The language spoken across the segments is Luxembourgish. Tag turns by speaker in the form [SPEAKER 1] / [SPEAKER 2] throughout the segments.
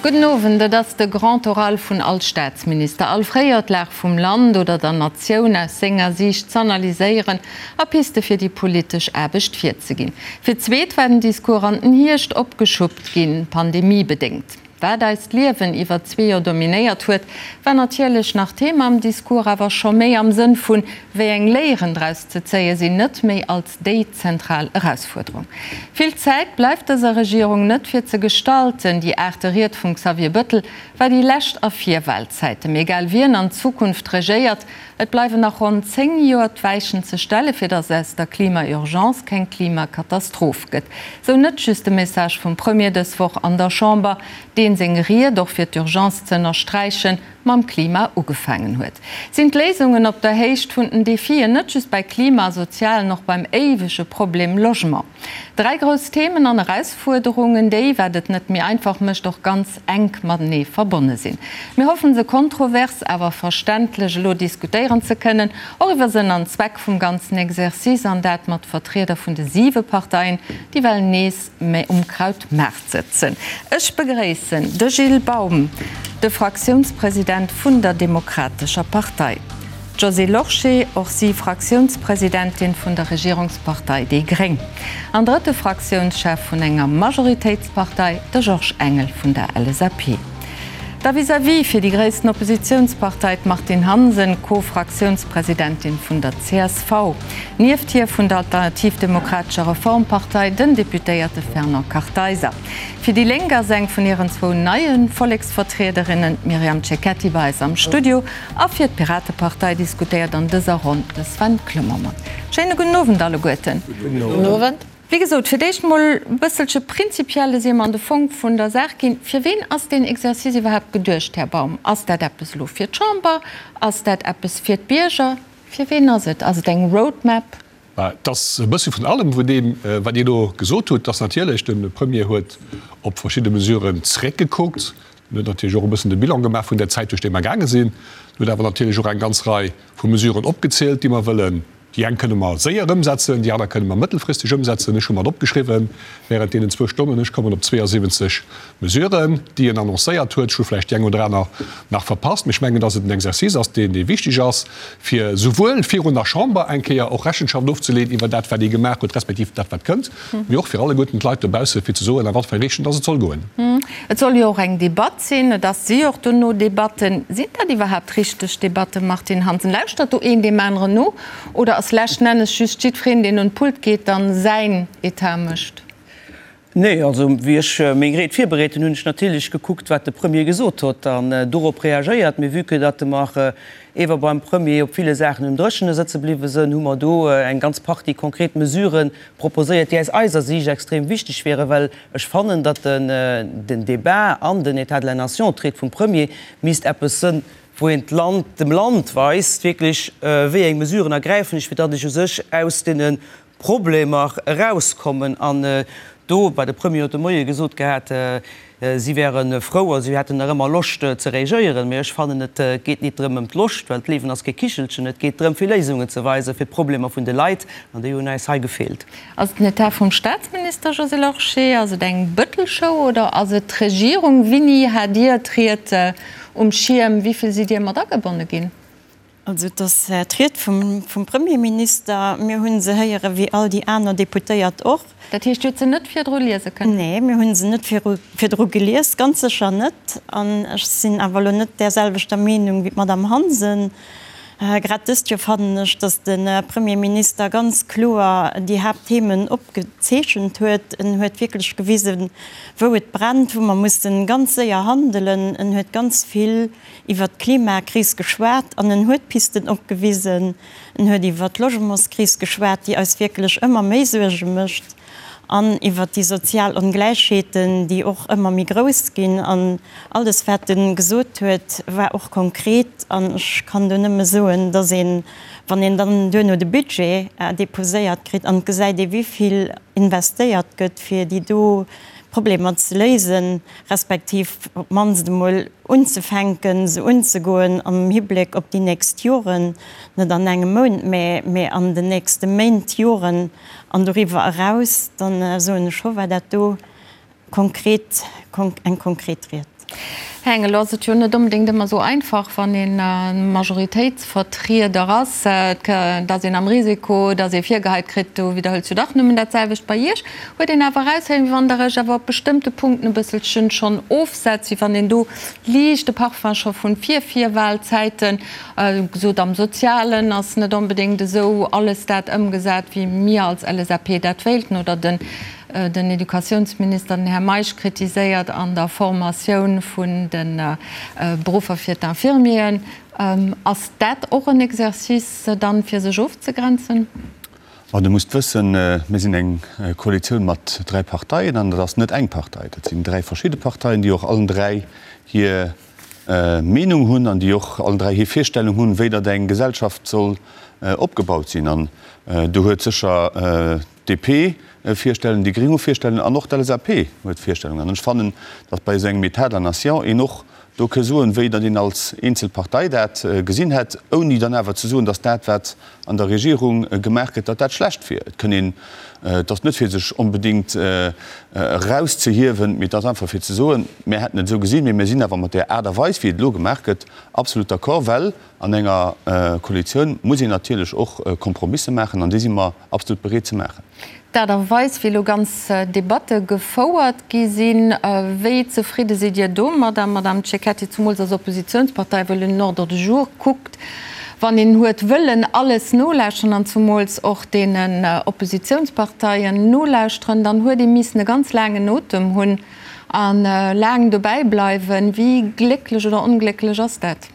[SPEAKER 1] Gudden Owend. Et ass de Grand Oral vun all Staatsminister. All fréier d'Lag vum Land oder der Natioun aus senger Siicht z'analyséieren a Piste fir déi politesch Aarbecht virzeginn. Fir d'zweet war den Discours an den Hierscht opgeschuppt ginn, pandemiebedéngt. Wat eist Liewen iwwer zwee Joer dominéiert huet, war natierlech nach Thema am Discours, awer scho méi am Sënn vun, wéi eng Léieren draus ze zéie sinn, net méi als déi zentral Erausfuerderung. Vill Zäit bleift dëser Regierung net fir ze gestalten. Déi aachte Ried vum Xavier Bëttel war déi lescht a Virwahlzäiten. Mee egal wien an Zukunft regéiert, Et bleiwen nach ronn 10 Joer d'Weichen ze stelle fir datt aus der Klima-Urgence keng Klimakatastroph gëtt. Sou net just de Message vum Premier dës Woch an der Chamber, deen seng Ried, och fir d'Urgence ze ënnersträichen, mam Klima ugefaangen huet. Sinn d'Léisungen op der Héicht vun den Defien, net just bei Klima a Sozialen, och beim éiwege Problem Logement? Dräi grouss Themen an Erausfuerderungen, déi, wat et net méi einfach mécht, och ganz enk matenee verbonne sinn. Mir hoffen, se kontrovers, awer verständlech elo diskutéieren ze kënnen, och iwwer Sënn an Zweck vum ganzen Exercice, an dat mat Vertrieder vun de siwe Parteien, déi well nees méi um Krautmaart sëtzen. Ech begréissen de Gilles Baum, de Fraktiounspresident vun der Demokratescher Partei. D'Josée Lorsché, och si Fraktiounspresidentin vun der Regierungspartei déi gréng. An drëtte Fraktiounschef vun enger Majoritéitspartei, de Georges Engel vun der LSAP. Da vis-à-vis fir déi gréissten Oppositiounspartei d'Martine Hansen, Co-Fraktiounspresidentin vun der csv. Nieft hir vun der Alternativ Demokratescher Reformpartei den Deputéierte Fernand Kartheiser. Fir déi Lénk ass eng vun hiren zwou neie Volleksvertriederinnen, d'Myriam Cecchetti, bei eis am Studio. A fir d'Piratepartei diskutéiert an dëser Ronn de Sven Clement mat. Schéine gudden Owend alleguerten.
[SPEAKER 2] Gudden Owend.
[SPEAKER 1] Wéi gesot, fir d'éischt emol e bësselche prinzipielles, ier mer an de Fong vun der Saach ginn. Fir ween ass deen Exercice iwwerhaapt geduecht, Här Baum? Ass dat eppes elo fir d'Chamber? Ass dat eppes fir d'Bierger? Fir ween ass et? Ass et eng Roadmap?
[SPEAKER 3] Et ass e bësse vun allem, vun deem, wat Dir elo gesot hutt. Et ass natierlech, de Premier huet op verschidde Mesuren zréckgekuckt. En huet natierlech och e bëssen de Bilan gemaach vun der Zäit, duerch déi mer gaange sinn. En huet awer natierlech och eng ganz Rei vu Mesuren opgezielt, déi mer wëllen. Déi eng kënne mer séier ëmsetzen, déi aner kënne mer mëttelfristeg ëmsetzen. Ech hu mat opgeschriwwen während deenen zwou Stonnen, ech kommen op 72 Mesuren, déi en annoncéiert huet. Ech hu vläicht déi eng oder aner nach verpasst, mee ech mengen, dass et en Exercice ass, deen, dee wichteg ass, fir souwuel virun der Chamber eng Kéier och Rechenschaft ofzeleeën iwwer dat, wat ee gemaach huet, respektiv dat, wat kënnt, mee och fir alleguerten d'Leit dobausse fir ze soen, a wat fir eng Richtung dass et soll goen.
[SPEAKER 1] Et soll jo och eng Debatt sinn. Et ass si och dono Debatten. Sinn dat iwwerhaapt richteg Debatten, Martine Hansen? Lauschtert do een deem aneren no oder ass leschten Ennes just jiddwereen, deen un d'Pult geet, dann säin Etat mécht?
[SPEAKER 2] Nee, also wéi ech meng Ried virbereet hunn, hunn ech natierlech gekuckt, wat de Premier gesot huet an dorop reagéiert. Mee vue que datt mer ewer beim Premier op ville Saachen um Dréchene sëtze bliwwe sënn, hu mer do eng ganz Partie konkret Mesurë proposéiert, déi aus eiser Siicht extrem wichteg wieren, well ech fannen, datt den Débat an den État de la Nation, d'Ried vum Premier, misst eppes sënn, wou een d'Land, dem Land weist wierklech, wéi eng Mesuren ergräifen ech, fir datt ech u sech aus deene Problemer erauskommen. An do war de Premier huet de Moie gesot gehat, si wäre frou a si hätten nach ëmmer Loscht ze reagéieren. Mee ech fannen, et geet nit drëm ëm d'Loscht, well d'Liewen ass kee Kichelchen. Et geet drëm, fir Léisungen ze weisen fir d'Problemer vun de Leit, an déi hunn äis hei gefeelt.
[SPEAKER 1] Ass et den Etat vum Staatsminister Josée Lorsché? Ass et eng Bëttel-Show oder ass et d'Regierung? Wini hat Dir d'Ried um Schierm? Wéi vill sidd Dir mat agebonne ginn?
[SPEAKER 4] Also et ass d'Ried vum Premierminister. Mir hu se héiere wéi all déi aner Deputéiert och.
[SPEAKER 1] Dat heescht, Dir hutt se net virdru liese kënnen?
[SPEAKER 4] Nee, mir hu se net virdru gelies, ganz sécher net. An ech sinn awer elo net där selwechter Meenung wéi d'Madame Hansen. Grad dëst Joer fannen ech, datt de Premierminister ganz kloer déi Haaptthemen opgezeechent huet. En huet wierklech gewisen, wou et brennt, wou mer mussen ganz séier handelen. En huet ganz vill iwwert d'Klimakris geschwat an en huet Pisten opgewisen. En huet iwwert d'Logementskris geschwat, déi eis wierklech ëmmer méi Suerge mécht, an iwwert déi sozial Ongläichheeten, déi och ëmmer méi grouss ginn. An alles, wat e gesot huet, war och konkret. An ech kann do nëmme soen, dass een, wann een dann duerno de Budget deposéiert kritt an et gesäit ee wéi vill investéiert gëtt, fir déi do Problemer ze léisen, respektiv op d'mannst emol unzefänken, se unzegoen am Hibléck op déi nächst Joren, net an engem Mount, mä mä an den nächste Méint, Joren an doriwwer eraus, dann soen ech scho, war dat do konkret, eng konkret Ried.
[SPEAKER 1] Här Engel, elo ass et jo net onbedéngt ëmmer esou einfach, wann ee Majoritéitsvertrieder ass, et ass een am Risiko, datt ee virgeheit kritt, du widderhëls jo dach nëmmen dat selwecht. Bei Iech huet een awer eraushéieren, wéi wann Der Iech awer op bestëmmte Punkten e bësselchen schonn ofsetzt, wéi wann een do liicht de Parfum scho vun Vir-Virwahlzäiten gesot, am Sozialen ass net onbedéngt esou alles dat ëmgesat, wéi mir als LSAP dat wéilten, oder den den Educatiounsminister, den Här Meisch, kritiséiert an der Formatioun vun de Beruffer fir d'Infirmieren. Ass dat och en Exercice dann, fir sech ofzegrenzen?
[SPEAKER 5] Ma Der musst wëssen, mir sinn eng Koalitioun mat dräi Parteien an dat ass net eng Partei, dat sinn dräi verschidde Parteien, déi och allen dräi hir Meenung hunn an déi och allen dräi hir Virstellung hunn, wéi datt eng Gesellschaft soll opgebaut sinn. An do huet sécher d'DP Virstellungen, déi Gréng hu Virstellungen an och d'LSAP huet Virstellungen. An ech fannen, datt bei esou engem État de la nation een och do ke soen, wéi datt een als eenzel Partei dat gesinn hätt, ouni dann awer ze soen, datt dat, wat an der Regierung gemaach gëtt, datt dat schlecht wier. Et kënn een, et ass net fir sech onbedéngt erauszehiewen, mee et ass einfach fir ze soen, mir hätten et esou gesinn, mee mir sinn awer mat där Aart a Weis, wéi et elo gemaach gëtt, absolut d'accord, well an enger Koalitioun muss een natierlech och Kompromisse maachen an déi si mer absolut bereet ze maachen.
[SPEAKER 1] D'Aart a Weis, wéi elo ganz Debatte gefouert gi sinn, wéi zefridde sidd Dir domadder, Madamm Cecchetti, zumools als Oppositionspartei, wëll un den Ordre du jour kuckt, wann een huet wëllen alles nolauschteren an zumools och deenen Oppositionsparteien nolauschteren, dann huet ee missen e ganz laangen Otem hunn a laang dobäi bleiwen. Wéi glécklech oder onglécklech ass dat?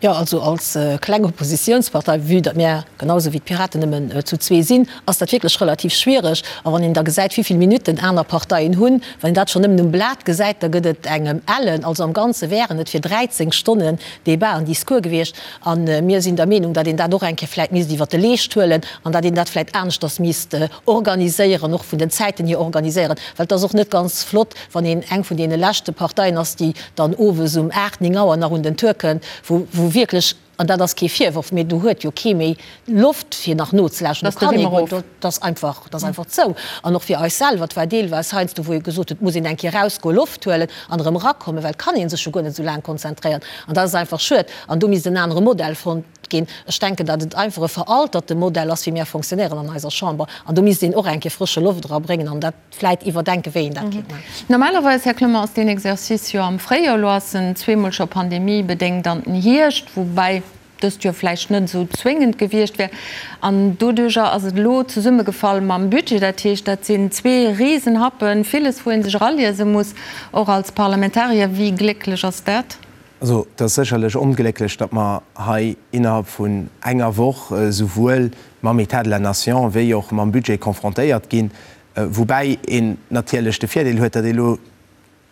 [SPEAKER 6] Jo, also als kleng Oppositionspartei, vue datt mär genau esou wéi d'Piraten nëmmen zu zwee sinn, ass dat wierklech relativ schwiereg. A wann een da gesäit, wéi vill Minutten aner Parteien hunn, wann een dat schonn nëmmen um Blat gesäit, da gëtt et engem ellen. Also am Ganze wären et fir 13 Stonnen Débat an Discours gewiescht. A mir sinn der Meenung, datt een dat och eng Kéier vläicht misst iwwert de Leescht huelen an datt een dat vläicht aneschters misst organiséieren, och vun den Zäiten hier organiséieren, well et ass och net ganz flott, wann een eng vun deene leschte Parteien ass, déi dann owes um 8, 9 Auer nach un den Tour kënnt, wou wou wierklech, an dat ass kee Virworf, mee do huet jo kee méi Loft fir nach nozelauschteren, do kann ee guer, do ass einfach, dat ass einfach zou. An och fir eis selwer, et war deelweis heiansdo, wou ee gesot huet, et muss een eng Kéier erausgoen, Loft huelen an erëm erakommen, well et kann ee sech jo guer net esou laang konzentréieren. An dat ass einfach schued. An do misst en anere Modell fonnt ginn. Ech denken, datt et einfach e veralterte Modell ass, wéi mir fonctionnéieren an eiser Chamber. An do misst een och eng Kéier frësche Loft erabréngen an dat vläit iwwerdenken, wéi een dat kéint maachen.
[SPEAKER 1] Normalerweis, Här Clement, ass deen Exercice jo am Fréijoer. Elo ass en zweemol scho pandemiebedéngt an den Hierscht, woubäi dëst Joer vläicht net esou zwéngend gewiescht wär. An doduerjer ass et elo zesummegefall mam Budget. Dat heescht, dat sinn zwee Risenhappen, villes, wou ee sech eraliese muss, och als Parlamentarier. Wéi glécklech ass dat?
[SPEAKER 7] Also, et ass sécherlech onglécklech, datt mer hei innerhalb vun enger Woch esouwuel mam État de la nation wéi och mam Budget confrontéiert ginn, woubäi een natierlech de Virdeel huet, datt ee elo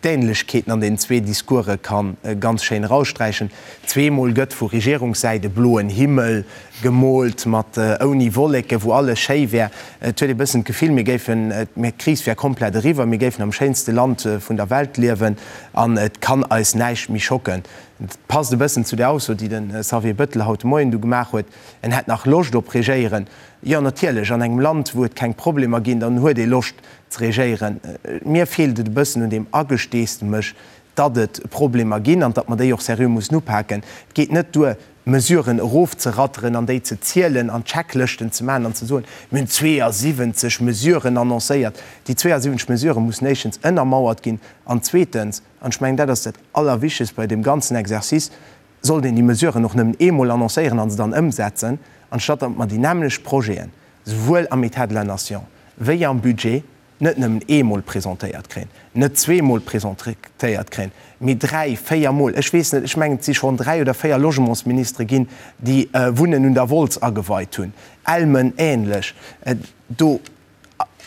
[SPEAKER 7] d'Ähnlechkeeten an den zwee Discourse ka ganz schéin eraussträichen. Zweemol gëtt vu Regierungssäit e bloen Himmel gemoolt mat ouni Wolleken, wou alles schéi wär. Et huet ee bëssen d'Gefill, mir géifen, d'Kris wär komplett eriwwer, mir géifen am schéinste Land vun der Welt liewen an et kann eis näischt méi schocken. Et passt e bëssen zu där Ausso, déi de Xavier Bettel haut de Moien du gemaach huet, en hätt nach Loscht op Regéieren. Jo, natierlech, an engem Land, wou et keng Problemer ginn, dann huet ee Loscht ze regéieren. Mir feelt et e bëssen un deem Agesteesdemech, datt et Problemer ginn an datt mer déi och seriö mussen upaken. Et geet net duer, Mesuren erofzeratteren an déi ze zielen an Checklëschten ze maachen an ze soen, mir hunn 72 Mesuren annoncéiert. Déi 72 Mesurë mussen éischtens ënnermauert ginn an zweetens, an ech mengen, dat ass dat Allerwichtegst bei deem ganzen Exercice, sollt een déi Mesuren och nëmmen eemol annoncéieren a se dann ëmsetzen, anstatt datt mer déi nämmlecht Projeten, souwuel am État de la nation wéi am Budget, net nëmmen eemol presentéiert kréien, net zweemol presentéiert kréien, mee dräi, véier Mol. Ech weess net, ech mengen, et si schonn dräi oder véier Logementsministere ginn, déi Wunnen un der Wolz ageweit hunn, Elmen ähnlech. Do,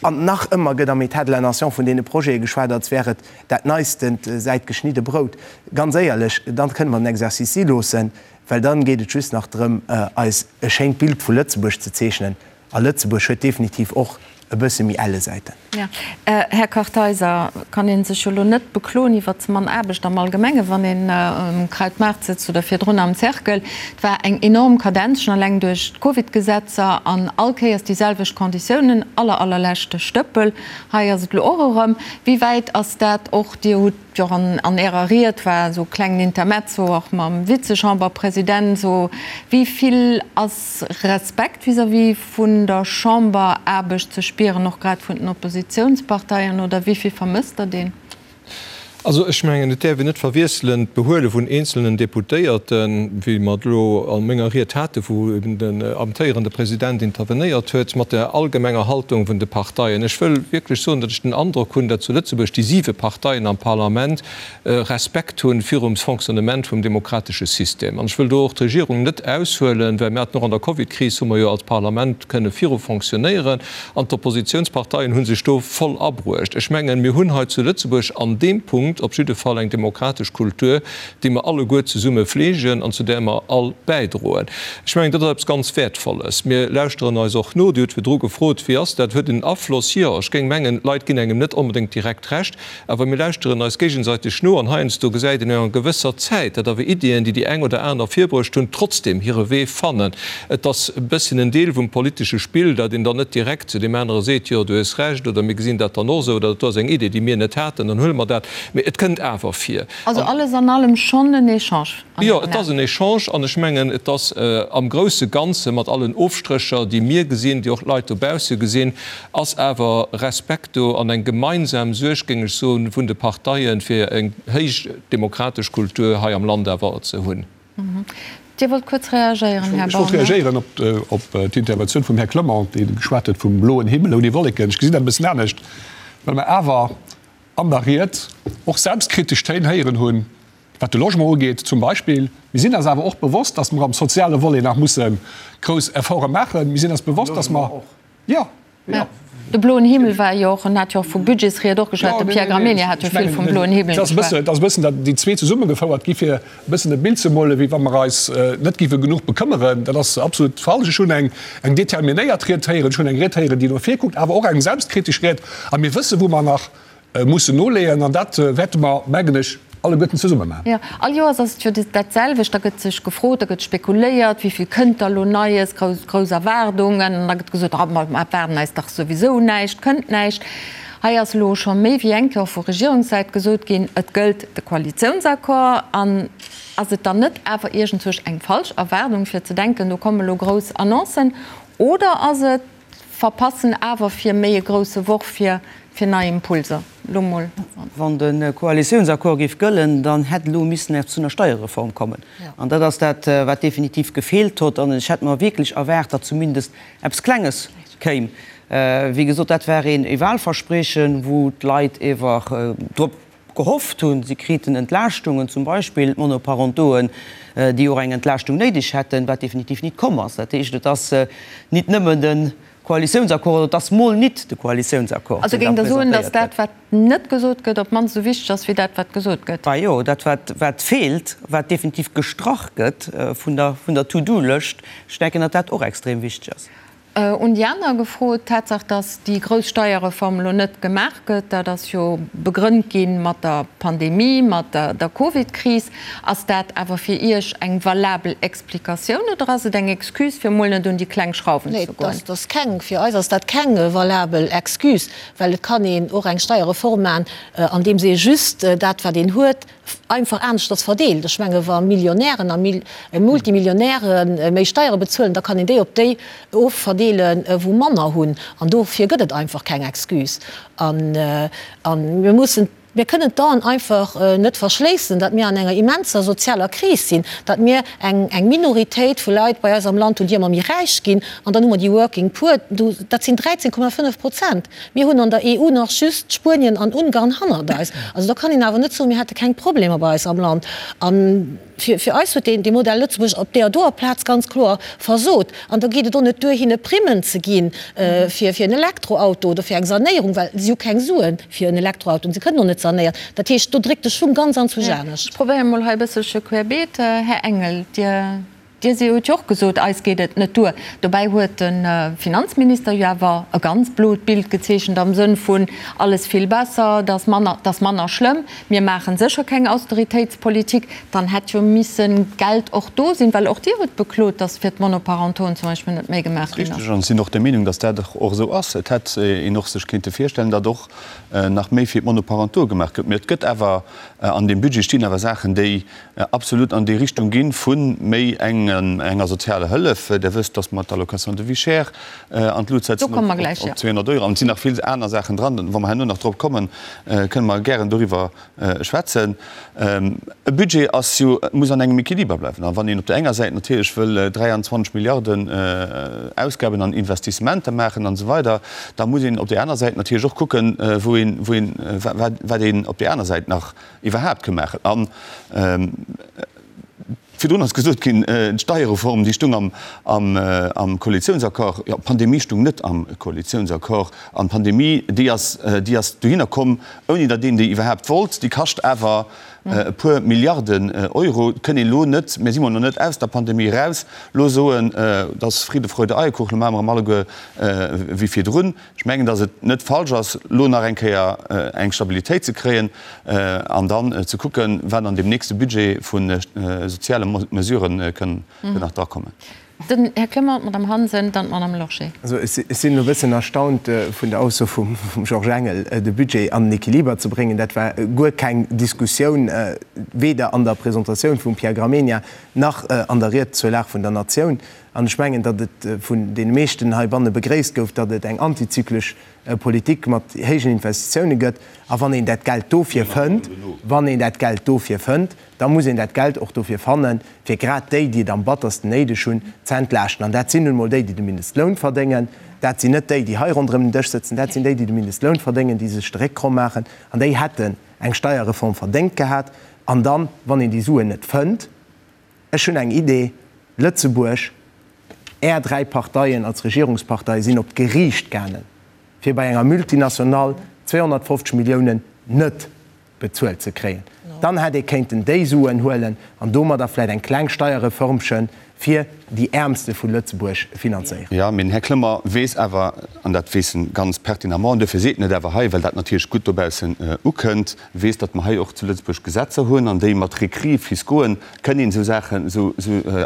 [SPEAKER 7] an nach ëmmer gëtt am État de la nation vun deene Projete geschwat, als wär et dat Neistent säit geschnidde Brout. Ganz éierlech, dann kënne mer den Exercice si loossen, well dann geet et just nach drëm, eis e schéint Bild vu Lëtzebuerg ze zeechnen. A Lëtzebuerg huet definitiv och. e bësse méi elle Säiten.
[SPEAKER 1] Jo. Här Kartheiser, kann ee sech jo elo net bekloen iwwer ze mann Aarbecht am Allgemenge wann een um Krautmaart sëtzt oder virdrun am Cercle. Et war eng enorm Kadenz, schonn eleng duerch d'Covidgesetzer an all Kéiers déi selwecht Konditiounen, aller allerleschte Stëppel. Hei ass et elo och erëm. Wéi wäit ass dat och, Dir hutt jo och an Ärer Ried war esou e klengen Intermezzo och mam Vizechamberpresident, esou wéi vill ass Respekt vis-à-vis vun der Chamberaarbecht ze spieren, och grad vun den Oppositionsparteien, oder wéi vill vermësst Der deen?
[SPEAKER 8] Also ech mengen, et däerf een net verwiesselen d'Behuele vun eenzelnen Deputéierten, wéi mer et elo a menger Ried haten, wou eben den amtéierende President intervenéiert huet, mat der allgemenger Haltung vun de Parteien. Ech wëll wierklech soen, datt ech den Androck hunn, datt zu Lëtzebuerg déi siwe Parteien am Parlament Respekt hunn virum Fonctionnement vum demokratesche System. An ech wëll do och d'Regierung net aushuelen, well mir haten och an der Covidkris, hu mer jo als Parlament kënne viru fonctionnéieren an d'Oppositionsparteien hu sech do voll abruecht. Ech mengen, mir hunn hei zu Lëtzebuerg an deem Punkt op jidde Fall eng demokratesch Kultur, déi mer alleguer zesumme fleegen an zu där mer all bäidroen. Ech mengen, dat ass eppes ganz Wäertvolles. Mir lauschteren eis och no. Dir hutt virdru gefrot, Wéi ass dat? Huet en Afloss? Jo, ech géing mengen, d'Leit ginn engem net onbedéngt direkt Recht. Awer mir lauschteren eis géigesäiteg no an heiansdo gesäit een no enger gewësser Zäit, datt awer Iddien, déi déi eng oder aner virbruecht hunn, trotzdem hire Wee fannen. Et ass e bësschen en Deel vum politesche Spill, datt een dann net direkt zu deem anere seet, jo, du hues Recht oder mir gesinn dat dann och esou oder dat do ass eng Idee, déi mir net haten, dann huele mer dat. Mee et kënnt awer vir.
[SPEAKER 1] Also alles an allem schonn en Echange
[SPEAKER 8] an Jo, et ass en Echange an ech mengen, et ass am grousse Ganze mat allen Ofstrécher, déi mir gesinn, déi och d'Leit dobausse gesinn, ass awer Respekt do an eng gemeinsam Suerg, géing ech soen, vun de Parteien, fir eng héich demokratesch Kultur hei am Land awer ze hunn.
[SPEAKER 1] Dir wollt kuerz reagéieren,
[SPEAKER 3] Här Borne. Ech wollt reagéieren op d'Interventioun vum Här Clement, dee geschwat huet vum bloen Himmel ouni Wolleken. Ech gesinn dat e bëssen anescht, well mer awer an der Ried och selbstkritesch Téin héieren hunn, Wat de Logement ugeet zum Beispill. Mir sinn eis awer och bewosst, dass mer am soziale Volet nach musse grouss Efforte maachen. Mir sinn eis bewosst, dass mer, jo, jo.
[SPEAKER 1] De bloen Himmel war jo och, en hat jo och vu Budgetsried och geschwat, de Pierre Gramegna hat jo vill vum bloen Himmel geschwat.
[SPEAKER 3] Et ass e bëssen, datt déi zwee zesummegefouert gi fir e bëssen e Bild ze molen, wéi wa mer eis net géife genuch bekëmmeren. Dat ass absolut falsch. Ech hunn eng determinéiert Ried héieren, ech hunn eng Ried héieren, déi no vir kuckt, awer och eng selbstkritesch Ried. A mir wëssen, wou mer nach mussen noleeën, an dat wäerte mer, mengen ech, alleguerten zesumme maachen.
[SPEAKER 1] Jo, all Joers ass et jo dat selwecht, da gëtt sech gefrot, da gëtt spekuléiert, wéi vill kënnt da elo Neies, grouss, grouss Erwaardungen, an da gëtt gesot, ah, mer erwaarden eis dach souwisou näischt, kënnt näischt. Hei ass elo scho méi wéi eng Kéier och vu Regierungssäit gesot ginn, et gëllt de Koalitiounsaccord. An ass et dann net awer iergendwousch eng falsch Erwaardung, fir ze denken, do komme elo grouss Annoncen, oder ass et, Verpassen awer fir méi e grousse Worf fir fir nei Impulser. Lo mol.
[SPEAKER 2] Wann de Koalitiounsaccord géif gëllen, dann hätt elo missen eppes zu einer Steierreform kommen. An dat ass dat, wat definitiv gefeelt hott. An ech hätt mer wierklech erwaart, datt zumindest eppes Klenges kéim. Wéi gesot, dat war een Wahlverspriechen, wou d'Leit ewer drop gehofft hunn, si kriten Entlaaschtungen, zum Beispill d'Monoparentoen, déi och eng Entlaaschtung néideg hätten, wat definitiv nit komm ass. Dat heescht, et ass nit nëmmen de Koalitiounsaccord, oder et ass mol nit de Koalitiounsaccord,
[SPEAKER 1] Also
[SPEAKER 2] deen
[SPEAKER 1] géingt
[SPEAKER 2] da
[SPEAKER 1] Der soen, datt
[SPEAKER 2] presentéiert
[SPEAKER 1] dat,
[SPEAKER 2] gëtt.
[SPEAKER 1] wat net gesot gëtt, op d'mannst esou wichteg ass wéi dat, wat gesot gëtt?
[SPEAKER 2] Bah jo, dat, wat, wat feelt, wat definitiv gestrach gëtt vun der, vun der To-do-Lëscht, ech denken, datt dat och extrem wichteg ass.
[SPEAKER 1] Un déi aner gefrot. D'Tatsaach, datt déi grouss Steierreform elo net gemaach gëtt, dat ass jo begrënnt gi mat der Pandemie, mat der Covid-Kris. Ass dat awer fir Iech eng valabel Explikatioun oder ass et eng Excuse, fir emol net un déi kleng Schrauwen
[SPEAKER 6] ze
[SPEAKER 1] goen?
[SPEAKER 6] Nee, dat ass keng, fir eis ass dat keng valabel Excuse, well et kann een och eng Steierreform maachen, andeems ee just dat, wat een huet, einfach aneschters verdeelt. Ech menge wa Millionären a Multimillionäre méi Steiere bezuelen, da kann een déi op déi ofverdeelen, wou manner hunn. An dofir gëtt et einfach keng Excuse. A mir mussen, mir kënnen d'Aen einfach net verschléissen, datt mir an enger immenser sozialer Kris sinn, datt mir eng Minoritéit vu Leit bei eis am Land hunn, déi ëmmer méi räich ginn. An dann hu mer déi Working Poor, dat sinn 13,5 Prozent. Mir hunn an der EU nach just Spuenien an Ungarn hannert eis. Also do kann een awer net soen, mir hätte keng Problemer bei eis am Land. A fir eis huet dee Modell Lëtzebuerg op deer doer Plaz ganz kloer versot. An da geet et och net duer, hinne Primmen ze gi fir en Elektroauto oder fir eng Sanéierung, well si hu keng Sue fir en Elektroauto an se kënnen och net sanéieren. Dat heescht, do dréckt de Schung ganz anzwousch anescht.
[SPEAKER 1] Ech probéiere mol hei e bësselche querbeet. Här Engel, Dir. Dir si hutt jo och gesot, eis geet et net duer. Dobäi huet de Finanzminister jo awer e ganz blot Bild gezeechent am Sënn vun, alles vill besser, et ass manner, et ass manner schlëmm, mir maache sécher keng Austeritéitspolitik. Dann hätt jo misse Geld och do sinn, well och Dir hutt beklot, datt fir d'Monoparentoen zum Beispill net méi gemaach ginn ass.
[SPEAKER 5] Richteg, an ech sinn och der Meenung, datt dat och esou ass. Et hätt een och sech kéinte virstellen, datt och nach méi fir d'Monoparentoe gemaach gëtt. Mä et gëtt awer, an deem Budget stinn awer Saachen, déi absolut an déi Richtung ginn vu méi enger sozialer Hëllef. Der wësst, dass mer d'Allocation de vie chère an d'Lut setzen op 200 Euro. An et sinn nach vill aner Saachen dran. Wa mer herno nach drop kommen, kënne mer gären doriwwer schwätzen. E Budget ass jo, muss an engem Equiliber bleiwen. A wann een op där enger Säit natierlech wëll 23 Milliarden Ausgaben an Investissementer maachen an esou weider, da muss een op där aner Säit natierlech och kucken, wou een, wou een, wat een op där aner Säit nach iwwerhaapt ke maachen. An virdrun ass gesot ginn, d'Steierreform, déi stung am Koalitiounsaccord. Jo, d'Pandemie stung net am Koalitiounsaccord. An d'Pandemie, déi ass, déi ass dohinner komm, ouni datt een déi iwwerhaapt wollt. Déi kascht awer e puer Milliarden Euro. Et kënn een elo net, mir si mol nach net aus der Pandemie eraus, elo soen, et ass Friede, Freude, Eierkuchen, elo maache mer erëm alleguer wéi virdrun. Ech mengen, datt et net falsch ass, elo nach eng Kéier eng Stabilitéit ze kréien an dann ze kucken, wat an deem nächste Budget vu soziale Mesurë kënn nach drakommen.
[SPEAKER 1] Den Här Clement, d'Madame Hansen, dann d'Madame Lorsché.
[SPEAKER 7] Also ech sinn elo e bëssen erstaunt vun der Ausso vum Georges Engel, de Budget an den Equiliber ze bréngen. Dat war guer keng Diskussioun, weder an der Presentatioun vum Pierre Gramegna nach an der Ried zur Lag vun der Natioun. An ech mengen, datt et vun deene meeschten heibanne begréisst gouf, datt et eng antizyklesch Politik mat héijen Investitioune gëtt. A wann een dat Geld dofir fënnt, wann een dat Geld dofir fënnt, da muss een dat Geld och dofir fannen, fir grad déi, déi et am battersten néideg hunn, ze entlaaschten. An dat sinn nun emol déi, déi de Mindestloun verdéngen. Dat sinn net déi, déi hei ronderëm den Dësch sëtzen. Dat sinn déi, déi de Mindestloun verdéngen, déi sech de Réck kromm maachen. An déi hätten eng Steierreform verdéngt gehat. An dann, wann een déi Suen net fënnt, Ech hunn eng Idee, Lëtzebuerg, Är 3 Parteien als Regierungsparteie sinn op d'Geriicht gaangen, fir bei enger Multinationale 250 Milliounen net bezuelt ze kréien. Dann hätt ee kéinten déi Suen huelen an domadder vläicht eng kleng Steierreformchen fir déi Äermste vu Lëtzebuerg finanzéieren.
[SPEAKER 5] Jo, mee den Här Clement weess awer, an dat weess en ganz pertinemment, an duerfir seet en et awer hei, well dat natierlech gutt dobaussen ukënnt, weess, datt mer hei och zu Lëtzebuerg Gesetzer hunn an déi mat Recris fiscauxen kënn een esou Saachen, esou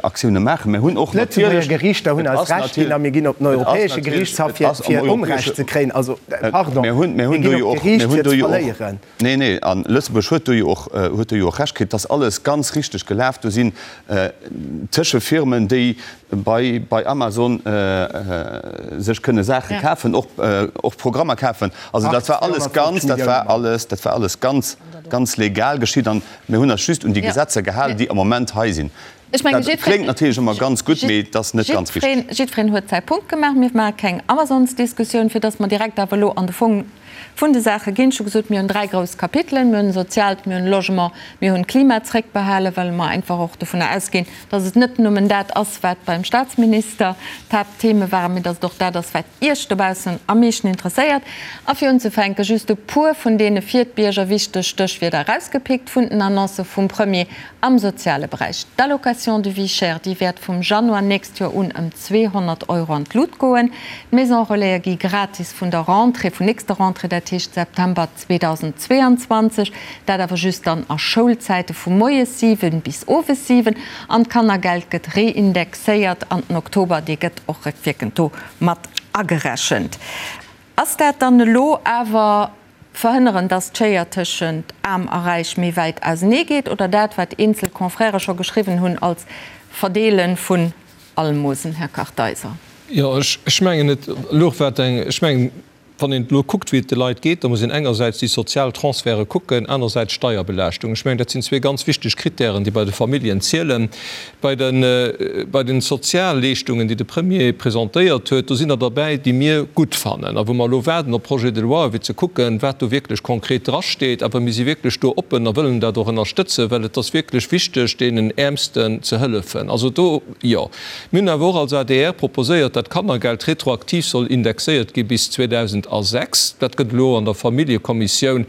[SPEAKER 5] Aktiounen maachen. Mer hunn och
[SPEAKER 7] natierlech. D'Lëtzebuerger Geriichter hunn eis Recht ginn a mir ginn op den Europäesche Geriichtshaff, fir Onrecht ze kréien. Also, pardon,
[SPEAKER 5] mir ginn op d'Geriicht, fir ze verléieren. Nee, nee, a Lëtzebuerg huet do jo och, huet do jo och Recht kritt. Et ass alles ganz richteg gelaf. Do sinn Tëschefirmen, déi bei bei Amazon sech kënne Saache kafen, och och Programmer kafen. Also dat war alles ganz, dat war alles, dat war alles ganz, ganz legal geschitt an mir hunn eis just un déi Gesetzer gehalen, déi am Moment hei sinn.
[SPEAKER 1] Ech mengen,
[SPEAKER 5] Dat kléngt natierlech ëmmer ganz gutt, mee et ass net ganz
[SPEAKER 1] richteg. Jiddwereen huet säi Punkt gemaach. Mir maache keng Amazonsdiskussioun, fir datt mer direkt awer elo an de Fong vun de Saache ginn. Ech hu gesot, mir hunn 3 grouss Kapitelen. Mir hunn Soziaalt, mir hunn Logement, mir hunn Klima zréckbehalen, well mer einfach och dovunner ausginn, dass et net nëmmen dat ass, wat beim Statsminister d'Haapttheme waren, mee dass et och dat ass, wat Iech dobaussen am meeschten interesséiert. A fir unzefänke just e puer vun deene fir d'Bierger wichteg Stéchwierder erausgepickt vun den Annoncë vum Premier am soziale Beräich. D'Allocation de vie chère, déi wäert vum Januar nächst Joer un ëm 200 Euro an d'Lut goen. D'Maison-relaise gi gratis vun der Rentrée, vun nächster Rentrée, dat heescht September 2022, dat awer just dann a Schoulzäite vu moies 7 bis owes 7. An d'Kannergeld gëtt reindexéiert an den Oktober, dee gëtt och réckwierkend do mat agerechent. Ass dat dann elo awer verhënneren, dass d'Schéier tëschent Aarm a Räich méi wäit ausenee geet oder dat, wat eenzel Confrèrë scho geschriwwen hunn als Verdeele vun Almosen, Här Kartheiser?
[SPEAKER 8] Jo, ech mengen, et louch wat eng, ech mengen, Wann een elo kuckt, wéi et de Leit geet, da muss een engersäits déi sozial Transferte kucken, anersäits d'Steierbelaaschtung. Ech mengen, dat sinn zwee ganz wichteg Kritären, déi bei de Familljen zielen. Bei de, bei de Sozialleeschtungen, déi de Premier presentéiert huet, do sinn der derbäi, déi mir gutt fannen a wou mer elo waarden op Projet de loi, fir ze kucken, wat do wierklech konkret drasteet. Awer mir si wierklech do oppen a wëllen dat och ënnerstëtzen, well et ass wierklech wichteg, deenen Äermsten ze hëllefen. Also do, jo. Mir hunn awer och als adr proposéiert, dat d'Kannergeld retroaktiv soll indexéiert gi bis 2028. 206. Dat gëtt elo an der Familljekommissioun,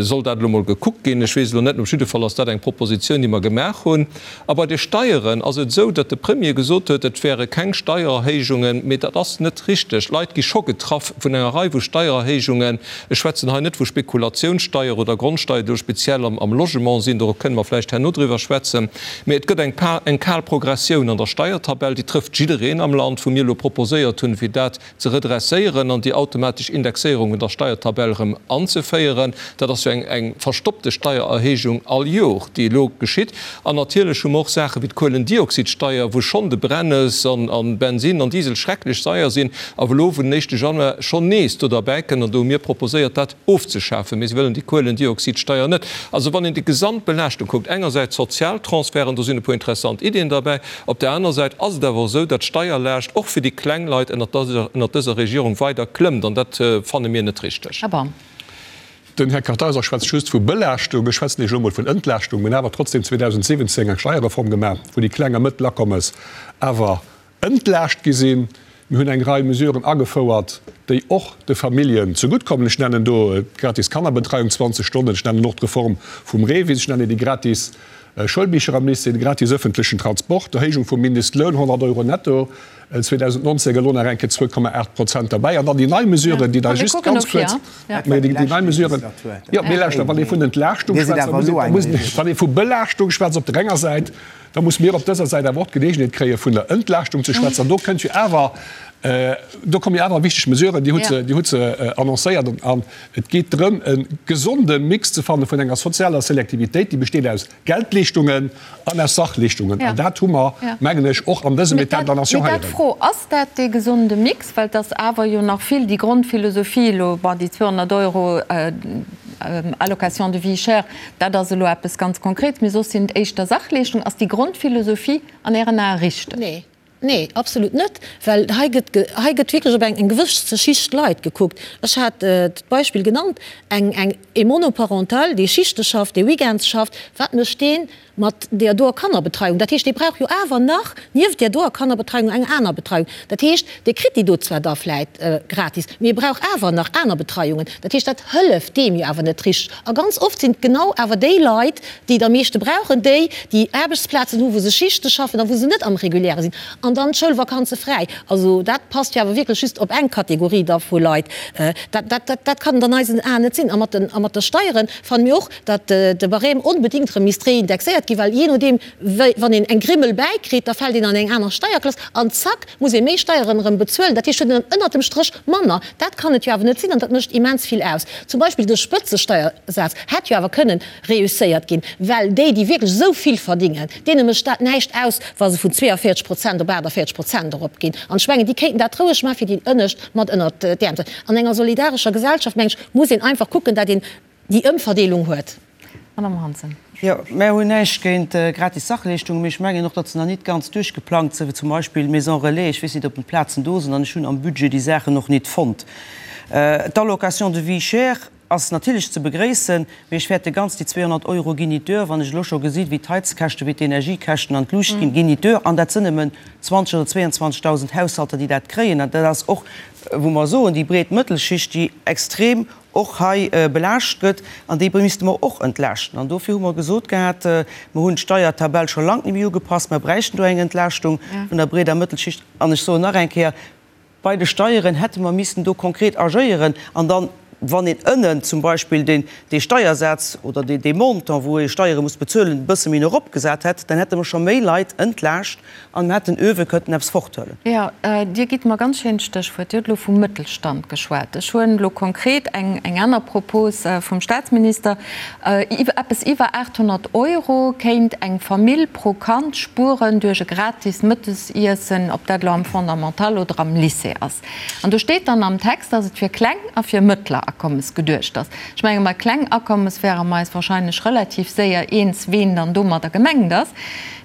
[SPEAKER 8] soll dat elo mol gekuckt ginn. Ech weess elo net, op jidde Fall ass dat eng Propositioun, déi mer gemaach hunn. A bei de Steieren ass et esou, datt de Premier gesot huet, et wäre keng Steiererhéijungen, mee dat ass net richteg. D'Leit gi scho getraff vun enger Rei vu Steiererhéijungen. Ech schwätzen hei net vu Spekulatiounssteier oder Grondsteier, déi elo speziell am Logement sinn, do kënne mer vläicht herno driwwer schwätzen, mee et gëtt eng eng kal Progressioun an der Steiertabell, déi trëfft jiddereen am Land, wou mir elo proposéiert hunn, fir dat ze redresséieren an déi automatesch Indexéierung vun der Steiertabell erëm anzeféieren. Dat ass jo eng eng verstoppte Steiererhéijung all Jor, déi elo geschitt. An natierlech hu mer och Saache wéi d'Kuelendioxidsteier, wou schonn de Brennes an an Bensin an Diesel schrecklech seier sinn, a wou elo vun den éischte Januar schonn nees do derbäi kënnt. An do hu mir proposéiert, dat ofzeschafen. Mee se wëllen déi Kuelendioxidsteier net. Also wann een déi gesamt Belaaschtung kuckt, engersäits d'Sozialtransferten, do sinn e puer interessant Iddien derbäi, Op där aner Säit ass et awer och esou, datt d'Steierlaascht och fir déi kleng Leit ënnert dëser Regierung weider klëmmt, an dat fanne mir net richteg.
[SPEAKER 1] Här Baum.
[SPEAKER 3] Den Här Kartheiser schwätzt just vu Belaaschtung. Ech schwätzen Iech elo emol vun Entlaaschtung. Mir hunn awer trotzdem 2017 eng Steierreform gemaach, wou déi kleng a mëttel Akommes awer entlaascht gi sinn. Mir hunn eng Rei Mesuren agefouert, déi och de Familljen zeguttkommen. Ech nennen do d'gratis Kannerbetreiung 20 Stonnen, ech nennen och d'Reform vum REVIS, ech nennen déi gratis Schoulbicher am Lycée, de gratis öffentlechen Transport, d'Erhéijung vum Mindestloun, 100 Euro netto 2019, elo nach eng Kéier 2,8 Prozent derbäi. An dann déi nei Mesuren, déi da just ganz kuerz, déi nei Mesuren, jo, mee lauschter, wann ee vun Entlaaschtung schwätzt, da muss een, wann ee vu Belaaschtung schwätzt op der enger Säit, Da muss mir op dëser Säit awer och d'Geleegenheet kréie vun der Entlaaschtung ze schwätzen. An do kënnt jo awer, do komme jo awer wichteg Mesuren, Dir hutt se, Dir hutt se annoncéiert. An et geet drëm, e gesonde Mix ze fanne vun enger sozialer Selektivitéit, déi besteet aus Geldleeschtungen an aus Sachleeschtungen. An dat hu mer, mengen ech, och an dësem État de la Nation
[SPEAKER 1] Mee
[SPEAKER 3] héieren.
[SPEAKER 1] dat d'Fro, Ass dat dee gesonde Mix? Well et ass awer jo nach vill déi Grondphilosophie elo, bon, déi 200 Euro Allocation de vie chère, Dat ass elo eppes ganz Konkrets, mee soss sinn et éischter Sachleeschtungen. Ass déi Grondphilosophie an Ären Ae richteg?
[SPEAKER 6] Nee, nee, absolut net, well hei gëtt, hei gëtt wierklech op eng, eng gewësse Schicht Leit gekuckt. Ech hat d'Beispill genannt, eng, eng, ee Monoparental, dee Schichte schafft, dee Weekends schafft, wat mécht deen mat deer doer Kannerbetreiung? Dat heescht, dee brauch jo awer nach nieft deer doer Kannerbetreiung eng aner Betreiung. Dat heescht, dee kritt déi do zwar da vläit gratis, mee e brauch awer nach aner Betreiungen. Dat heescht, dat hëlleft deem jo awer net richteg. A ganz oft sinn et genau awer déi Leit, déi et am meeschte brauchen, déi, déi Aarbechtsplazen hu wou se Schichte schaffen a wou se net am Reguläre sinn an dann d'Schoulvakanze fräi. Also dat passt jo awer wierklech just op eng Kategorie da vu Leit. Dat, dat, dat, dat kann et an eisen Aen net sinn. A mat den, a mat de Steiere fanne mir och, datt de Barème onbedéngt erëm misst réindexéiert ginn, well jee nodeem wéi wann een eng Grimmel bäikritt, da fält een an eng aner Steierklass an zack muss ee méi Steieren erëm bezuelen. Dat heescht, huet een dann ënnert dem Stréch manner. Dat kann et jo awer net sinn an dat mécht immens vill aus. Zum Beispill de Spëtzesteiersaz hätt jo awer kënnen reusséiert ginn, well déi, déi wierklech esou vill verdingen, deene mécht dat näischt aus, wa se vun 42 Prozent op 48 Prozent eropginn. An ech mengen, déi kéinten dat roueg maachen, fir déi Ënnescht mat ënnert d'Äerm ze. An enger solidarescher Gesellschaft, meng ech, muss een einfach kucken, dat een déi Ëmverdeelung huet.
[SPEAKER 1] Madame Hansen.
[SPEAKER 2] Jo, mär hunn näischt géint gratis Sachleeschtungen, mee ech mengen och, datt se nach nit ganz duerchgeplangt sinn, wéi zum Beispill Maisons Relais. Ech weess nit, ob d'Plazen do sinn an ech hunn am Budget déi Saachen och nit fonnt. D'Allocation de vie chère ass natierlech ze begréissen, mee ech fäerte ganz, déi 200 Euro ginn nit duer. Wann ech elo scho gesinn, wéi d'Heizkäschten, wéi d'Energiekäschten an d'Luucht ginn, ginn nit duer. An dat sinn nëmmen 20 oder 22.000 Haushalter, déi dat kréien. An dat ass och, wou mer soen, déi breet Mëttelschicht, déi extrem och hei belaascht gëtt, an déi misste mer och entlaaschten. An dofir hu mer gesot gehat, mer hunn d'Steiertabell scho lank net méi ugepasst, mer bräichten do eng Entlaaschtung vun der breeder Mëttelschicht. An ech soen nach eng Kéier, bei de Steieren hätte mer missen do konkret agéieren an dann, wann een ënnen zum Beispill deen dee Steiersaz oder dee Montant, wou ee Steiere muss bezuelen, e bësse méi no eropgesat hätt, dann hätte mer scho méi Leit entlaascht An mer hätten uewe kënnten eppes forthuelen.
[SPEAKER 1] Jo, Dir gitt mer ganz schéint Stéchwuert. Dir hutt elo vum Mëttelstand geschwat. Ech huelen elo konkret eng eng aner Propos vum Statsminister. Eppes iwwer 800 Euro kéint eng Famill pro Kand spueren duerch e gratis Mëttesiessen, ob dat elo am Fondamental oder am Lycée ass. An do steet dann am Text, dass et fir kleng a fir mëttler Akommes geduecht ass. Ech menge bei kleng Akommes wäre mer eis wahrscheinlech relativ séier eens, ween dann domadder gemengt ass.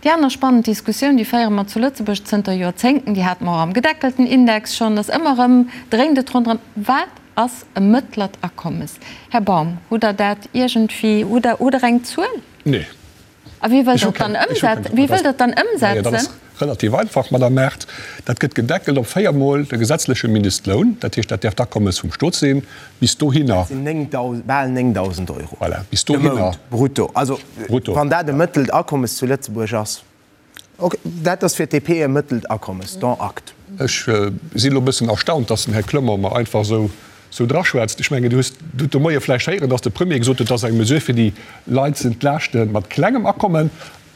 [SPEAKER 1] Déi aner spannend Diskussioun, déi féiere mer zu Lëtzebuerg zënter Joerzéngten, déi hate mer och am gedeckelten Index schonn, ass ëmmer erëm, dréint et ronderëm, Wat ass e mëttlert Akommes? Här Baum, hutt Der dat iergendwéi, hutt Der, hutt Der eng Zuel?
[SPEAKER 3] Nee.
[SPEAKER 1] A wéi wëllt Der et dann ëmsetzen? Wéi wëllt Der et dann ëmsetzen?
[SPEAKER 3] Relativ einfach, Madame Mart. Dat gëtt gedeckelt op véiermol de gesetzleche Mindestloun. Dat heescht, dat däerf d'Akommes vum Stot sinn. Bis dohinner.
[SPEAKER 7] Dat sinn bal 9.000 Euro
[SPEAKER 3] Voilà, bis
[SPEAKER 7] de
[SPEAKER 3] dohinner.
[SPEAKER 7] Mount brutto. Also,
[SPEAKER 3] Brutto,
[SPEAKER 7] wann dat e
[SPEAKER 3] ja.
[SPEAKER 7] mëttelt Akommes zu Lëtzebuerg ass. Ok, dat ass fir d'DP e mëttelt Akommes, dont acte.
[SPEAKER 3] Ech sinn elo e bëssen erstaunt, dass den Här Clement mer einfach esou esou draschwätzt. Ech mengen, Dir hutt de Moie vläicht héieren, dass de Premier gesot huet, dat ass eng Mesure fir déi Leit ze entlaaschte mat klengem Akommen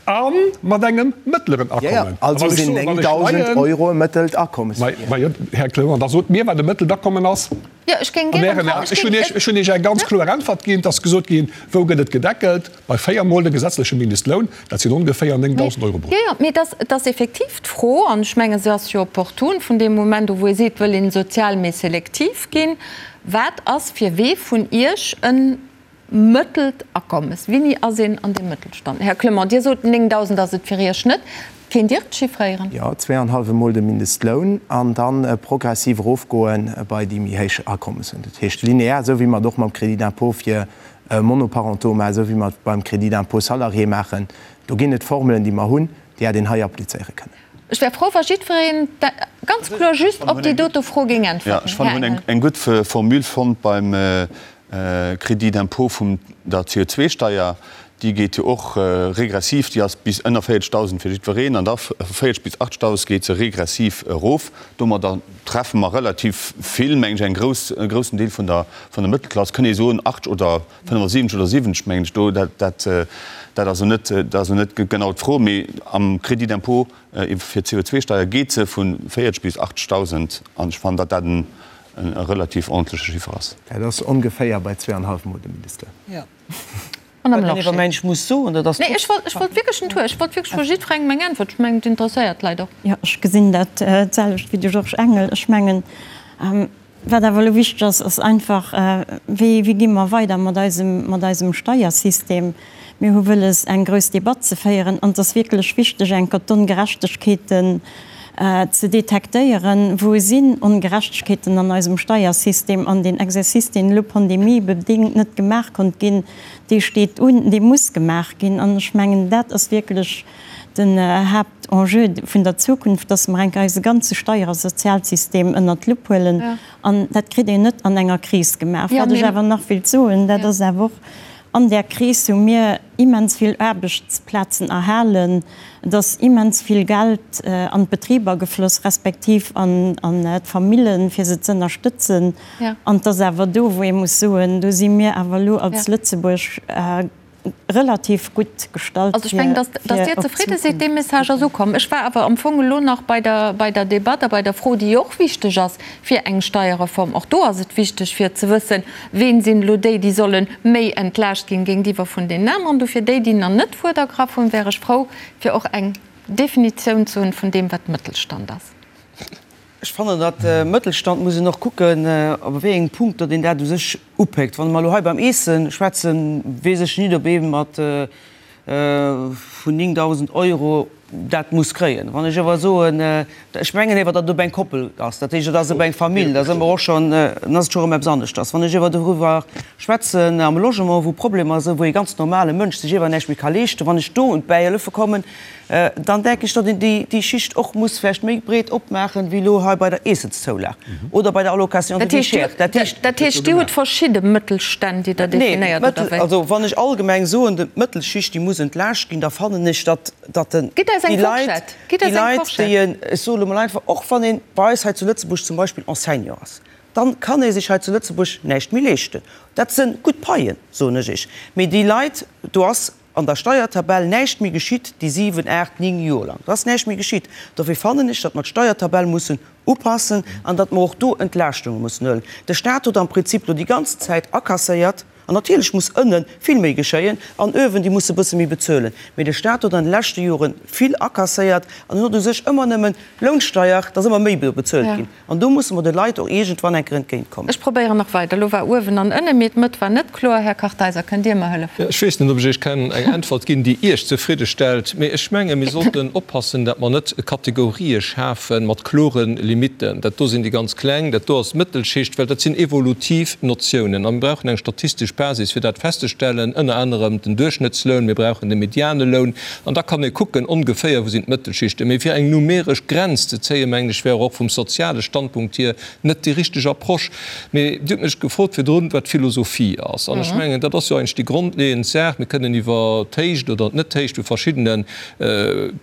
[SPEAKER 3] a mat engem mëttleren
[SPEAKER 7] Jo, jo,
[SPEAKER 3] Akommen. A
[SPEAKER 7] also
[SPEAKER 3] wann ech
[SPEAKER 7] sinn
[SPEAKER 3] soen, wann ech
[SPEAKER 7] 9.000
[SPEAKER 3] leien,
[SPEAKER 7] Euro e mëttelt Akommes fir Iech.
[SPEAKER 3] Ma jo, Här Clement, da sot mir, wat e mëttelt Akommen ass.
[SPEAKER 1] Jo, ech géing
[SPEAKER 3] An
[SPEAKER 1] gären
[SPEAKER 3] Ären
[SPEAKER 1] dra,
[SPEAKER 3] Aen.
[SPEAKER 1] ech
[SPEAKER 3] Ech hunn
[SPEAKER 1] géing,
[SPEAKER 3] Iech, ech hunn Iech eng ganz kloer Äntwert ginn. Et ass gesot ginn, wou gëtt et gedeckelt? Bei véiermol de gesetzleche Mindestloun, dat sinn ongeféier 9.000 Euro brutto.
[SPEAKER 1] Jo, jo, mee et ass, et ass effektiv d'Fro, an ech menge se ass jo opportun, vun deem Moment u wou ee seet, wëll een sozial méi selektiv ginn, wat ass fir wee vun Iech e mëttelt Akommes? Wéini ass een an deem Mëttelstand? Här Clement, Dir sot, 9.000 ass et fir Iech net. Kéint Dir et chiffréieren?
[SPEAKER 7] Jo, zweeanhallwe Mol de Mindestloun an da progressiv erofgoe bei déi méi héich Akommessen. Dat heescht linear, esou wéi mer et och mam Crédit d'impôt fir Monoparentaux maachen, esou wéi mer et beim Crédit d'impôt salarié maachen. Do ginn et Formelen, déi mer hunn, déi hätt een hei applizéiere kënnen.
[SPEAKER 1] Ech wär frou, wa jiddwereen ganz kloer just op déi dote Fro géing äntwerten.
[SPEAKER 5] Jo, ech fannen, mir hunn eng gutt Formule fonnt beim Crédit d'impôt vum der CO2-Steier, déi geet jo och regressiv, déi ass bis ënner 40.000 fir jiddwereen an da vu 40 bis 80.000 geet se regressiv erof. Domadder treffe mer relativ vill, mengen ech, eng grouss, e groussen Deel vun der, vun der Mëttelklass, kënnt ee soen, 80 oder 75 oder 70, mengen ech do. Dat, dat, dat ass elo net, dat ass elo net genau d'Fro, mee am Crédit d'impôt fir d'CO2-Steier geet se vu 40 bis 80.000 an ech fannen, datt dat en, e relativ ordentleche Chiffer ass.
[SPEAKER 7] Dat ass ongeféier bei zweeanhallef Mol de Mindestloun.
[SPEAKER 2] Jo.
[SPEAKER 1] Madame
[SPEAKER 2] Wat een
[SPEAKER 1] Lorsché.
[SPEAKER 2] iwwer muss soen, dat ass.
[SPEAKER 1] Nee, ech wollt, ech wollt wierklech net huelen. Ech wollt wierklech vu jiddwerengem eng Äntwert. Ech mengen, et interesséiert d'Leit och.
[SPEAKER 4] Jo, ech gesinn dat d'selwecht wéi de Georges Engel. Ech mengen, wat awer elo wichteg ass, ass einfach, wéi, wéi gi mer weider mat eisem, mat eisem Steiersystem? Mir hu wëlles, eng grouss Debatt ze féieren an et ass wierklech wichteg, enker d'Ongerechtegkeeten ze detektéieren, Wou sinn Ongerechtegkeeten an eisem Steiersystem? An deen Exercice, deen elo pandemiebedéngt net gemaach konnt ginn, dee steet un, dee muss gemaach ginn. An ech mengen, dat ass wierklech den Haaptenjeu vun der Zukunft, dass mer enk eise ganze Steier a Sozialsystem ënnert d'Lupp huelen. An dat kritt een net an enger Kris gemaach. Wat ech awer nach wéilt soen, dat ass awer och, An där Kris hu mir immens vill Aarbechtsplazen erhalen. Et ass immens vill Geld an d'Betriber gefloss, respektiv an d'Famillen, fir se z'ënnerstëtzen. An et ass awer do, wou ee muss soen, do si mir awer elo als Lëtzebuerg relativ gutt gestallt.
[SPEAKER 1] Also ech mengen, dass Dir zefridde sidd, dee Message ass ukomm. Ech war awer am Fong elo nach bei der, bei der Debatt a bei der Fro, déi jo och wichteg ass fir eng Steierreform. Och do ass et wichteg fir ze wëssen, Ween sinn elo déi, déi solle méi entlaascht ginn géintiwwer vun deenen aneren? Dofir déi, déi nach net d'Wuert ergraff hunn, wär ech frou, fir och eng Definitioun ze hunn vun deem, wat Mëttelstand ass.
[SPEAKER 2] Ech fannen, datt Mëttelstand muss een och kucken, op wéi engem Punkt datt een dat u sech upéckt. Wann mer elo hei beim Eesse schwätzen, weess ech nit, ob ee mat vun 9.000 Euro dat muss kréien. Wann ech awer soen, ech mengen ewer, datt et op eng Koppel ass, dat heescht, et ass op eng Famill, da si mer och schonn, dann ass et scho erëm eppes aneschters. Wann ech ewer doriwwer schwätzen am Logement, wou Problemer sinn, wou ee ganz normale Mënsch sech ewer näischt méi ka leeschten, wann ech do un d'Bäihëllefe kommen, dann denken ech, datt een déi Schicht och muss vläicht méi breet opmaachen, wéi elo hei bei der Eessenszoulag oder bei der Allocation de vie chère.
[SPEAKER 1] Dat heescht, Dir hutt verschidde Mëttelstänn, déi Der definéiert, oder wéi?
[SPEAKER 2] Also wann ech allgemeng soen, d'Mëttelschicht, déi muss entlaascht ginn, da fannen ech, datt
[SPEAKER 1] Gitt eis
[SPEAKER 2] déi
[SPEAKER 1] eng
[SPEAKER 2] Leit,
[SPEAKER 1] Fourchette! Gitt
[SPEAKER 2] déi
[SPEAKER 1] eis eng
[SPEAKER 2] Leit,
[SPEAKER 1] Fourchette!
[SPEAKER 2] déi en, ech soe lo mol einfach, och wann ee bei eis hei zu Lëtzebuerg zum Beispill Enseignant ass, dann kann ee sech hei zu Lëtzebuerg näischt méi leeschten. Dat sënn gutt Paien, soen ech Iech, mee déi Leit, do ass an der Steiertabell näischt méi geschitt déi 7, 8, 9 Joer lang. Do ass näischt méi geschitt. Dofir fannen ech, datt mer d'Steiertabell mussen upassen an datt mer och do Entlaaschtunge mussen huelen. De Stat huet am Prinzip lo déi ganzen Zäit akasséiert, an natierlech muss ënne vill méi geschéien an uewen, déi musse bësse méi bezuelen, mee de Stat huet an de leschte Jore vill akasséiert an en huet u sech ëmmer nëmmen Lounsteier, et ass ëmmer méi bezuelt ginn. An do musse mer de Leit och iergendwann eng Kéier entgéintkommen.
[SPEAKER 1] Ech probéieren nach weider. Elo war uewen an ënnen, mee d'Mëtt war net kloer. Här Kartheiser, kënnt Dir mer hëllefen?
[SPEAKER 8] Ech weess net, ob ech Iech kann eng Äntwert ginn, déi Iech zefridde stellt, mee ech menge mir sollten oppassen, datt mer net Kategorië schafe mat klore Limitten. Dat do sinn déi ganz Kleng, dat do ass d'Mëttelschicht, well dat sinn evolutiv Notiounen a mir brauchen eng statistesch. Basis fir dat festzestellen, ënner anerem den Duerchschnëttsloun, mir brauchen de mediane Loun an da kann ee kucken ongeféier wou sinn d'Mëttelschichten. Mee fir eng numeresch Grenz ze zéien, mengen ech, wär och vum soziale Standpunkt hier net déi richteg Approche. Mee Dir hutt mech gefrot virdrun, wat d'Philosophie ass. An ech mengen, dat ass jo eigentlech déi grondleeënd Saach. Mir kënnen iwwer d'Héicht oder d'Net-Héicht vu verschiddenen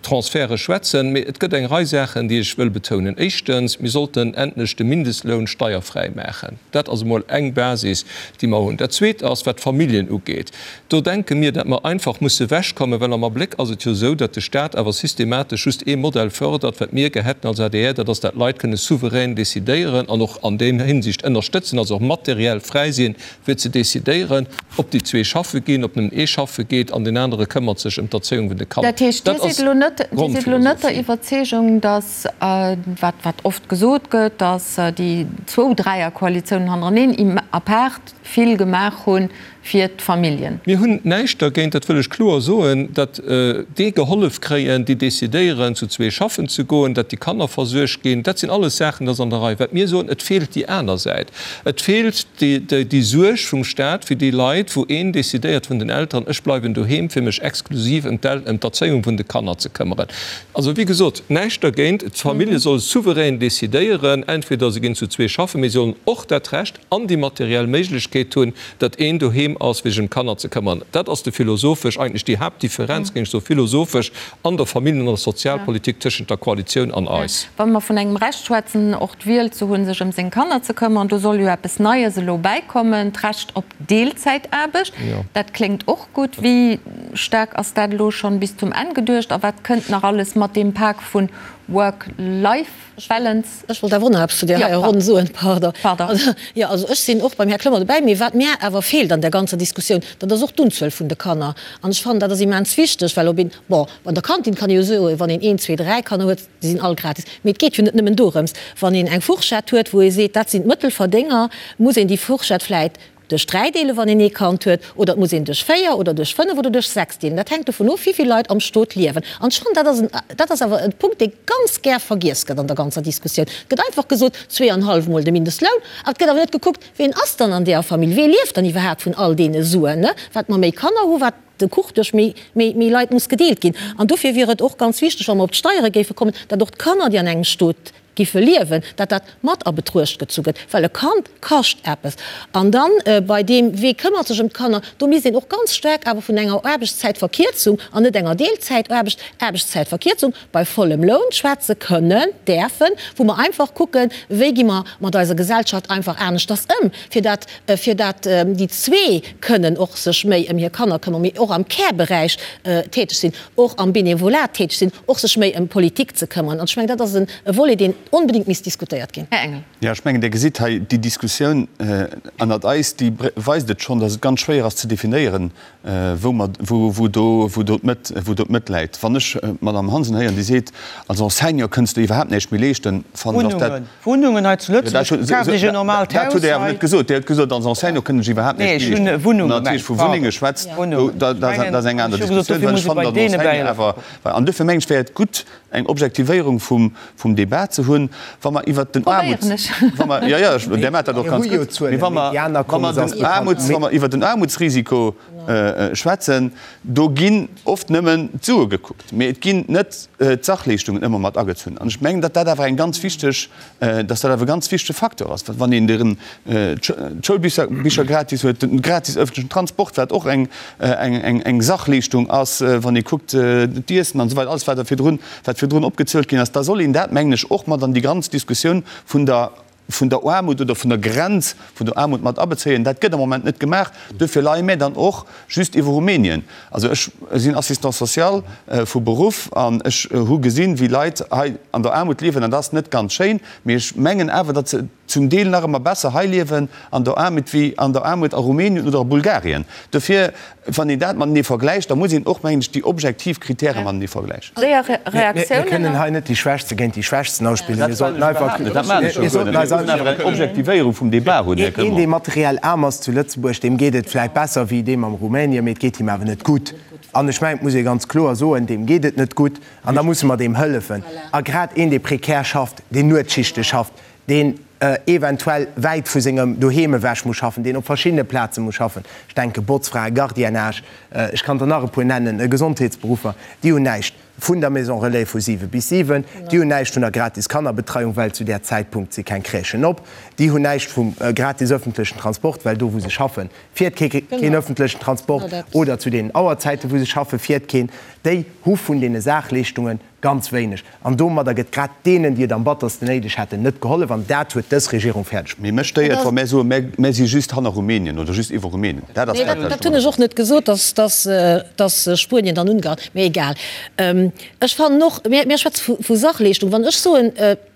[SPEAKER 8] Transferte schwätzen, mee et gëtt eng Rei Saachen, déi ech wëll betounen. Éischtens, mir sollten endlech de Mindestloun steierfräi maachen. Dat ass emol eng Basis, déi mer hunn. Dat Zweet ass, wat d'Familljen ugeet. Do denke mir, datt mer einfach musse ewechkommen, well am Abléck ass et jo esou, datt de Stat awer systematesch just ee Modell fördert, wat mir gär hätten als adr, dat ass, datt d'Leit kënne souverän decidéieren an och an deem Hinsicht ënnerstëtzen, also och materiell fräi sinn, fir ze decidéieren, ob déi zwee schaffe ginn, ob nëmmen ee schaffe geet an deen anere këmmert sech ëm d'Erzéiung vun de Kanner.
[SPEAKER 1] Dat heescht, Dir sidd elo net, Dir sidd elo net der Iwwerzeegung, datt, wat, wat oft gesot gëtt, datt déi zwou Dräierkoalitiounen hannereneen apaart vill gemaach hunn fir d'Familljen.
[SPEAKER 8] Mir hunn näischt dergéint, dat wëll ech kloer soen, datt déi gehollef kréien, déi decidéieren, zu zwee schaffen ze goen, datt déi Kanner versuergt ginn. Dat sinn alles Saachen, dat ass an der Rei. Wat mir soen, et feelt déi aner Säit. Et feelt déi Suerg vum Staat fir déi Leit, wou een decidéiert vun den Elteren, ech bleiwen doheem, fir mech exklusiv ëm d'Erzéiung vun de Kanner ze këmmeren. Also, wéi gesot, näischt dergéint, d'Famillje solle souverän decidéieren, entweder se ginn zu zwee schaffen, mee se sollen och dat Recht an déi materiell Méiglechkeet hunn, datt een doheem ass, fir sech ëm d'Kanner ze këmmern. Dat ass de philosophesch, eigentlech déi Haaptdifferenz, géing ech soen, philosophesch an der Familljen an der Sozialpolitik tëschent der Koalitioun an eis.
[SPEAKER 1] Wa mer vun engem Recht schwätzen, och d'Wiel ze hunn, sech ëm seng Kanner ze këmmern, do soll jo eppes Neies elo bäikommen, d'Recht op Deelzäitaarbecht. Dat kléngt och gutt. Wéi staark ass dat elo schonn bis zum Enn geduecht a wat kënnt nach alles mat deem Pak vun Work-Life? Balance.
[SPEAKER 6] Ech wollt awer och nach eppes zu där heier Ronn soen, pardon. Jo, also ech sinn och beim Här Clement dobäi, mee wat mär awer feelt an där ganzer Diskussioun, dat ass och d'Unzuel vun de Kanner. An ech fannen, dat ass immens wichteg, well ob een, bon, an der Kantin kann ee jo soen, wann een een, zwee, dräi Kanner huet, déi sinn all gratis. Mee et geet jo net nëmmen dorëms. Wann een eng Fourchette huet, wou ee seet, dat sinn d'Mëttelverdénger, muss een déi Fourchette vläit Duerch 3 deelen, wann een ee Kand huet, oder et muss een duerch 4 oder duerch 5 oder duerch 6 deelen. Dat hänkt dovun of, wéi vill Leit am Stot liewen. An ech fannen, dat ass en, dat ass awer e Punkt, dee ganz gär vergiess gëtt an der ganzer Diskussioun. Et gëtt einfach gesot, zweeanhallef mol de Mindestloun, awer et gëtt awer net gekuckt, ween ass dann an deeër Famill, wee lieft dann iwwerhaapt vun all deene Suen, ne? Wat mer méi Kanner hu, wat de Kuch duerch méi, méi, méi Leit muss gedeelt ginn. An dofir wier et och ganz wichteg, wa mer op d'Steiere géife kommen, datt och d'Kanner, déi an engem Stot giffe liewen, datt dat mat a Betruecht gezu gëtt, well e Kand kascht eppes. An dann bei deem, wee këmmert sech ëm d'Kanner, do misst een och ganz staark awer vun enger Aarbechtszäitverkierzung, an net enger Deelzäitaarbecht, Aarbechtszäitverkierzung bei vollem Loun schwätze kënnen, däerfen, wou mer einfach kucken, wéi gi mer mat eiser Gesellschaft einfach aneschters ëm, fir dat, fir dat déi zwee kënnen och sech méi ëm hir Kanner këmmern, mee och am Care-Beräich täteg sinn, och am Benevolat täteg sinn. och sech méi ëm Politik ze këmmeren. An ech mengen, dat ass e Volet, deen onbedéngt misst diskutéiert ginn.
[SPEAKER 1] Här Engel.
[SPEAKER 5] Jo, ech mengen, Dir gesitt hei, déi Diskussioun ënnert eis, déi weist et schonn, datt et ganz schwéier ass ze definéieren, wou mer, wou do, wou do d'Mëtt, wou do d'Mëtt läit. Wann ech d'Madame Hansen héieren, déi seet, als Enseignant kënns de iwwerhaapt näischt méi leeschten, fannen ech, ass dat,
[SPEAKER 2] Wunnungen hei zu Lëtzebuerg, kaaft Iech en normaalt Haus
[SPEAKER 5] hei. Dat hutt Dir awer net gesot. Dir hutt gesot, als Enseignant kënnt ech iwwerhaapt näischt méi leeschten.
[SPEAKER 2] Nee, ech hunn Wunnunge
[SPEAKER 5] gemengt. Natierlech vu Wunnenge schwätzt, dat ass eng aner Diskussioun, well ech fannen, datt en Enseignant awer, an duerfir mengen ech, wär et gutt, eng Objektivéierung vum Débat ze hunn, wa mer iwwert den Aarmuts, wa mer, jo, jo, Där maacht dat och ganz gutt, mee wa mer, wa mer den Aarmuts, wa mer iwwert den Aarmutsrisiko schwätzen, do ginn oft nëmmen d'Sue gekuckt, mee et ginn net d'Sachleeschtungen ëmmer mat agezunn. An ech mengen, datt dat awer eng ganz wichteg, datt dat awer e ganz wichtege Facteur ass, wann een den d'Schoulbicher gratis huet, den gratis öffentlichen Transport, wat och eng, eng, eng Sachleeschtung ass, wann ee kuckt d'Iessen an esou weider, alles wat da virdrun, wat virdrun opgezielt ginn ass, da soll een dat, mengen ech, och mat an déi ganz Diskussioun vun der, vun der Aarmut oder vun der Grenz vun der Aarmut mat abezéien. Dat gëtt am Moment net gemaach. Duerfir leie mir dann och just iwwer Rumänien. Also ech sinn Assistant social vu Beruff an ech hu gesinn, wéi Leit hei an der Aarmut liewen an dat ass net ganz schéin. Mee ech mengen awer, datt se zum Deel nach ëmmer besser hei liewen an der Aarmut wéi an der Aarmut a Rumänien oder a Bulgarien. Dofir, wann een dat matenee vergläicht, da muss een och, mengen ech, déi objektiv Kritäre matenee vergläichen.
[SPEAKER 1] Séier Reaktiounen
[SPEAKER 7] Mir kënnen hei net déi Schwächste géint déi Schwächsten ausspillen. Mir sollten einfach, mir sollten eis
[SPEAKER 5] einfach eng Objektivéierung vum Débat hunn, Här
[SPEAKER 7] Clement. Een, dee materiell aarm ass zu Lëtzebuerg, deem geet et vläicht besser wéi deem am Rumänien, mee et geet him awer net gutt. An ech mengen, et muss ee ganz kloer soen, deem geet et net gutt an da musse mer deem hëllefen. A grad een, dee prekär schafft, deen Nuetsschichte schafft, deen. eventuell wäit vu sengem Doheem ewech muss schaffen, deen op verschiddene Plaze muss schaffen, ech denke Botzfrae, Gardiennage, ech kann der nach e puer nennen, Gesondheetsberuffer, déi hunn näischt vun der Maison relais vu 7 bis 7, déi hunn näischt vun der gratis Kannerbetreiung, well zu där Zäitpunkt si keng Crèchen op, déi hunn näischt vum gratis öffentlechen Transport, well do wou se schaffen, fiert keen öffentlechen Transport, oder zu deenen Auerzäiten wou se schaffen, fiert keen. Déi hu vun deene Saachleeschtungen Ganz wéineg. An domadder gëtt grad deenen, déi et am battersten néideg hätten, net gehollef. An dat huet dës Regierung fäerdeg
[SPEAKER 5] Mee mech stéiert, wa mär soen, mär, mär si just hanner Rumänien oder just iwwer Rumänien.
[SPEAKER 6] Dat ass dat, wat ech Dat hunn ech och net gesot, dass, dass, dass Spuenien dann Ungarn, mee egal. Ech fannen och, mir, mir schwätze vu, vu Sachleeschtung. Wann ech soen,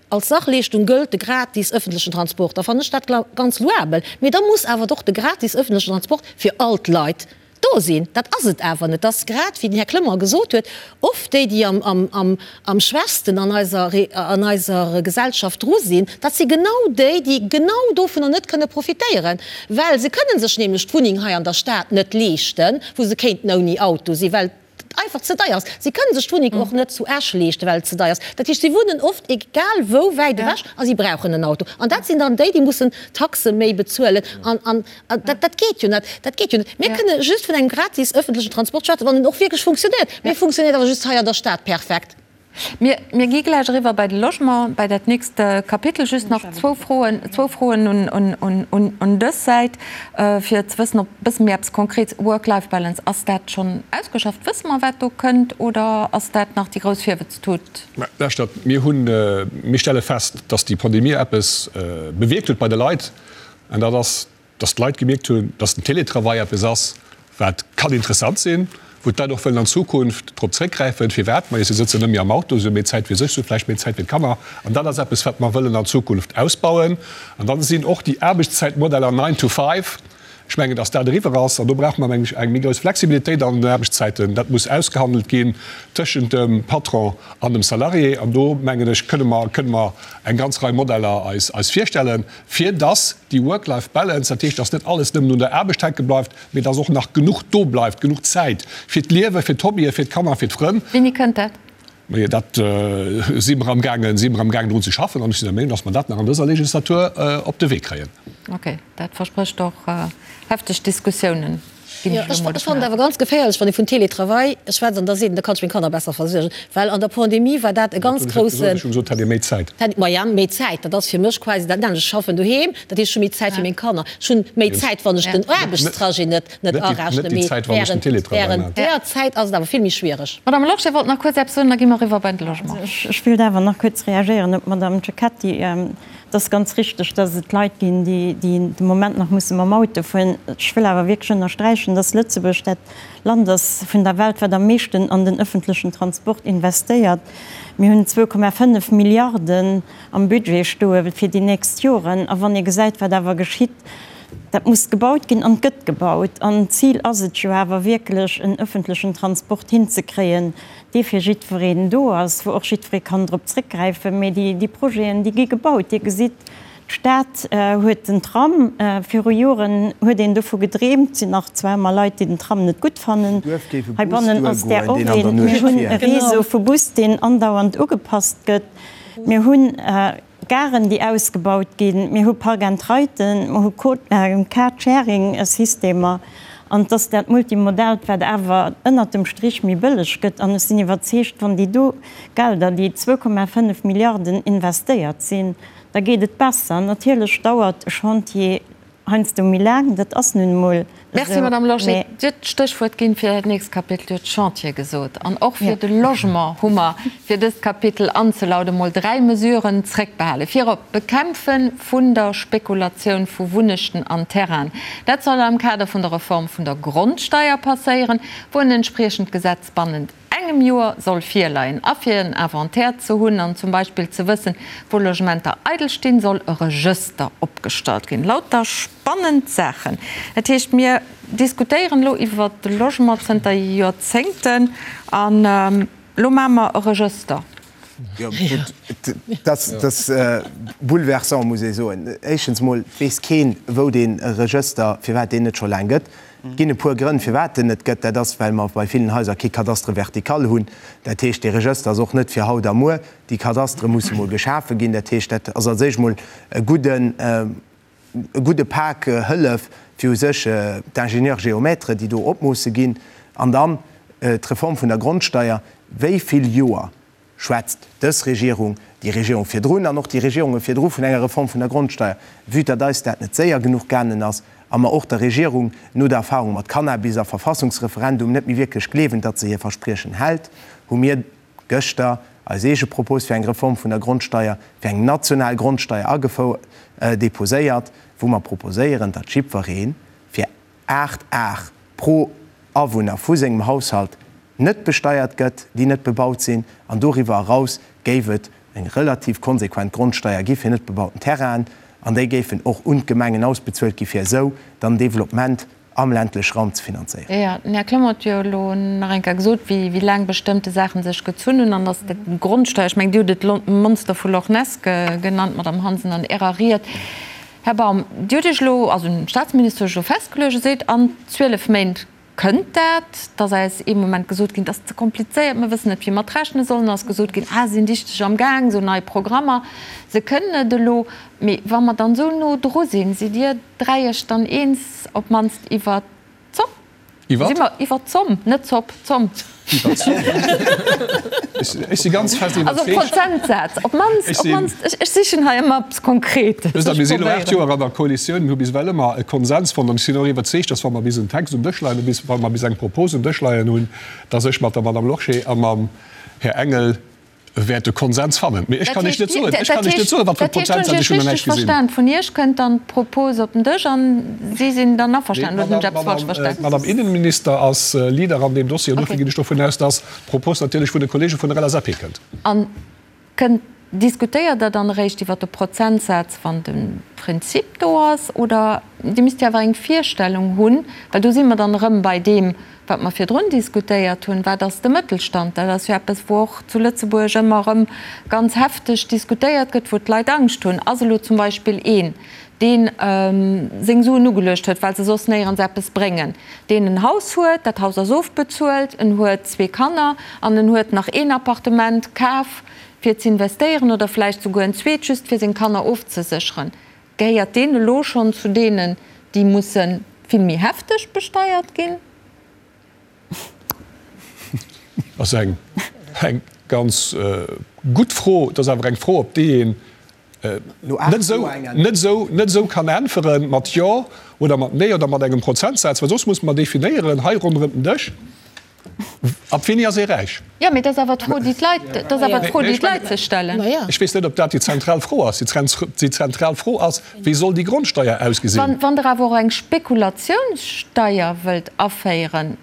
[SPEAKER 6] als Sachleeschtung gëllt de gratis ëffentlechen Transport, da fannen ech dat ganz louabel. Mee da muss awer och de gratis ëffentlechen Transport fir all d'Leit Do sinn. Dat ass et awer net. Dat ass grad, wéi den Här Clement gesot huet, oft déi, déi am schwächsten an eiser, an eiser Gesellschaft dru sinn. Dat si genau déi, déi genau dovunner net kënne profitéieren, well se kënne sech nämlech d'Wunneng hei an der Stad net leeschten, wou se kéinten ouni Auto sinn, well et einfach ze deier ass. Si kënne sech d'Wunneng och net zu Esch leeschten, well et ze deier ass. Dat heescht, si wunnen oft egal wou wäit ewech a si brauchen en Auto. An dat sinn dann déi, déi mussen Taxe méi bezuelen. An dat geet jo net. Dat geet jo net. Mir kënne just vun engem gratis ëffentlechen Transport schwätzen, wann en och wierklech funktionéiert. Mee e funktionéiert awer just hei an der Stad perfekt.
[SPEAKER 1] Mir, mir gi gläich eriwwer bei de Logement, bei dat nächst Kapitel. Just nach zwou Froen, zwou Froen un, un, un, un, un dës Säit, fir ze wëssen, ob e bësse méi eppes Konkrets, Work-Life-Balance, ass dat schonn ausgeschafft? Wësse mer, wat do kënnt, oder ass dat nach déi grouss Virwëtztut?
[SPEAKER 3] Mä lauschtert, mir hunn, mir stelle fest, dass déi Pandemie eppes bewierkt huet bei de Leit, an dat ass, dass d'Leit gemierkt hunn, dass den Télétravail eppes ass, wat kann interessant sinn, wou d'Leit och wëllen an Zukunft drop zréckgräifen. Firwat? Majo, si sëtzen net méi am Auto, si hu méi Zäit fir sech, si hu vläicht méi Zäit fir d'Kanner. An dat ass eppes, wat mer wëllen an Zukunft ausbauen. An dann sinn och déi Aarbechtszäitmodeller nine to five, ech mengen, dass dat eriwwer ass. An do brauche mer, mengen ech, eng méi grouss Flexibilitéit an den Aarbechtszäiten. Dat muss ausgehandelt ginn tëschent dem Patron an dem Salarié. An do, mengen ech, kënne mer, kënne mer eng ganz Rei Modeller eis, eis virstellen. fir dass déi Work-Life-Balance, dat heescht, dass net alles nëmmen un der Aarbecht hänke bleift, mee dass och nach genuch do bleift, genuch Zäit fir d'Liewen, fir d'Hobbyen, fir d'Kanner, fir d'Frënn.
[SPEAKER 1] Wéini kënnt dat?
[SPEAKER 3] Majo, dat si mer amgaangen, si mer amgaangen drun ze schaffen an ech sinn der Meenung, dass mer dat nach an dëser Legislatur op de Wee kréien.
[SPEAKER 1] Okay, dat versprécht och hefteg Diskussiounen.
[SPEAKER 6] Ginn ech elo mol Ech fannen et awer ganz geféierlech, wann ee vun Télétravail schwätzt an da seet een, da kann ech meng Kanner besser versuergen, well an der Pandemie war dat e ganz groussen.
[SPEAKER 3] Ech hu gesot, hätt ee méi Zäit.
[SPEAKER 6] Maja, méi Zäit, dat ass fir mech quasi dat nämmlecht. Ech schaffen doheem, dat heescht, ech hu méi Zäit fir meng Kanner. Ech hunn méi Zäit, wann ech den Aarbechtstrajet net net arechnen, mee während während där Zäit ass et awer vill méi schwiereg.
[SPEAKER 1] Madame Losch, Dir wollt nach kuerz eppes soen, da gi mer eriwwer bei de Logement.
[SPEAKER 4] Also ech wéilt awer nach kuerz reagéieren op d'Madame Cecchetti. Et ass ganz richteg, dass et Leit ginn, déi de Moment nach musse mam Auto fueren. Ech wëll awer wierklech ënnersträichen, dass Lëtzebuerg dat Land ass vun der Welt, wat am meeschten an den ëffentlechen Transport investéiert. Mir hunn 2,5 Milliarden am Budget stoe fir déi nächst Joren. A wann ee gesäit, wat awer geschitt, dat muss gebaut ginn an et gëtt gebaut. An d'Zil ass et jo awer wierklech, en ëffentlechen Transport hinzekréien, dee fir jiddwereen do ass, wou och jiddweree kann drop zréckgräifen. Mee déi Projeten, déi gi gebaut. Dir gesitt, d'Stad huet den Tram. Viru Joren huet een dovu gedreemt. Et sinn nach zwar ëmmer Leit, déi den Tram net gutt fannen. Heibannen ass där och een. Mir hunn e Réseau vu Bus, deen andauernd ugepasst gëtt. Mir hunn. Garen, déi ausgebaut ginn, mir hu Park-and-Riden, mer hu Car-Sharing-Systemer, an et ass dat Multimodaalt, wat awer ënnert dem Strich méi bëlleg gëtt. An ech sinn iwwerzeegt, wann déi do Gelder, déi 2,5 Milliarden investéiert sinn, da geet et besser. Natierlech dauert e Chantier Heiansdo méi laang, dat ass nun emol esou.
[SPEAKER 1] Merci, Madame Lorsché. Dir hutt d'Stéchwuert ginn fir dat nächst Kapitel. Dir hutt Chantier gesot. An och fir de Logement hu mer, fir dëst Kapitel anzelauden, emol dräi Mesuren zréckbehalen. Virop d'Bekämpfe vun der Spekulatioun vu Wunnechten an Terrainen. Dat soll am Kader vun der Reform vun der Grondsteier passéieren, wou en entspriechend Gesetz bannent engem Joer soll virleien. A fir en Inventaire ze hunn an zum Beispill ze wëssen, wou Logementer eidel stinn, soll e Regëster opgestallt ginn. Lauter spannend Saachen. Dat heescht, mir diskutéieren elo iwwert de Logement zënter Joerzéngten an elo maache mer e Regëster.
[SPEAKER 7] Jo, gutt, dat ass bouleversant, muss ee soen. Éischtens emol weess keen, wou dee Regëster, firwat deen net scho laang gëtt. Et ginn e puer Grënn, firwat en net gëtt. Dat ass, well mer bei villen Haiser kee Cadastre vertical hunn. Dat heescht, dee Regëster ass och net fir haut a muer. Déi Cadastere musse mol geschafe ginn. Dat heescht, dat ass als éischt mol e gudden, e gudde Pak Hëllef fir u sech d'Ingénieurs géomètres, déi do opmoosse ginn. An dann d'Reform vun der Grondsteier. Wéi vill Joer schwätzt dës Regierung, déi Regierung virdrun an och déi Regierunge virdru vun enger Reform vun der Grondsteier? Vue datt eis dat net séier genuch gaangen ass a mer och der Regierung no der Erfahrung mat Cannabis a Verfassungsreferendum net méi wierklech gleewen, datt se hir Verspriechen hält, hu mir gëschter eis eege Propos fir eng Reform vun der Grondsteier, fir eng national Grondsteier agefou deposéiert, wou mer proposéieren, datt jiddweree fir 8 Ar pro Awunner vu sengem Haushalt net besteiert gëtt, déi net bebaut sinn, an doriwwer eraus géif et eng relativ konsequent Grondsteier gi fir net bebauten Terrainen, an déi géifen och un d'Gemengen ausbezuelt gi fir esou dann Développement am ländleche Raum ze finanzéieren.
[SPEAKER 1] Jo, den Här Clement huet jo elo nach eng Kéier gesot, wéi laang bestëmmte Saache sech gezunn hunn, an datt d'Grondsteier, ech mengen, Dir hutt et Monster vu Loch Ness genannt, Madamm Hansen, an Ärer Ried. Här Baum, Dir hutt Iech elo, also den Statsminister huet sech elo festgeluecht, e seet, an 12 Méint kënnt dat. Et ass eis ee Moment gesot ginn, et ass ze komplizéiert, mer wëssen net, wéi mer et rechne sollen. Et ass gesot ginn, ah, se sinn dichteg am Gaang, esou nei Programmer, se kënnen et elo. Mee wa mer dann esou no dru sinn, sidd Dir 3 Iech dann eens, op d'mannst iwwert d'Zomm?
[SPEAKER 3] Iwwer?
[SPEAKER 1] Si mer iwwer d'Zomm, net d'Zopp, d'Zomm.
[SPEAKER 3] Iwwer d'Zomm. Ech si ganz fest
[SPEAKER 1] iwwerzeegt. Also Prozentsaz, op d'mannst, op d'mannst, ech sichen hei ëmmer eppes Konkretes.
[SPEAKER 3] Wësst Der, mir si elo 8 Joer an der Koalitioun, mir hu bis ewell ëmmer e Konsens fonnt an ech sinn och iwwerzeegt, dass wa mer bis en Text um Dësch leien hunn, bis wa mer bis eng Propos um Dësch leien hunn, dass ech mat der Madame Lorsché a mam Här Engel wäert e Konsens fannen. Mee ech kann Iech net soen, ech kann Iech net soen, wat fir e Prozentsaz, ech hunn nach näischt gesinn.
[SPEAKER 1] Dat heescht, hunn ech Iech richteg verstan, vun Iech kënnt dann d'Propos op den Dësch an si sinn dann averstanen, oder hunn ech eppes falsch verstan?
[SPEAKER 3] D'Madame Innenminister ass Leader an deem Dossier an dofir ginn ech dovun aus, dass d'Propos natierlech vun de Kollege vun der LSAP kënnt.
[SPEAKER 1] An kënnt, diskutéiert Der dann eréischt iwwert de Prozentsaz, wann de Prinzip do ass, oder Dir misst jo awer eng Virstellung hunn, well do si mer dann erëm bei deem, Wat mer virdrun diskutéiert hunn, wat ass de Mëttelstand? Dat ass jo eppes, wou och zu Lëtzebuerg ëmmer erëm ganz hefteg diskutéiert gëtt, wou d'Leit Angscht hunn. Ass elo zum Beispill een, dee seng Suen ugeluecht huet, well se soss néierens eppes bréngen, deen en Haus huet, dat Haus ass ofbezuelt, en huet zwee Kanner an en huet nach een Appartement kaf fir z'investéieren oder vläicht souguer en zweet, just fir seng Kanner ofzesécheren, Gehéiert deen elo schonn zu deenen, déi musse vill méi hefteg besteiert ginn?
[SPEAKER 3] Dat ass eng ganz gutt Fro. Dat ass awer eng Fro, op déi een net esou kann äntwere mat Jo oder mat Nee oder mat engem Prozentsaz, well soss musse mer definéieren hei ronderëm den Dësch, Ab wéini ass ee räich?
[SPEAKER 1] Jo, mee dat ass awer d'Fro, déi d'Leit, dat ass awer d'Fro, déi d'Leit sech stellen.
[SPEAKER 3] Ech weess net, ob dat déi zentral Fro ass. Déi zentral Fro ass, Wéi soll déi Grondsteier ausgesinn?
[SPEAKER 1] Wann Der awer och eng Spekulatiounssteier wëllt aféieren,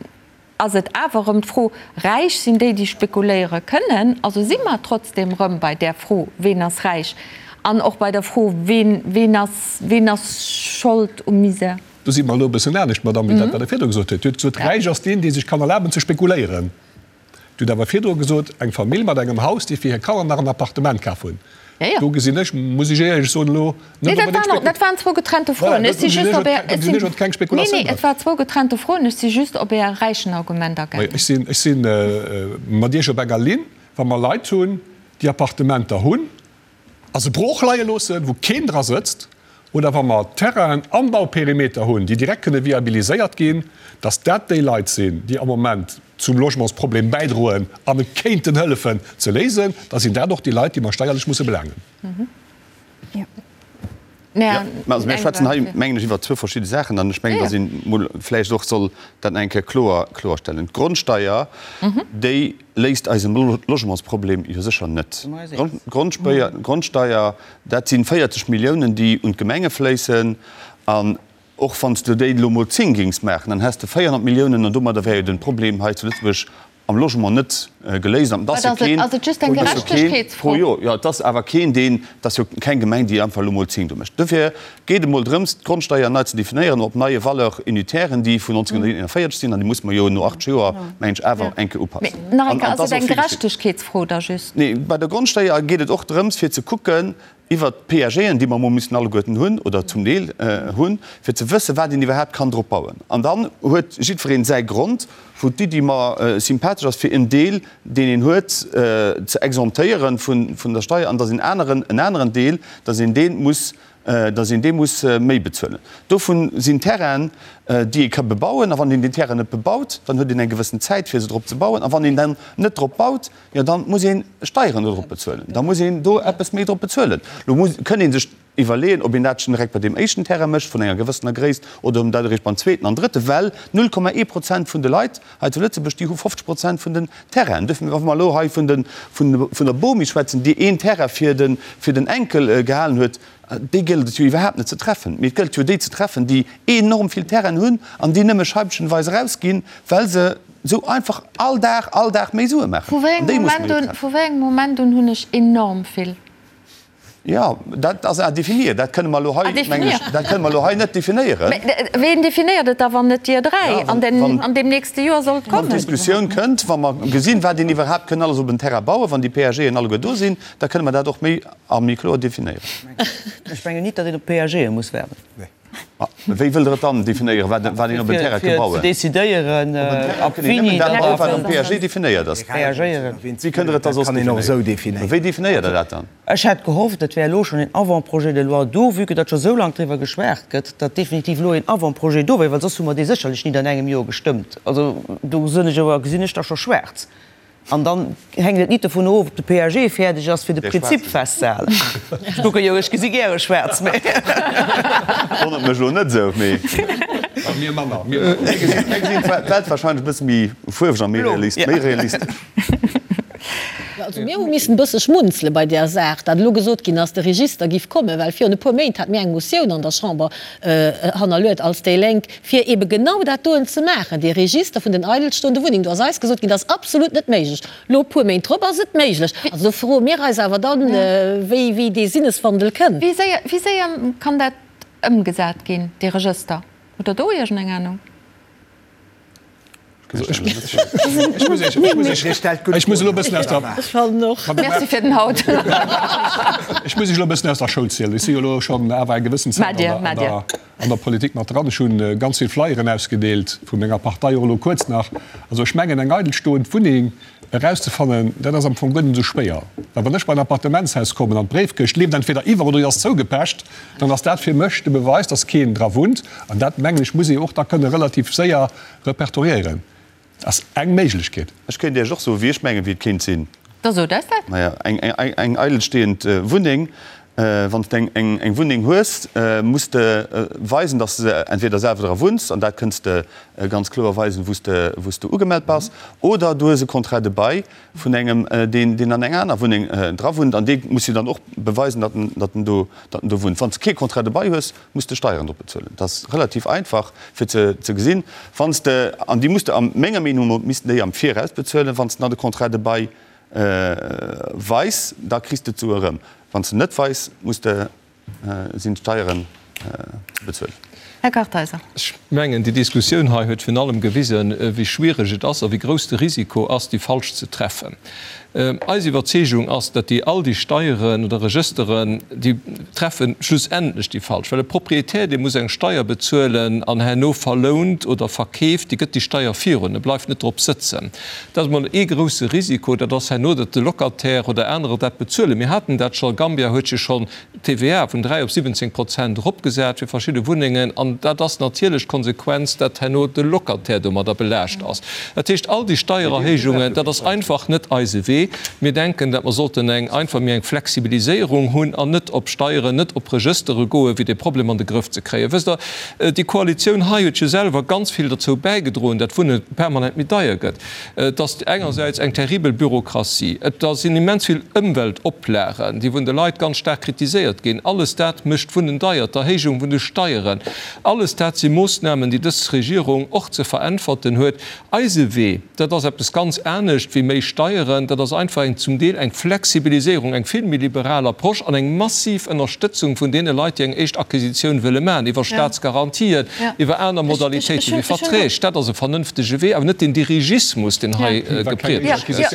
[SPEAKER 1] ass et awer erëm d'Fro, Räich sinn déi, déi spekuléiere kënnen? Also si mer trotzdem erëm bei där Fro, Ween ass räich? An och bei der Fro, Ween, ween ass, ween ass Schold um Misär?
[SPEAKER 3] Do si mer elo e bëssen anescht, Madamm, wéi dat, wat Der virdru gesot hutt. Dir hutt gesot, Räich ass deen, dee sech kann erlaben ze spekuléieren. Dir hutt awer virdru gesot, eng Famill mat engem Haus, déi fir hir Kanner nach en Appartement kaf hunn. Do gesinn ech, muss ech éierlech soen, elo
[SPEAKER 1] net onbedéngt Spek. Dat waren zwou getrennte Froen. Ech si just op Är, ech sinn, nee, nee, et war zwou getrennte Froen. Ech si just op Är Räichenargument agaangen.
[SPEAKER 3] Ech sinn, ech si mat Iech op enger Linn, wa mer Leit hunn, déi Appartementer hunn, a se brooch leie loossen, wou keen dra sëtzt, oder wa mer Terrainen am Bauperimeter hunn, déi direkt kënne viabiliséiert ginn, dass dat déi Leit sinn, déi am Moment zum Logementsproblem bäidroen an e kéinten hëllefen ze léisen, da sinn dat och déi Leit, déi mer steierlech musse belaangen.
[SPEAKER 5] Jo, mä also mir schwätzen hei, mengen ech, iwwer zwou verschidde Saachen an ech mengen, dass een emol vläicht och soll dat nach eng Kéier kloer kloerstellen. D'Grondsteier, déi léist eise Logementsproblem jo sécher net. D'Grondsteier, dat si 40 Milliounen, déi un d'Gemenge fléissen an. Och wann s de déi elo mol 10 géings maachen, dann häss de 400 Milliounen an domadder wär jo den Problem hei zu Lëtzebuerg am Logement net geléist. An et ass jo keen,
[SPEAKER 1] Ass et just eng
[SPEAKER 5] et ass jo keen
[SPEAKER 1] Gerechtegkeetsfro?
[SPEAKER 5] pro Joer, jo, et ass awer keen, deen, et ass jo keng Gemeng, déi einfach elo mol 10 do mécht. Dofir geet et emol drëms, d'Grondsteier nei ze definéieren op neie Valeur-unitairen, déi vun 1941 sinn, an déi musse mer jo no 80 Joer, mengen ech, awer eng Kéier upassen.
[SPEAKER 1] Mee nach eng
[SPEAKER 5] An
[SPEAKER 1] Kéier,
[SPEAKER 5] et
[SPEAKER 1] ass
[SPEAKER 5] ass
[SPEAKER 1] et
[SPEAKER 5] och
[SPEAKER 1] eng
[SPEAKER 5] vill geschitt.
[SPEAKER 1] Gerechtegkeetsfro da just?
[SPEAKER 5] Nee, bei der Grondsteier geet et och drëms, fir ze kucken, iwwert d'PAGen, déi mer emol müssen alleguerten hunn oder zum Deel hunn, fir ze wëssen, wat een iwwerhaapt kann drop bauen. An dann huet jiddwereen säi Grond, wou d'Iddi mer sympathesch ass, fir en Deel, deen een huet, ze exemptéieren vun der Steier, an dass een aneren, en aneren Deel, dass een dee muss, dass een dee muss méi bezuelen. Dovun sinn Terrainen, déi ee ka bebauen. A wann een déi Terrainen net bebaut, dann huet een eng gewëssen Zäit, fir se drop ze bauen. A wann een dann net drop baut, Jo, dann muss een Steieren dodrop bezuelen. Da muss een do eppes méi drop bezuelen. Lo muss, kënn ee sech iwwerleeën, ob een dat schon direkt bei deem éischten Terrain mécht vun enger gewëssener Gréisst oder ob een dat eréischt beim zweeten an drëtten, well 0,1 Prozent vun de Leit hei zu Lëtzebuerg, déi hu 50 Prozent vun den Terrainen. Duerfir, wa mer elo hei vun de, vun, vun der Bomi schwätzen, déi een Terrain fir de, fir den Enkel gehalen huet, déi gëllt et jo iwwerhaapt net ze treffen. Mee et gëllt jo déi ze treffen, déi enorm vill Terrainen hunn an déi nëmme scheibchenweis erausginn, well se Sou einfach all Dag, all Dag méi Sue maachen.
[SPEAKER 1] Vu wéi engem Moment un, vu wéi engem Moment un hunn ech enorm vill?
[SPEAKER 5] Jo, dat ass à définir. Dat kënne mer elo hei, mengen ech, dat kënne mer elo hei net definéieren.
[SPEAKER 1] Mä ween definéiert et da, wann net Dir 3? An den, an deem nächste Joer soll et kommen.
[SPEAKER 5] Wann d'Diskussioun kënnt, wa mer gesinn, wat een iwwerhaapt kënn alles op en Terrain bauen, wann déi PAGen alleguer do sinn, da kënne mer dat och méi a méi kloer definéieren.
[SPEAKER 2] Ech mengen nit, datt een op d'PAGe muss waarden.
[SPEAKER 5] Wéi wëllt Der et dann definéieren, wat een op en Terrain ka bauen?
[SPEAKER 2] Fir ze decidéieren, ab wéini
[SPEAKER 5] dat baut, wat am PAG definéiert ass. Wéi kënnt Der et da soss definéieren? Wéi definéiert Der dat dann?
[SPEAKER 2] Ech hätt gehofft, et wär elo schonn een Avant-projet de loi do, vue que datt scho sou laang driwwer geschwat gëtt, datt definitiv elo een Avant-projet do wär, well soss hu mer dee sécherlech nit an engem Joer gestëmmt. Also do gesinn ech awer, gesinn ech da scho schwaarz. An dann hänkt et nit dovun of, ob de PAG fäerdeg ass, fir de Prinzip festzehalen. Ech kucke jo, ech gesi gäre schwaarz, mä.
[SPEAKER 5] Wonnert mech elo net esou, mee.
[SPEAKER 3] Mir manner, mir manner.
[SPEAKER 5] Mir gesinn d'Welt wahrscheinlech e bësse méi fuerweg a méi realistesch.
[SPEAKER 6] Jo, also mir hu missen e bësse schmunzele bei där Saach, dat elo gesot ginn ass, de Register giff kommen, well virun e puer Méint hate mir eng Motioun an der Chamber hannerluet als déi Lénk, fir eebe genau dat doen ze maachen, dee Register vun den eidelstoende Wunnengen. Do ass eis gesot ginn, dat ass absolut net méiglech. Elo e puer Méint drop ass et méiglech. Also do froe mir eis awer dann, wéi, wéi dee Sinneswandel kënnt.
[SPEAKER 1] Wéi séier, wéi séier kann dat ëmgesat ginn, dee Regëster? Hutt Der do iergendeng Anung?
[SPEAKER 3] Ech muss elo e bëssen aus der.
[SPEAKER 6] Ech fannen och.
[SPEAKER 1] Merci fir den Haut.
[SPEAKER 3] Ech muss Iech elo e bëssen aus der Schoul zielen. Ech si jo elo schonn awer eng gewëssen Zäit an der. An der Politik mat dran. Ech hu ganz vill Flyeren ausgedeelt vu menger Partei, och elo kuerz nach. Also ech mengen, eng eidelstoend Wunneng erauszefannen, dat ass am Fong guer net esou schwéier. Well wann ech bei en Appartementshaus kommen an d'Bréifkëscht leeft entweder iwwer oder déi ass zougepecht, dann ass dat fir mech de Beweis, dass keen dra wunnt. An dat, mengen ech, muss ee och da kënne relativ séier repertoriéieren. Ass eng Méiglechkeet.
[SPEAKER 5] Ech kéint Iech och soen, wéi ech mengen, wéi et kéint sinn.
[SPEAKER 1] Da sot eis dat.
[SPEAKER 5] Maja, eng eidelstehend Wunneng, wann s de eng Wunneng hues, muss de weisen, datt s de entweder selwer dra wunns, an dat kënns de ganz kloer weisen, wou s de, wou s de ugemellt bass, oder du hues e Contrat de bail vun engem, deen, deen an enger aner Wunneng dra wunnt, an dee muss jo dann och beweisen, datt en, datt en do, datt en do wunnt. Wann s de kee Contrat de bail hues, muss de Steieren drop bezuelen. Dat ass relativ einfach fir ze ze gesinn. Wann s de, an déi muss de a menger Meenung no missten déi am Viraus bezuelen, wann s de nach de Contrat de bail weis, da kriss de d'Sue erëm. Wann s de net weis, muss de, sinn d'Steieren ze bezuelen.
[SPEAKER 1] Här Kartheiser.
[SPEAKER 8] Ech mengen, déi Diskussioun hei huet virun allem gewisen, wéi schwiereg et ass a wéi grouss de Risiko ass, déi falsch ze treffen. Eis Iwwerzeegung ass, datt déi all déi Steieren oder Regësteren, déi treffe schlussendlech déi falsch, well e Propriétaire, dee muss eng Steier bezuelen an herno verlount oder verkeeft, dee gëtt déi Steier virun, e bleift net drop sëtzen. Dat ass emol ee grouse Risiko, dat ass herno, datt de Locataire oder anerer dat bezuelen. Mir haten dat scho, Gambia huet jo schonn d'TVA vun 3 op 17 Prozent eropgesat fir verschidde Wunnengen, an dat ass natierlech d'Konsequenz, dat herno de Locataire domadder belaascht ass. Dat heescht, all déi Steiererhéijungen, dat ass einfach net eise Wee. Mir denken, dat mer sollten eng einfach méi eng Flexibiliséierung hunn an net op Steieren, net op Regëstere goen, fir dee Problem an de Grëff ze kréien. Wësst Der, déi Koalitioun hei huet jo selwer ganz vill derzou bäigedroen, dat Wunne permanent méi deier gëtt. Et ass engersäits eng terribel Bürokratie, et sinn immens vill Ëmweltoplagen, déi vun de Leit ganz staark kritiséiert ginn. Alles dat mécht d'Wunnen deier, d'Erhéijung vun de Steieren. Alles dat si Moossnamen, déi dës Regierung och ze veräntwerten huet. Eise Wee, dat ass eppes ganz anescht wéi méi Steieren, dat ass einfach eng zum Deel eng Flexibiliséierung, eng vill méi liberal Approche an eng massiv Ënnerstëtzung vun deene Leit, déi eng éischt Acquisitioun wëlle maachen, iwwer Staatsgarantien, iwwer aner Modalitéite wéi Verträg. Dat ass e vernënftege Wee, awer net den Dirigismus, deen hei gepriedegt gëtt.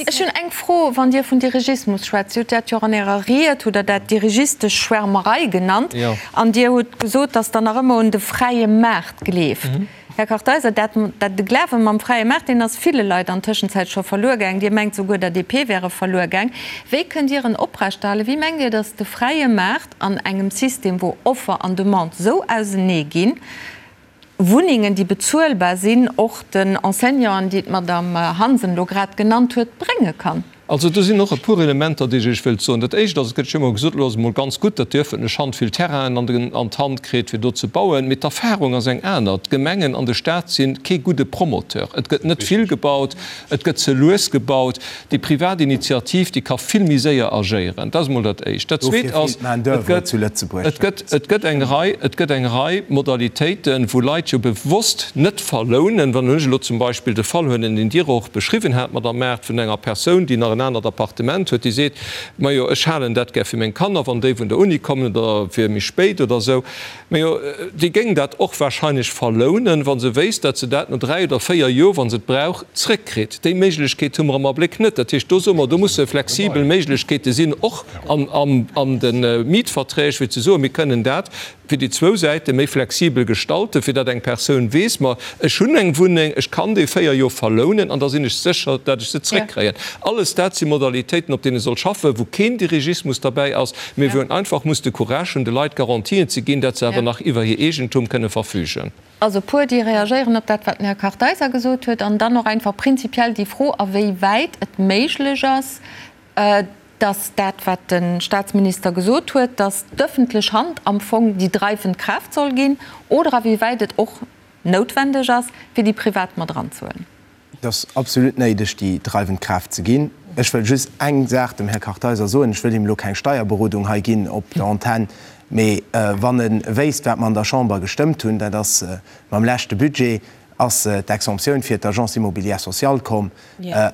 [SPEAKER 1] Ech hunn eng Fro, Wann Dir vun Dirigismus schwätzt, Dir hutt dat jo och an Ärer Ried, hutt Der dat dirigistesch Schwärmerei genannt, an Dir hutt gesot, datt Der nach ëmmer un de fräie Maart gleeft. Här Kartheiser, dat, dat de Glawe mam fräie Maart, deen ass ville Leit an Tëschenzäit scho verluer gaang. Dir mengt souguer der DP wär e verluer gaang. Wéi kënnt Dir en oprechterhalen? Wéi mengt Dir, datt de fräie Maart an engem System, wou Offer an Demande esou ausenee ginn, Wunnengen, déi bezuelbar sinn, och den Enseignanten, déi d'Madame Hansen elo grad genannt huet, brénge kann?
[SPEAKER 8] Also do sinn och e puer Elementer, déi ech Iech wëllt soen. Dat Éischt ass, et gëtt jo ëmmer gesot, elo ass et emol ganz gutt, datt déi öffentlech Hand vill Terrainen an den, an d'Hand kritt, fir do ze bauen. Mee d'Erfahrung ass eng aner, D'Gemengen an de Stat si kee gudde Promoteur. Et gëtt net vill gebaut, et gëtt ze lues gebaut. Déi privat Initiativ, déi ka vill méi séier agéieren. Dat ass emol dat Éischt. Dat
[SPEAKER 7] Zweet
[SPEAKER 8] ass, et gëtt, et gëtt, et gëtt eng Rei, et gëtt eng Rei Modalitéiten, wou Leit jo bewosst net verlounen. Wann ech elo zum Beispill de Fall huelen, deen Dir och beschriwwen hat, Madamm Maart, vun enger Persoun, déi nach en anert Appartement huet, déi seet, Majo, ech halen dat gär fir meng Kanner, wann déi vun der Uni kommen oder fir méi spéit oder esou. Majo, déi géing dat och wahrscheinlech verlounen, wa se wéisst, datt se dat no 3 oder 4 Joer, wa se et brauch, zréckkritt. Déi Méiglechkeet hu mer am Abléck net. Dat heescht, do soe mer, do musse flexibel Méiglechkeete sinn, och an de Mietverträg, fir ze soen, mir kënnen dat fir déi zwou Säite méi flexibel gestalten, fir datt eng Persoun weess, ma ech hunn eng Wunneng, ech kann déi 4 Joer verlounen an da sinn ech sécher, datt ech se zréckkréien. Alles dat si Modalitéiten, op deene soll schaffen, wou keen Dirigismus derbäi ass, mee wou een einfach muss de Courage hunn, de Leit Garantien ze ginn, datt se awer nach iwwer hir Eegentum kënne verfügen.
[SPEAKER 1] Also e puer, déi reagéieren op dat, wat den Här Kartheiser gesot huet, an dann och einfach prinzipiell déi Fro, a wéi wäit et méiglech ass, dass dat, wat de Statsminister gesot huet, dass d'öffentlech Hand am Fong déi dreifend Kraaft soll ginn, oder awéiwäit et och noutwendeg ass, fir déi Privat mat eranzehuelen.
[SPEAKER 7] Et ass absolut néideg, déi dreiwend Kraaft ze ginn. Ech wëll just eng Saach dem Här Kartheiser soen. Ech wëll him elo keng Steierberodung hei ginn op der Antenn, mee wann e wéisst, wat mer an der Chamber gestëmmt hunn, dat ass mam leschte Budget, ass d'Exemptioun fir d'Agence immobilière sociale komm.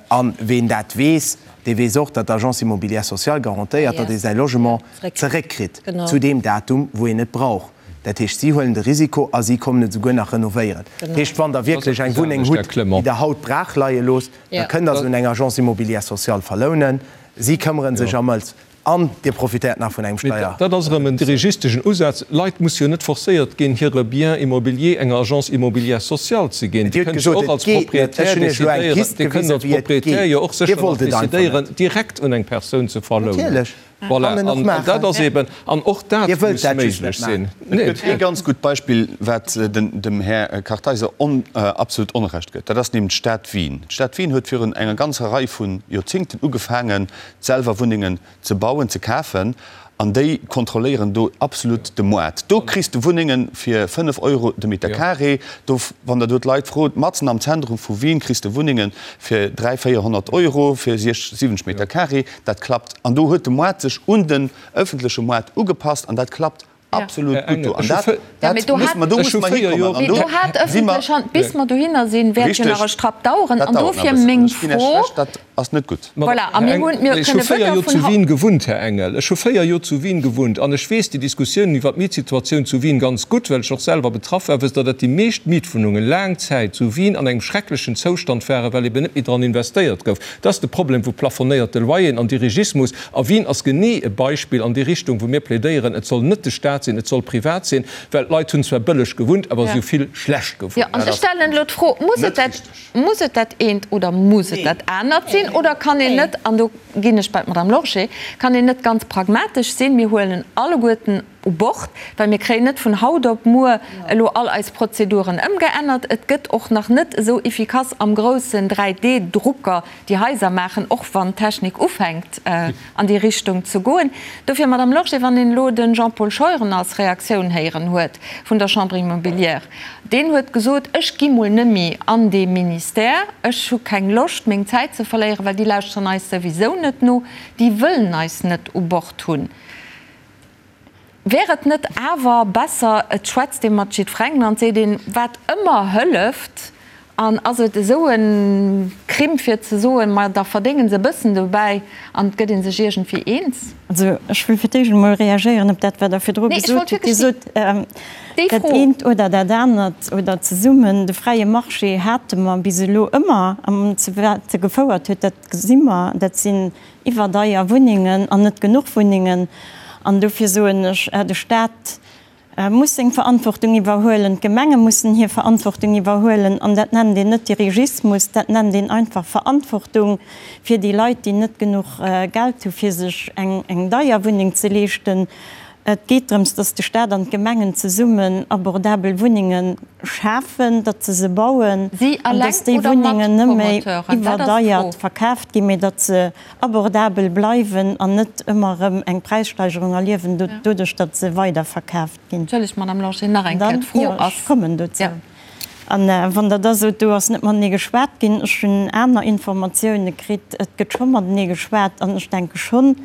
[SPEAKER 7] A ween dat weess, dee weess och, datt d'Agence immobilière sociale garantéiert, datt ee säi Logement zeréckkritt zu deem Datum, wou een et brauch. Dat heescht, si huelen de Risiko a si kommen et esouguer nach renovéieren. Dat heescht, wann Der wierklech eng Wunneng hutt, déi Der haut brach leie loosst, da kënnt Der se un eng Agence immobilière sociale verlounen. Si këmmere sech am ëls. An Dir profitéiert nach vun engem Steier.
[SPEAKER 8] Dat ass erëm en dirigisteschen Usaz. Leit musse jo net forcéiert ginn, hire Bien immobilier enger Agence immobilière sociale ze ginn. Dir
[SPEAKER 7] hutt gesot, et geet net. Ech hunn Iech elo eng Pist gewisen, wéi et geet.
[SPEAKER 8] Dir wollt et einfach net. Direkt un eng Persoun ze verlounen.
[SPEAKER 7] Natierlech.
[SPEAKER 8] Voilà. An dat ass eben, an och dat muss méiglech sinn.
[SPEAKER 5] Et gëtt ee ganz gutt Beispill, wat dem Här Kartheiser absolut Onrecht gëtt. Dat ass nämlech d'Stad Wien. D'Stad Wien huet virun enger ganzer Rei vu Joerzingten ugefaangen, selwer Wunnengen ze bauen, ze kafen, an déi kontrolléieren do absolut de Moart. Do kriss de Wunnenge fir 5 Euro de Meter carré. Do, wann der do d'Leit frot, matzen am Zentrum vu Wien kriss de Wunnenge fir 300, 400 Euro fir 60, 70 Meter carré. Dat klappt. An do huet de Moart sech un den ëffentleche Moart ugepasst an dat klappt absolut gutt do. An dat, dat muss mer, do
[SPEAKER 1] musse mer hikommen. An do si mer. Bis mer dohinner sinn, wäert jo nach e Strapp daueren. An dofir meng Fro.
[SPEAKER 5] Dat ass net gutt.
[SPEAKER 1] Voilà, a mir hunn, mir
[SPEAKER 8] kënne
[SPEAKER 1] wëder vun.
[SPEAKER 8] Ech hu 4 Joer zu Wien gewunnt, Här Engel. Ech hu 4 Joer zu Wien gewunnt an ech weess déi Diskussiounen iwwer d'Mietsituatioun zu Wien ganz gutt, well ech och selwer betraff war. Wësst Der, datt déi meescht Mietwunnungen laang Zäit zu Wien an engem schrecklechen Zoustand waren, well eben net méi dran investéiert gouf? Dat ass de Problem vu plafonnéierte Loyeren an Dirigismus. A Wien ass genee e Beispill an déi Richtung, wou mir plädéieren, et soll net de Staat sinn, et soll privat sinn, well d'Leit hunn zwar bëlleg gewunnt, awer si hu vill schlecht gewunnt.
[SPEAKER 1] Jo, an ech stellen elo d'Fro, Muss et dat, muss et dat eent oder muss et dat anert sinn? Oder kann een net, an do ginn ech bei d'Madame Lorsché, kann een net ganz pragmatesch sinn, mir huelen alleguerten u Bord, well mir kréien net vun haut op muer elo all eis Prozeduren ëmgeännert. Et gëtt och nach net esou efficace am groussen 3D-Drucker déi Haiser maachen, och wann d'Technik ufänkt an déi Richtung ze goen. Dofir, Madame Lorsché, wann een elo de Jean-Paul Scheuren als Reaktioun héieren huet vun der Chambre immobilière, deen huet gesot, ech gi mol nëmmi an dee Ministère, ech hu keng Loscht meng Zäit ze verléieren, well déi lauschteren eis souwisou net no, déi wëllen eis net u Bord hunn. Wär et net awer besser, et schwätzt ee mat jiddferengem an et seet een, wat ëmmer hëlleft, an ass et esou e Crime fir ze soen, ma da verdénge se e bëssen dobäi an et gëtt ee sech iergendwéi eens?
[SPEAKER 4] Also ech wëll fir d'éischt emol reagéieren op dat, wat Der virdru gesot hutt. Dir sot, dat eent oder dat anert oder zesummen. De fräie Marché hate mer bis elo ëmmer, an zu wat e gefouert huet, dat gesi mer, dat sinn iwwerdeier Wunnengen an net genuch Wunnengen. An dofir soen ech, de Stat muss seng Verantwortung iwwerhuelen, d'Gemenge mussen hir Verantwortung iwwerhuelen. An dat nennt een net Dirigismus, dat nennt een einfach Verantwortung fir déi Leit, déi net genuch Geld hu fir sech eng deier Wunneng ze leeschten. Et geet drëms, datt de Stat an d'Gemengen zesummen abordabel Wunnenge schafen, datt se se bauen an datt déi Wunnengen net méi iwwerdeiert verkaaft ginn, mee datt se abordabel bleiwen an net ëmmer erëm eng Präissteigerung erliewen doduerch, datt se weiderverkaaft ginn.
[SPEAKER 1] Entschëllegt, Madame Lorsché, nach eng Kéier, d'Fro ass.
[SPEAKER 4] Ech kommen dozou. A wann Der da sot, do ass net matenee geschwat ginn, ech hunn aner Informatioune kritt, et gëtt scho matenee geschwat an ech denke schonn,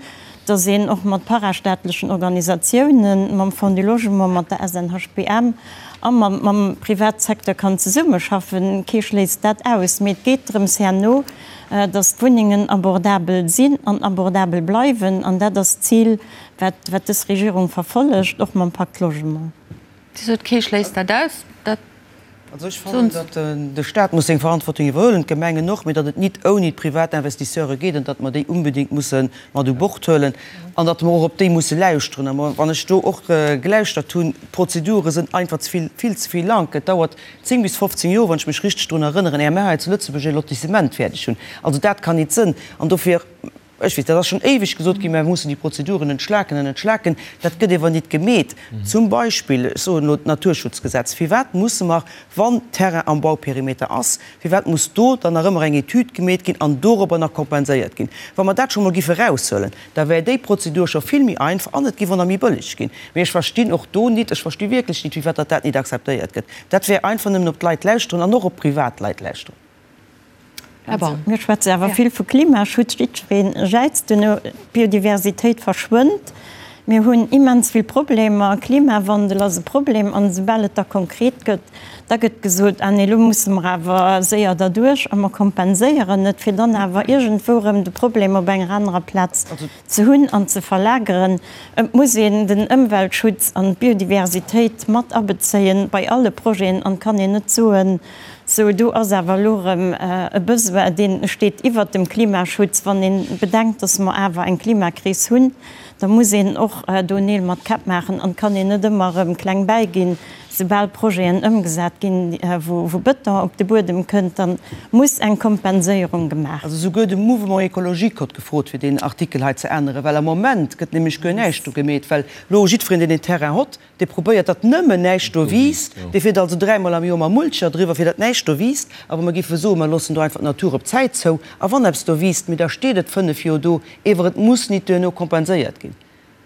[SPEAKER 4] datt een och mat parastaatlechen Organisatiounen, mam Fonds du Logement, mat der SNHBM a mam Privatsecteur kann zesummeschaffen. Kee schléisst dat aus. Mee et geet drëms herno, datt d'Wunnengen abordabel sinn an abordabel bleiwen. An dat ass d'Zil, wat dës Regierung verfollegt, och mam Pacte Logement.
[SPEAKER 1] Dir sot, kee schléisst dat aus. Dat
[SPEAKER 2] Also ech fannen, datt de Stat muss seng Verantwortung iwwerhuelen, d'Gemengen och, mee datt et nit ouni d'privat Investisseure geet an datt mer déi unbedéngt musse mat u Bord huelen an datt mer och op déi musse lauschteren. A wann ech do och gelauschtert hunn, d'Prozedure sënn einfach ze vill, vill ze vill laang. Et dauert 10 bis 15 Joer, wann ech mech richteg drun erënneren, éier mer hei zu Lëtzebuerg e Lotissement fäerdeg hunn. Also dat kann nit sënn. An dofir. Ech weess, dat ass schonn éiweg gesot ginn, mä mir mussen déi Prozeduren entschlaken an entschlaken. Dat gëtt ewer nit gemeet. Zum Beispill, ech soen elo d'Naturschutzgesetz, Firwat musse mer, wann Terrain am Bauperimeter ass, firwat muss do dann nach ëmmer eng Etüd gemeet ginn an dorobber nach kompenséiert ginn? Wa mer dat scho mol giffe eraushuelen, da wär déi Prozedur scho vill méi einfach an et giff och nach méi bëlleg ginn. Mee ech verstinn och do nit, ech versti wierklech nit, firwat datt dat nit akzeptéiert gëtt. Dat wär einfach nëmmen op d'Leit lauschteren an och op Privatleit lauschteren.
[SPEAKER 4] Här Baum. Mir schwätze awer vill vu Klimaschutz, jiddweree jäizt duerno, d'Biodiversitéit verschwënnt, mir hunn immens vill Problemer, Klimawandel ass e Problem an esoubal et da konkret gëtt, da gëtt gesot, ah nee, elo musse mer awer séier derduerch a mer kompenséieren et, fir dann awer iergendwou erëm de Problem op enger anerer Plaz ze hunn an ze verlageren. Et muss een den Ëmweltschutz an d'Biodiversitéit mat abezéien bei alle Projeten an et kann een net soen, Sou, do ass awer elo erëm e Besoin, dee steet iwwert dem Klimaschutz. Wann ee bedenkt, dass mer awer eng Klimakris hunn, da muss een och do Neel mat Käpp maachen an et kann een net ëmmer erëm kleng bäiginn. Soubal Projeten ëmgesat ginn, wou Bëton op de Buedem kënnt, da muss eng Kompenséierung gemaach.
[SPEAKER 2] Also souguer de Mouvement écologique hott gefrot, fir deen Artikel hei ze änneren, well am Moment gëtt nämlech guer näischt do gemeet, well elo jiddwereen, deen een Terrain hott, Dee probéiert, datt nëmmen näischt do wiisst. Dee fiert also dräimol am Joer mam Mulcher driwwer, fir datt näischt do wiisst. A wa mer géife soen, mer loossen do einfach d'Natur op d'Zäit zou, a wann eppes do wiisst, mee da steet et 5 Joer do, ewer et muss nit duerno kompenséiert ginn,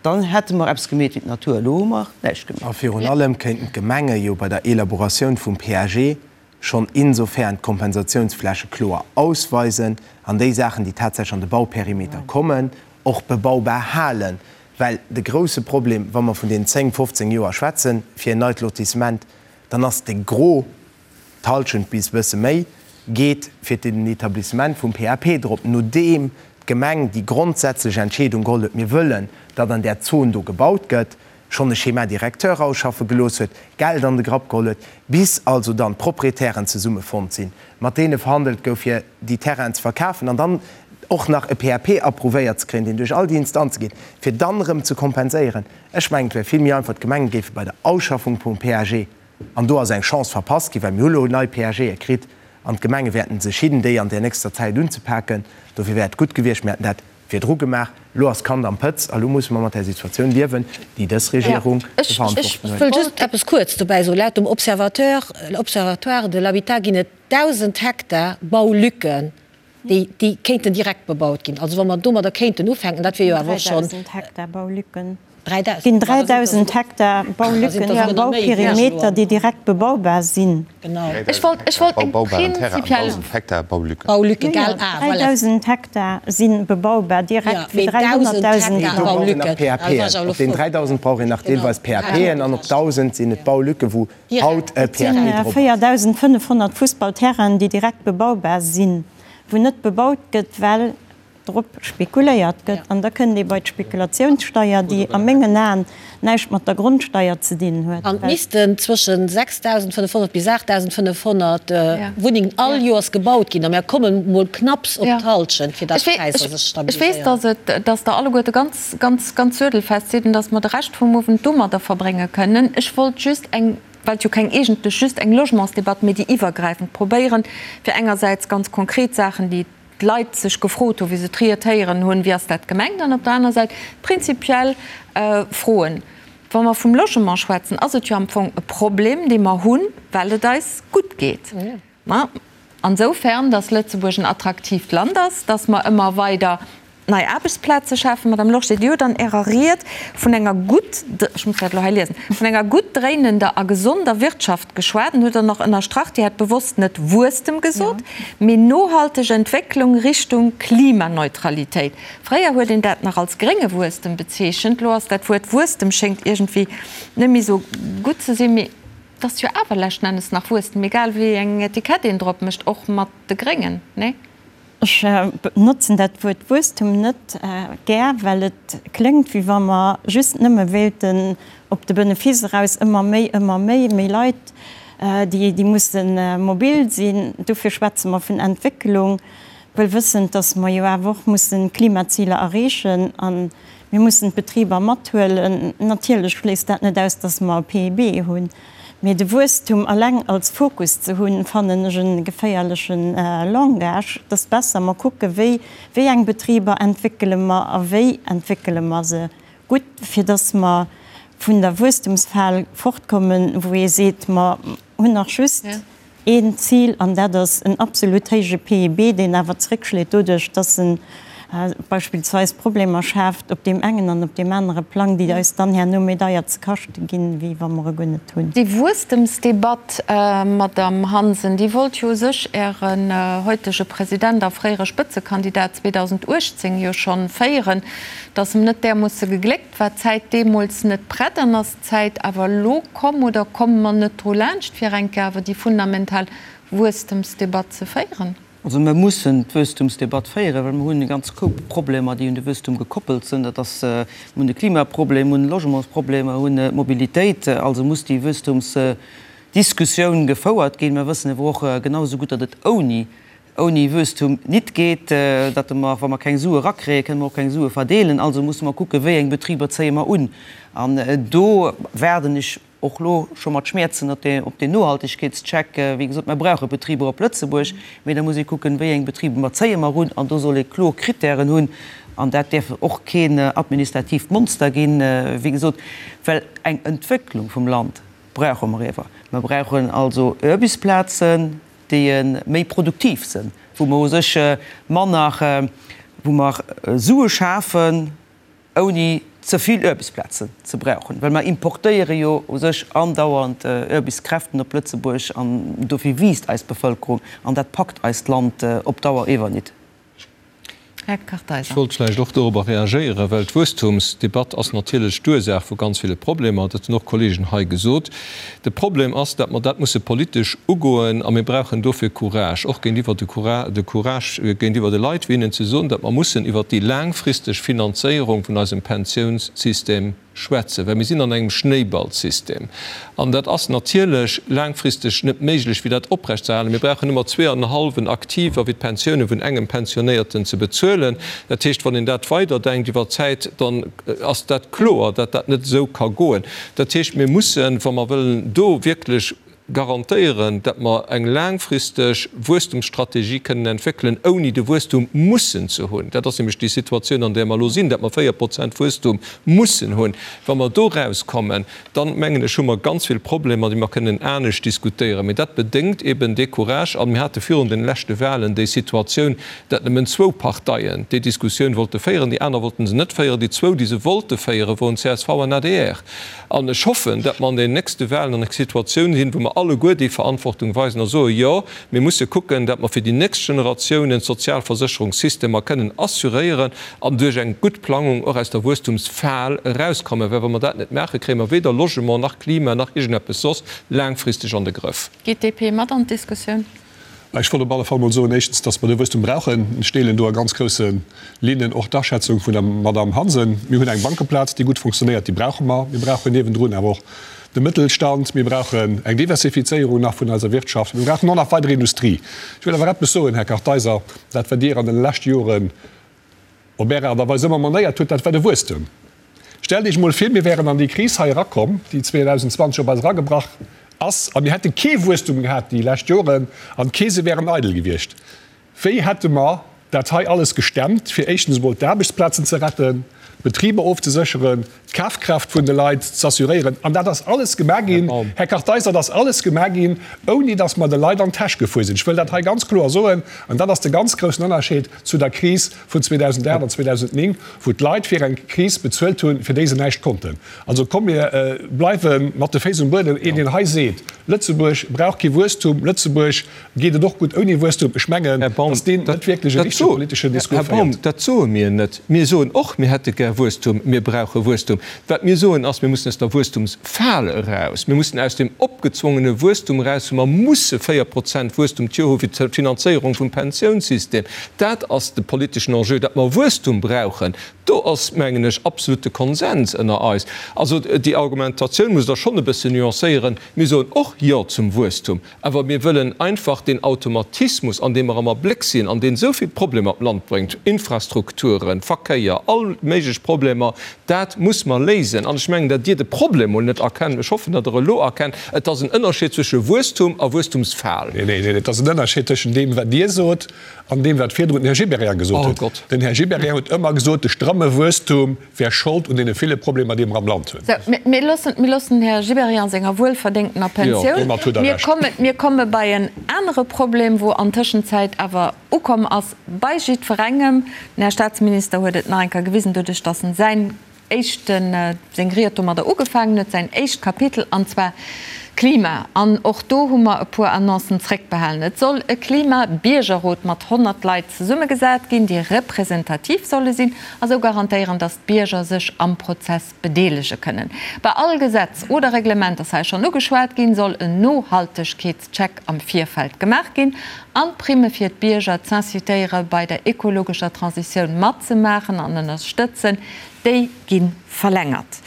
[SPEAKER 2] dann hätte mer eppes gemeet wéi d'Natur. Elo hu mer näischt gemeet.
[SPEAKER 7] A virun allem kéinten d'Gemenge jo bei der Elaboratioun vum PAG schonn insofern d'Kompensatiounsfläche kloer ausweisen an déi Saachen, déi tatsächlech an de Bauperimeter kommen, och bebaubar halen. Well de grouse Problem, wa mer vun deenen 10, 15 Joer schwätzen, fir en neit Lotissement, dann ass de Gros, d'Halschent bis e bësse méi, geet fir den Etablissement vum PAP drop, nodeem d'Gemeng déi grondsätzlech Entscheedung geholl huet, mir wëllen, datt an där Zon do gebaut gëtt, schonn e Schéma directeur ausschaffe gelooss huet, Geld an de Grapp geholl huet, bis also dann d'Proprietären zesummefonnt sinn, mat deene verhandelt gouf, fir déi Terrainen ze verkafen an dann och nach e PAP approuvéiert ze kréien, deen duerch all déi Instanze geet, fir dann erëm ze kompenséieren. Ech mengen, et wär vill méi einfach, d'Gemenge géife bei der Ausschaffung vum PAG, an do ass eng Chance verpasst ginn, well mir hu lo nei PAGe kritt an d'Gemenge wäerten sech hidden, déi an där nächster Zäit unzepaken, dofir wär et gutt gewiescht, mir hätten dat virdru gemaach. Elo ass d'Kand am Pëtz a lo musse mer mat där Situatioun liewen, déi dës Regierung ze verantworten
[SPEAKER 6] huet. Ech wëll just eppes kuerz dobäi soen. Laut dem Observateur, Observatoire de l'habitat ginn et 1.000 Hektar Baulücken, déi, déi kéinten direkt bebaut ginn. Also wa mer domadder kéinten ufänken, dat wier jo awer och schonn.
[SPEAKER 4] 3.000 Hektar Baulücken. Et ginn 3.000 Hektar Baulücken am Bauperimeter, déi direkt bebaubar sinn.
[SPEAKER 1] Ech wollt, ech wollt eng prinzipiell.
[SPEAKER 4] 3.000 Hektar si bebaubar direkt fir 300.000.
[SPEAKER 7] Mee do brauch een nach PAPen. Op den 3.000 brauch een nach deelweis PAPen an op 1.000 sinn et Baulücke wou haut e
[SPEAKER 4] Et
[SPEAKER 7] PAP
[SPEAKER 4] sinn
[SPEAKER 7] drop ass.
[SPEAKER 4] 4.500 Fussballterrainen, déi direkt bebaubar sinn, wou net bebaut gëtt, well drop spekuléiert gëtt. An da kënnt ee bei d'Spekulatiounssteier, déi a mengen Aen näischt mat der Grondsteier ze dinn huet.
[SPEAKER 6] An et missten zwëschen 6.500 bis 8.500 Wunnengen all Joers gebaut ginn. A mir komme mol knapps op d'Halschent, fir datt d'Präisser sech
[SPEAKER 1] stabiliséieren. Ech weess, dass et, dass Der alleguerte ganz, ganz, ganz suedelfest sidd an dass mer de Rescht vum Owend domadder verbrénge kënnen. Ech wollt just eng, well et jo keng eegentlech just eng Logementsdebatt, mee déi iwwergräifend probéieren, fir engersäits ganz konkret Saachen, déi d'Leit sech gefrot hunn, wéi se d'Ried héieren hunn, wéi ass dat gemengt, an op der aner Säit prinzipiell Froen. Wa mer vum Logement schwätzen, ass et jo am Fong e Problem, dee mer hunn, well et eis gutt geet. Ma ansoufern, datt Lëtzebuerg en attraktiivt Land ass, datt mer ëmmer weider nei Aarbechtsplaze schafen. Madame Lorsché, Dir hutt an Ärer Ried vun enger gutt, ech muss dat elo hei liesen, vun enger gutt dréinender a gesonder Wirtschaft geschwat an hutt dann och ënnerstrach, Dir hätt bewosst net Wuesstem gesot, mee nohalteg Entwécklung Richtung Klimaneutralitéit. Fréier huet een dat nach als grénge Wuesstem bezeechent, elo ass dat Wuert Wuesstem schéngt iergendwéi net méi esou gutt ze sinn. Mee et ass jo awer leschten Ennes nach Wuesstem, egal wéi eng Etikett een drop mécht, och mat de Gréngen, nee?
[SPEAKER 4] Ech benotzen dat Wuert Wuesstum net gär, well et kléngt, wéi wa mer just nëmme wéilten op de Benefice eraus ëmmer méi, ëmmer méi, méi Leit, déi musse mobil sinn. Dofir schwätze mer vun Entwécklung, wuel wëssend, datt mer jo awer och mussen d'Klimaziler erreechen a mir mussen d'Betriber mathuelen. Natierlech schléisst dat net aus, datt mer e PIB hunn. Mee de Wuesstum alleng als Fokus ze hunn, fannen ech e geféierleche Langage. Et ass besser, mer kucke wéi, wéi eng Betriber entwéckele mer a wéi entwéckele mer se gutt, fir datt mer vun der Wuesstumsfal fortkommen, wou ee seet, mer hunn nach just Een Zil, an dat ass en absolut héije PIB, deen awer zréckschléit doduerch, dass en beispillsweis Problemer schaaft op deem engen an op deem anere Plang, déi eis dann herno méi deier ze kaschte ginn, wéi wa mer e guer net hunn.
[SPEAKER 1] Déi Wuesstemsdebatt, Madamm Hansen, déi wollt jo u sech Ären heutege President a fréiere Spëtzekandidat 2018 jo schonn féieren, dass em net därmoosse gegléckt War d'Zäit deemools net prett an ass d'Zäit awer elo komm oder komme mer net dru laanscht, fir eng Kéier awer déi fundamental Wuesstemsdebatt ze féieren?
[SPEAKER 2] Also mer mussen d'Wuesstumsdebatt féieren, well mer hunn e ganz Koup Problemer, déi un de Wuesstum gekoppelt sinn. Dat ass, mer hunn de Klimaproblem, mer hunn de Logementsproblem, mer hunn d'Mobilitéit. Also muss déi Wuesstumsdiskussioun gefouert ginn. Mer wëssen awer och genau esou gutt, datt et ouni ouni Wuesstum nit geet, datt mer, wa mer keng Sue erakréien, kënne mer och keng Sue verdeelen. Also musse mer kucken, wéi eng Betriber zéie mer un. An do waarden ech och elo scho mat Schmäerzen op deen Nohaltegkeetscheck. Wéi gesot, mer brauche Betriber op Lëtzebuerg, mee da muss ee kucken, wéi eng Betriber mer zéie mer un. An do soll ee kloer Krittären hunn. An dat däerf och keen administratiivt Monster ginn, wéi gesot, well eng Entwécklung vum Land brauche mer iewer. Mer brauchen also Aarbechtsplazen, déi méi produktiv sinn, wou mer u sech manner, wou mer Sue schafen, ouni ze vill Aarbechtsplazen ze brauchen, well mer importéiere jo u sech andauernd Aarbechtskräften op Lëtzebuerg an dofir wiisst eis Bevëlkerung an dat packt eist Land op Dauer ewer nit.
[SPEAKER 1] Här Kartheiser.
[SPEAKER 8] Ech wollt vläicht och dorobber reagéieren, well d'Wuesstumsdebatt ass natierlech d'Ursaach vu ganz ville Problemer. Dat hunn och Kollegen hei gesot. De Problem ass, datt mer dat musse politesch ugoen a mir brauchen dofir Courage, och géintiwwer de de Courage géintiwwer de Leit, fir hinnen ze soen, datt mer mussen iwwert déi laangfristeg Finanzéierung vun eisem Pensiounssystem schwätzen, well mir sinn an engem Schnéiballsystem an dat ass natierlech laangfristeg net méiglech, fir dat oprechtzeerhalen. Mir brauchen ëmmer zweeanenhallwen Aktiver, fir d'Pensioune vun engem Pensionéierten ze bezuelen. Dat heescht, wann een dat weiderdenkt iwwer d'Zäit, dann ass dat kloer, datt dat net esou ka goen. Dat heescht, mir mussen, wa mer wëllen do wierklech. garantéieren, dat mer eng laangfristeg Wuesstumsstrategie kënnen entwéckelen, ouni de Wuesstum mussen ze hunn, dat ass nämlech déi Situatioun, an där mer elo sinn, dat mer 4 Prozent Wuesstum mussen hunn, wa mer do erauskommen, dann, mengen ech, hu mer ganz vill Problemer, déi mer kënnen anescht diskutéieren. Mee dat bedéngt eben dee Courage. A mir hate virun den leschte Wahlen déi Situatioun, dat nëmmen zwou Parteien déi Diskussioun wollte féieren, déi aner wollten se net féieren. Déi zwou, déi se wollte féieren, woren csv an adr. An ech hoffen, datt mer an den nächste Wahlen an enger Situatioun sinn, wou mer alleguer déi Verantwortung weisen a soen, Jo, mir musse kucken, datt mer fir déi nächst Generatiounen d'Sozialversécherungssystemer kënnen assuréieren an duerch eng gutt Plangung och aus der Wuesstumsfal erauskommen. Well wa mer dat net maachen, kréie mer weder Logement nach Klima nach iergendeppes soss laangfristeg an de Grëff.
[SPEAKER 1] Geet d'DP mat an d'Diskussioun?
[SPEAKER 3] Ech wollt op alle Fall mol soen, éischtens, dass mer de Wuesstum brauchen. Ech deelen do a ganz grousse Linnen och d'Aschätzung vun der Madamm Hansen. Mir hunn eng Bankeplaz, déi gutt funktionéiert, déi brauche mer. Mir brauchen niewendrun awer och de Mëttelstand. Mir brauchen eng Diversifizéierung nach vun eiser Wirtschaft. Mir brauchen och nach weider Industrie. Ech wëll awer eppes soen, Här Kartheiser, Dat, wat Dir an de leschte Joren op Är Aart a Weis ëmmer manéiert hutt, dat war de Wuesstem. Stellt Iech emol vir, mir wären an déi Kris hei erakomm, déi 2020 op eis eragebrach ass, a mir hätte kee Wuesstum gehat déi lescht Joren an d'Keese wären eidel gewiescht. Wéi hätte mer dat hei alles gestemmt, fir éischtens emol d'Aarbechtsplazen ze retten, d'Betriber ofzesécheren, d'Kafkraaft vun de Leit z'assuréieren? An dat ass alles gemaach ginn, Här Kartheiser, dat ass alles gemaach ginn, ouni datt mer de Leit an d'Täsch gefuer sinn. Ech wëll dat hei ganz kloer soen, an dat ass de ganz groussen Ënnerscheed zu der Kris vun 2008 an 2009, wou d'Leit fir eng Kris bezuelt hunn, fir déi se näischt konnten. Also komm, mir bleiwe mat de Féiss um Buedem. Een, deen hei seet, Lëtzebuerg brauch kee Wuesstum, Lëtzebuerg geet et och gutt ouni Wuesstum, ech mengen, datt deen net wierklech e richtege politeschen Discours
[SPEAKER 8] féiert. Här Baum, dat soe mir net. Mir soen och, mir hätte gär Wuesstum, mir brauche Wuesstum. Wat mir soen ass, mir mussen aus der Wuesstumsfal eraus. Mir mussen aus deem opgezwongene Wuesstum eraus, wou mer musse 4 Prozent Wuesstum d'Joer hu fir d'Finanzéierung vum Pensiounssystem. Dat ass de politeschen Enjeu. Datt mer Wuesstum brauchen, do ass, mengen ech, absolute Konsens ënner eis. Also déi Argumentatioun musst Der schonn e bëssen nuancéieren. Mir soen och Jo zum Wuesstum. Awer mir wëllen einfach deen Automatismus, an deem mer am Abléck sinn an deen esou vill Problemer d'Land bréngt, Infrastrukturen, Verkéier, all méiglech Problemer, dat muss mer léisen. An ech mengen, datt Dir de Problem mol net erkennt. Ech hoffen, datt Der elo erkennt, et ass en Ënnerscheed zwësche Wuesstum a Wuesstumsfal.
[SPEAKER 3] Neen, neen, neen, et ass en Ënnerscheed tëschent deem, wat Dir sot, an deem, wat virdrun den Här Gibéryen gesot huet. Den Här Gibéryen huet ëmmer gesot, de stramme Wuesstum wär Schold un deene ville Problemer, déi mer am Land hunn.
[SPEAKER 1] Sou, mir loossen, mir loossen den Här Gibéryen senger wuelverdéngtener Pensioun.
[SPEAKER 3] Domat huet Der
[SPEAKER 1] Mir
[SPEAKER 3] Recht.
[SPEAKER 1] kommen, mir komme bei en anere Problem, wou an Tëschenzäit awer ukomm ass bei jiddwerengem. Den Här Statsminister huet et nach eng Kéier gewisen, doduerch datt en säin éischten, seng Ried domadder ugefaangen huet, säin éischt Kapitel, an zwar Klima. An och do hu mer e puer Annoncen zréckbehalen. Et soll e Klima-Biergerrot mat 100 Leit zesummegesat ginn, déi representativ solle sinn a sou garantéieren, datt d'Bierger sech am Prozess bedeelege kënnen. Bei all Gesetz oder Reglement, ass hei schonn ugeschwat ginn, soll en Nohaltegkeetscheck am Virfeld gemaach ginn an d'Primme fir d'Bierger z'incitéiere bei der ekologescher Transitioun matzemaachen an ënnerstëtzen, déi gi verlängert.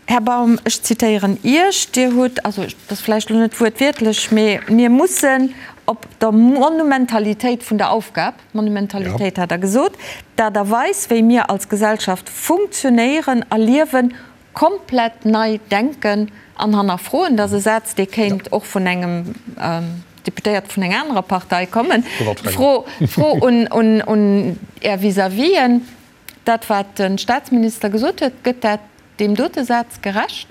[SPEAKER 1] Här Baum, ech zitéieren Iech, Dir hutt, also dat ass vläicht elo net wuertwiertlech, mee mir mussen op der Monumentalitéit vun der Aufgab, Monumentalitéit hat Der gesot, d'Aart a Weis, wéi mir als Gesellschaft funktionéieren a liewen, komplett nei denken an hannerfroen. Dat ass e Saz, dee kéint och vun engem Deputéierte vun enger anerer Partei kommen. D'Fro un Är Vis-à-visen, Dat, wat de Statsminister gesot huet, gëtt dat deem dote Saz gerecht?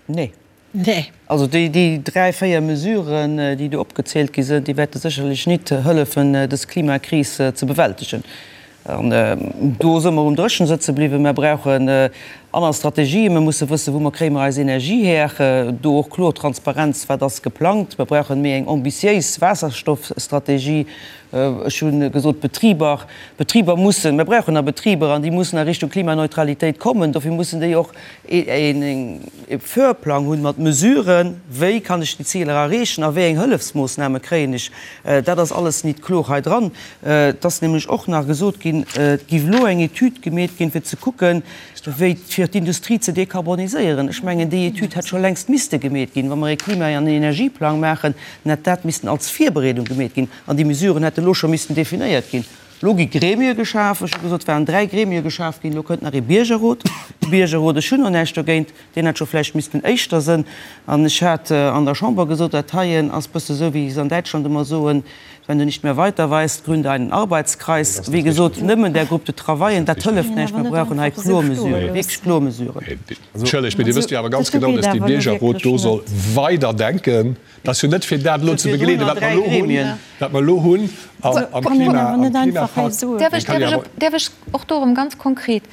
[SPEAKER 2] Nee. Nee. Also déi, déi dräi, véier Mesuren, déi do opgezielt gi sinn, déi wäerte sécherlech nit hëllefen, dës Klimakris ze bewältegen. An do si mer um Dréchen sëtze bliwwen. Mer brauchen aner Strategien. Mer musse wëssen, wou mer kréie mer eis Energie her. Do och kloer Transparenz, wat ass geplangt. Mer brauchen méi eng ambitiéis Waasserstoffstrategie. Ech hu gesot, d'Betriber, d'Betriber mussen, mir brauchen nach Betriber an déi mussen a Richtung Klimaneutralitéit kommen. Dofir mussen déi och e Föhrplang hunn mat Mesuren, wéi kann ech déi Ziler erreechen a wéi eng Hëllefsmoossname kréien ech. Dat ass alles nit kloer hei dran. Et ass nämlech och nach gesot ginn, et géif elo eng Etüd gemeet ginn, fir ze kucken, wéi fir d'Industrie ze dekarboniséieren. Ech mengen, déi Etüd hätt scho längst misste gemeet ginn. Wa mer e Klima an Energieplang maachen, dann hätt dat missten als Virbereedung gemeet ginn. An déi Mesuren hätte lo scho missten definéiert ginn. Elo gi Gremie geschaf. Ech hu gesot, et waren 3 Gremie geschaf ginn, elo kënnt nach ee Biergerrot. De Biergerrot, ech hunn och näischt dogéint, deen hätt scho vläicht missten éischter sënn. An ech hat an der Chamber gesot, dat heien ass bësse sou, wéi se an Däitschland ëmmer soen, Wenn du nicht mehr weiter weißt, gründe einen Arbeitskreis. Wéi gesot, nëmmen där Groupe de travaillen, dat hëlleft näischt. Mer brauchen hei kloer Mesuren, wierklech kloer Mesuren.
[SPEAKER 3] Entschëllegt, mee Dir wësst jo awer ganz genau, dass dee Biergerrot do soll weiderdenken. Dat ass jo net fir dat elo ze begleeden, wat mer elo hunn, wat mer elo hunn am Klima, am Klimapakt.
[SPEAKER 1] Däerf ech och do erëm ganz konkret,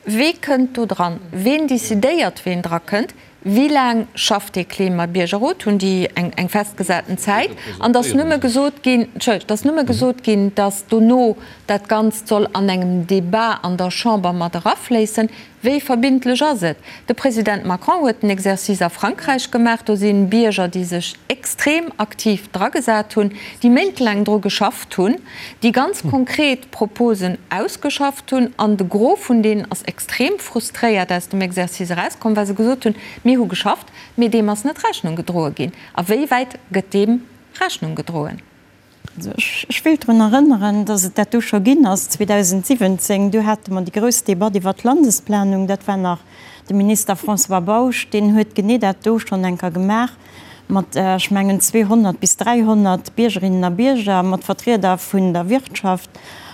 [SPEAKER 1] Wee kënnt do dran? Ween decidéiert, ween dra kënnt? Wéi laang schafft dee Klimabiergerrot? Hunn déi eng festgesaten Zäit? An et ass nëmme gesot ginn, Entschëllegt, et ass nëmme gesot ginn, datt dono dat Ganzt soll an engem Debat an der Chamber mat erafléissen. Wéi verbindlech ass et? De President Macron huet den Exercice a Frankräich gemaach. Do si Bierger, déi sech extrem aktiv dragesat hunn, déi méintelaang dru geschafft hunn, déi ganz konkret Proposen ausgeschafft hunn. An de Gros vun deenen ass extrem frustréiert aus dem Exercice erauskomm, well se gesot hunn, Mir hu geschafft, mee deem ass net Rechnung gedroe ginn. A wéi wäit gëtt deem Rechnung gedroen?
[SPEAKER 4] Ech wéilt drun erënneren, dass et dat do scho ginn ass 2017. Du hate mer déi grouss Debatt iwwert d'Landesplanung. Dat war nach de Minister François Bausch, deen huet genee dat do schonn eng Kéier gemaach mat, ech mengen, 200 bis 300 Biergerinnen a Bierger, mat Vertrieder vun der Wirtschaft.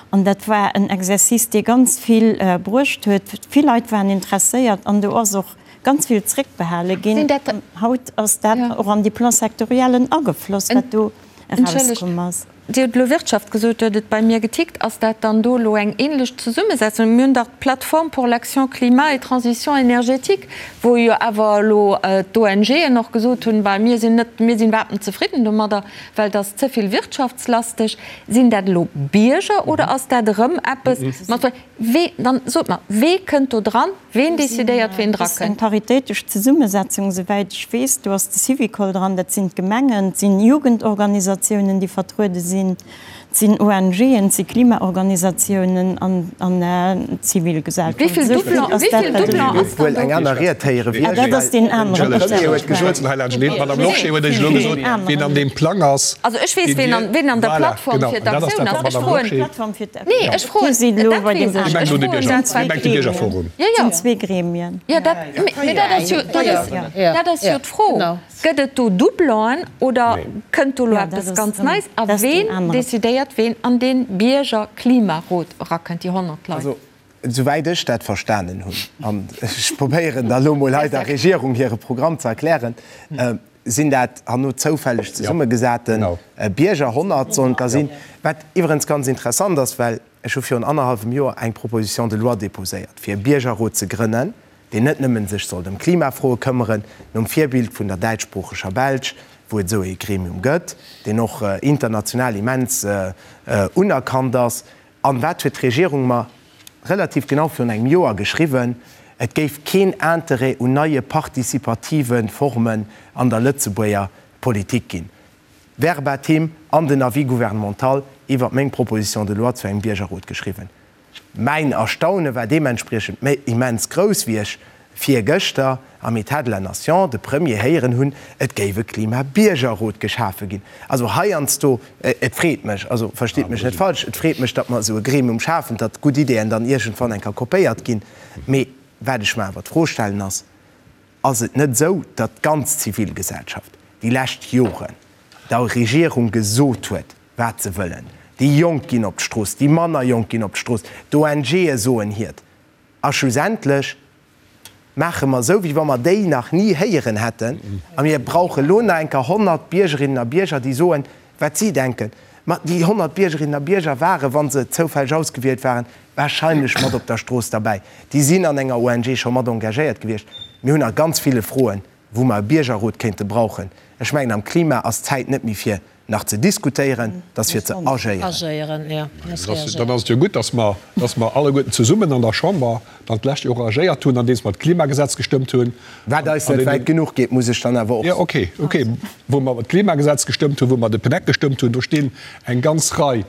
[SPEAKER 4] An dat war en Exercice, dee ganz vill bruecht huet. Vill Leit waren interesséiert an do ass och ganz vill zréckbehale ginn. Haut ass dat och an déi Plan-sectoriellen agefloss, wat do
[SPEAKER 1] Entschëllegt, Dir hutt elo Wirtschaft gesot, do huet et bei mir getickt. Ass dat dann do elo eng ähnlech Zesummesetzung? Mir hunn dach d'Plateforme pour l'action climat et transition énergétique, wou jo awer elo d'ONGen och gesot hunn, Bah, mir sinn net, mir sinn iwwerhaapt net zefridden domadder, well et ass ze vill wirtschaftslasteg. Sinn dat elo Bierger oder ass dat erëm eppes mat, wee, dann sot mer, wee kënnt do dran? Ween decidéiert, ween
[SPEAKER 4] drakënnt? Eng paritéitesch Zesummesetzung, esouwäit ech weess. Do ass de Syvicol dran, dat sinn d'Gemengen, et sinn Jugendorganisatiounen, déi vertruede sinn, et sinn ONGen, et si Klimaorganisatiounen an d'Zivilgesellschaft.
[SPEAKER 1] Wéi vill Doublon ass dann do?
[SPEAKER 7] Wuel eng aner Ried héiere wéi ech, well
[SPEAKER 4] de
[SPEAKER 3] Premier huet gesot,
[SPEAKER 4] D'Madame
[SPEAKER 3] Lorsché huet Iech elo gesot, ween an deem Plang ass.
[SPEAKER 1] Also ech weess, ween an der Plattform fir d'Aktioun ass. Ech froen. Nee, ech froen, dat weess ech. Ech froen dat
[SPEAKER 3] zwar.
[SPEAKER 1] Jo, jo.
[SPEAKER 4] Zwee Gremien.
[SPEAKER 1] Jo, dat, mee dat ass jo, dat ass, dat ass jo d'Fro. Gëtt et do Doublonen oder kënnt do elo eppes ganz Neies? A ween decidéiert, ween an dee Biergerklimarot erakënnt, déi 100 Leit?
[SPEAKER 7] Also, esouwäit ech dat verstanen hunn, an ech probéieren da elo mol hei der Regierung hire Programm ze erklären, Sinn dat herno zoufälleg zesummegesate Bierger? 100 sollen et der sinn. Wat iwwerens ganz interessant ass, well ech hu virun annerhallwem Joer eng Proposition de loi déposéiert, fir e Biergerrot ze grënnen, deen net nëmmen sech sollt ëm Klimafroe këmmeren, nom Virbild vun der däitschsproocheger Belsch, wou et esou ee Gremium gëtt, deen och international immens unerkannt ass. An wat huet d'Regierung mer relativ genau virun engem Joer geschriwwen? Et géif keen Interêt un neie partizipative Formen an der Lëtzebuerger Politik ginn. Verbatim an den Avis gouvernemental iwwert meng Proposition de loi zu engem Biergerrot geschriwwen. Mäin Erstaune war deementspriechend immens grouss, wéi ech virgëschter am État de la Nation de Premier héieren hunn, et géif e Klimabiergerrot geschafe ginn. Also heiansdo, et freet mech, also verstitt mech net falsch, et freet mech, datt mer esou e Gremium schafen, datt gutt Ideeën dann iergendwann eng Kéier kopéiert ginn. Mee wat ech mer awer d'Fro stellen ass, Ass et net esou, datt d'ganz Zivilgesellschaft déi lescht Joren der Regierung gesot huet, wat se wëllen? Déi Jonk ginn op d'Strooss, déi manner Jonk ginn op d'Strooss, d'ONGe soen hiert. A schlussendlech maache mer esou, wéi wa mer déi nach ni héieren hätten, a mir brauche lo nach eng Kéier 100 Biergerinnen a Bierger, déi soen, wat si denken. Ma déi 100 Biergerinnen a Bierger waren, wa se zoufälleg ausgewielt waren, wahrscheinlech mat op der Strooss derbäi. Déi sinn an enger ONG scho mat engagéiert gewiescht. Mir hunn a ganz ville Froen, wou mer e Biergerrot kéinte brauchen. Ech mengen, am Klima ass d'Zäit net méi fir nach ze diskutéieren, et ass fir ze agéieren.
[SPEAKER 3] Dann ass et jo gutt, dass mer, dass mer alleguerten zesummen an der Chamber dann d'lescht Joer agéiert hunn, andeems mer d'Klimagesetz gestëmmt hunn.
[SPEAKER 7] Wat eis net wäit genuch geet, muss ech dann awer och soen.
[SPEAKER 3] Jo, okay, okay. Wou mer d'Klimagesetz gestëmmt hunn, wou mer de PNEC gestëmmt hunn, do stinn eng ganz Rei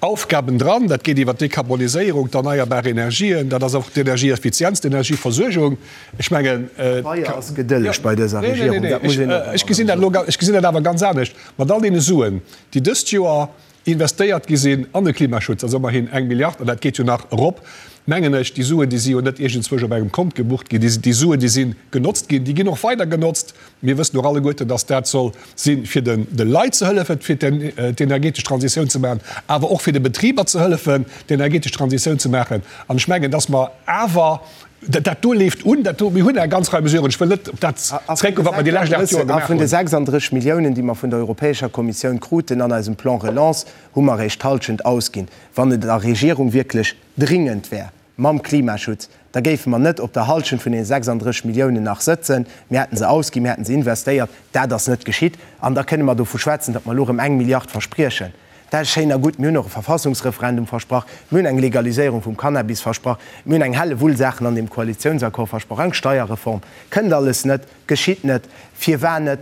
[SPEAKER 3] Aufgaben dran. Dat geet iwwer d'Dekarboniséierung, d'erneierbar Energien, dat ass och d'Energieeffizienz, d'Energieversuergung. Ech mengen.
[SPEAKER 7] Pabeier ass gedëlleg bei dëser Regierung, dat muss een och
[SPEAKER 3] ech gesinn dat elo, ech gesinn dat awer ganz anescht. Mat all deene Suen, déi dëst Joer. investéiert gi sinn an de Klimaschutz, dat ass ëmmerhin eng Milliard, an dat geet jo nach erop, mengen ech, déi Suen, déi si jo net iergendzwousch op engem Kont gebucht ginn, déi Suen, déi si genotzt ginn, déi ginn och weider genotzt. Mir wëssen och alleguerten, dass dat soll sinn, fir de Leit ze hëllefen, fir d'energetesch Transitioun ze maachen, awer och fir de Betriber ze hëllefen, d'energetesch Transitioun ze maachen. An ech mengen, dass mer awer, dat do leeft un, dat do, mir hunn eng ganz Rei Mesuren, ech wëll net op dat zréckgoen, wat mer déi lescht 8 Joer
[SPEAKER 7] gemaach hunn. A vun de
[SPEAKER 3] 36
[SPEAKER 7] Milliounen, déi mer vun der Europäescher Kommissioun kruten an eisem Plan Relance, hu mer eréischt d'Hallschent ausginn. Wann et der Regierung wierklech dringend wär mam Klimaschutz, da géife mer net op der Hallschent vun deene 36 Milliounen nach sëtzen. Mir hätten se ausginn, mir hätten se investéiert. Dat ass net geschitt. An da kënne mer dovu schwätzen, datt mer elo erëm eng Milliard verspriechen. Dat ass schéin a gutt. Mir hunn och e Verfassungsreferendum versprach. Mir hunn eng Legaliséierung vum Cannabis versprach. Mir hunn eng Hellewull Saachen an deem Koalitiounsaccord versprach, eng Steierreform. Kënnt alles net, geschitt net. Firwat net?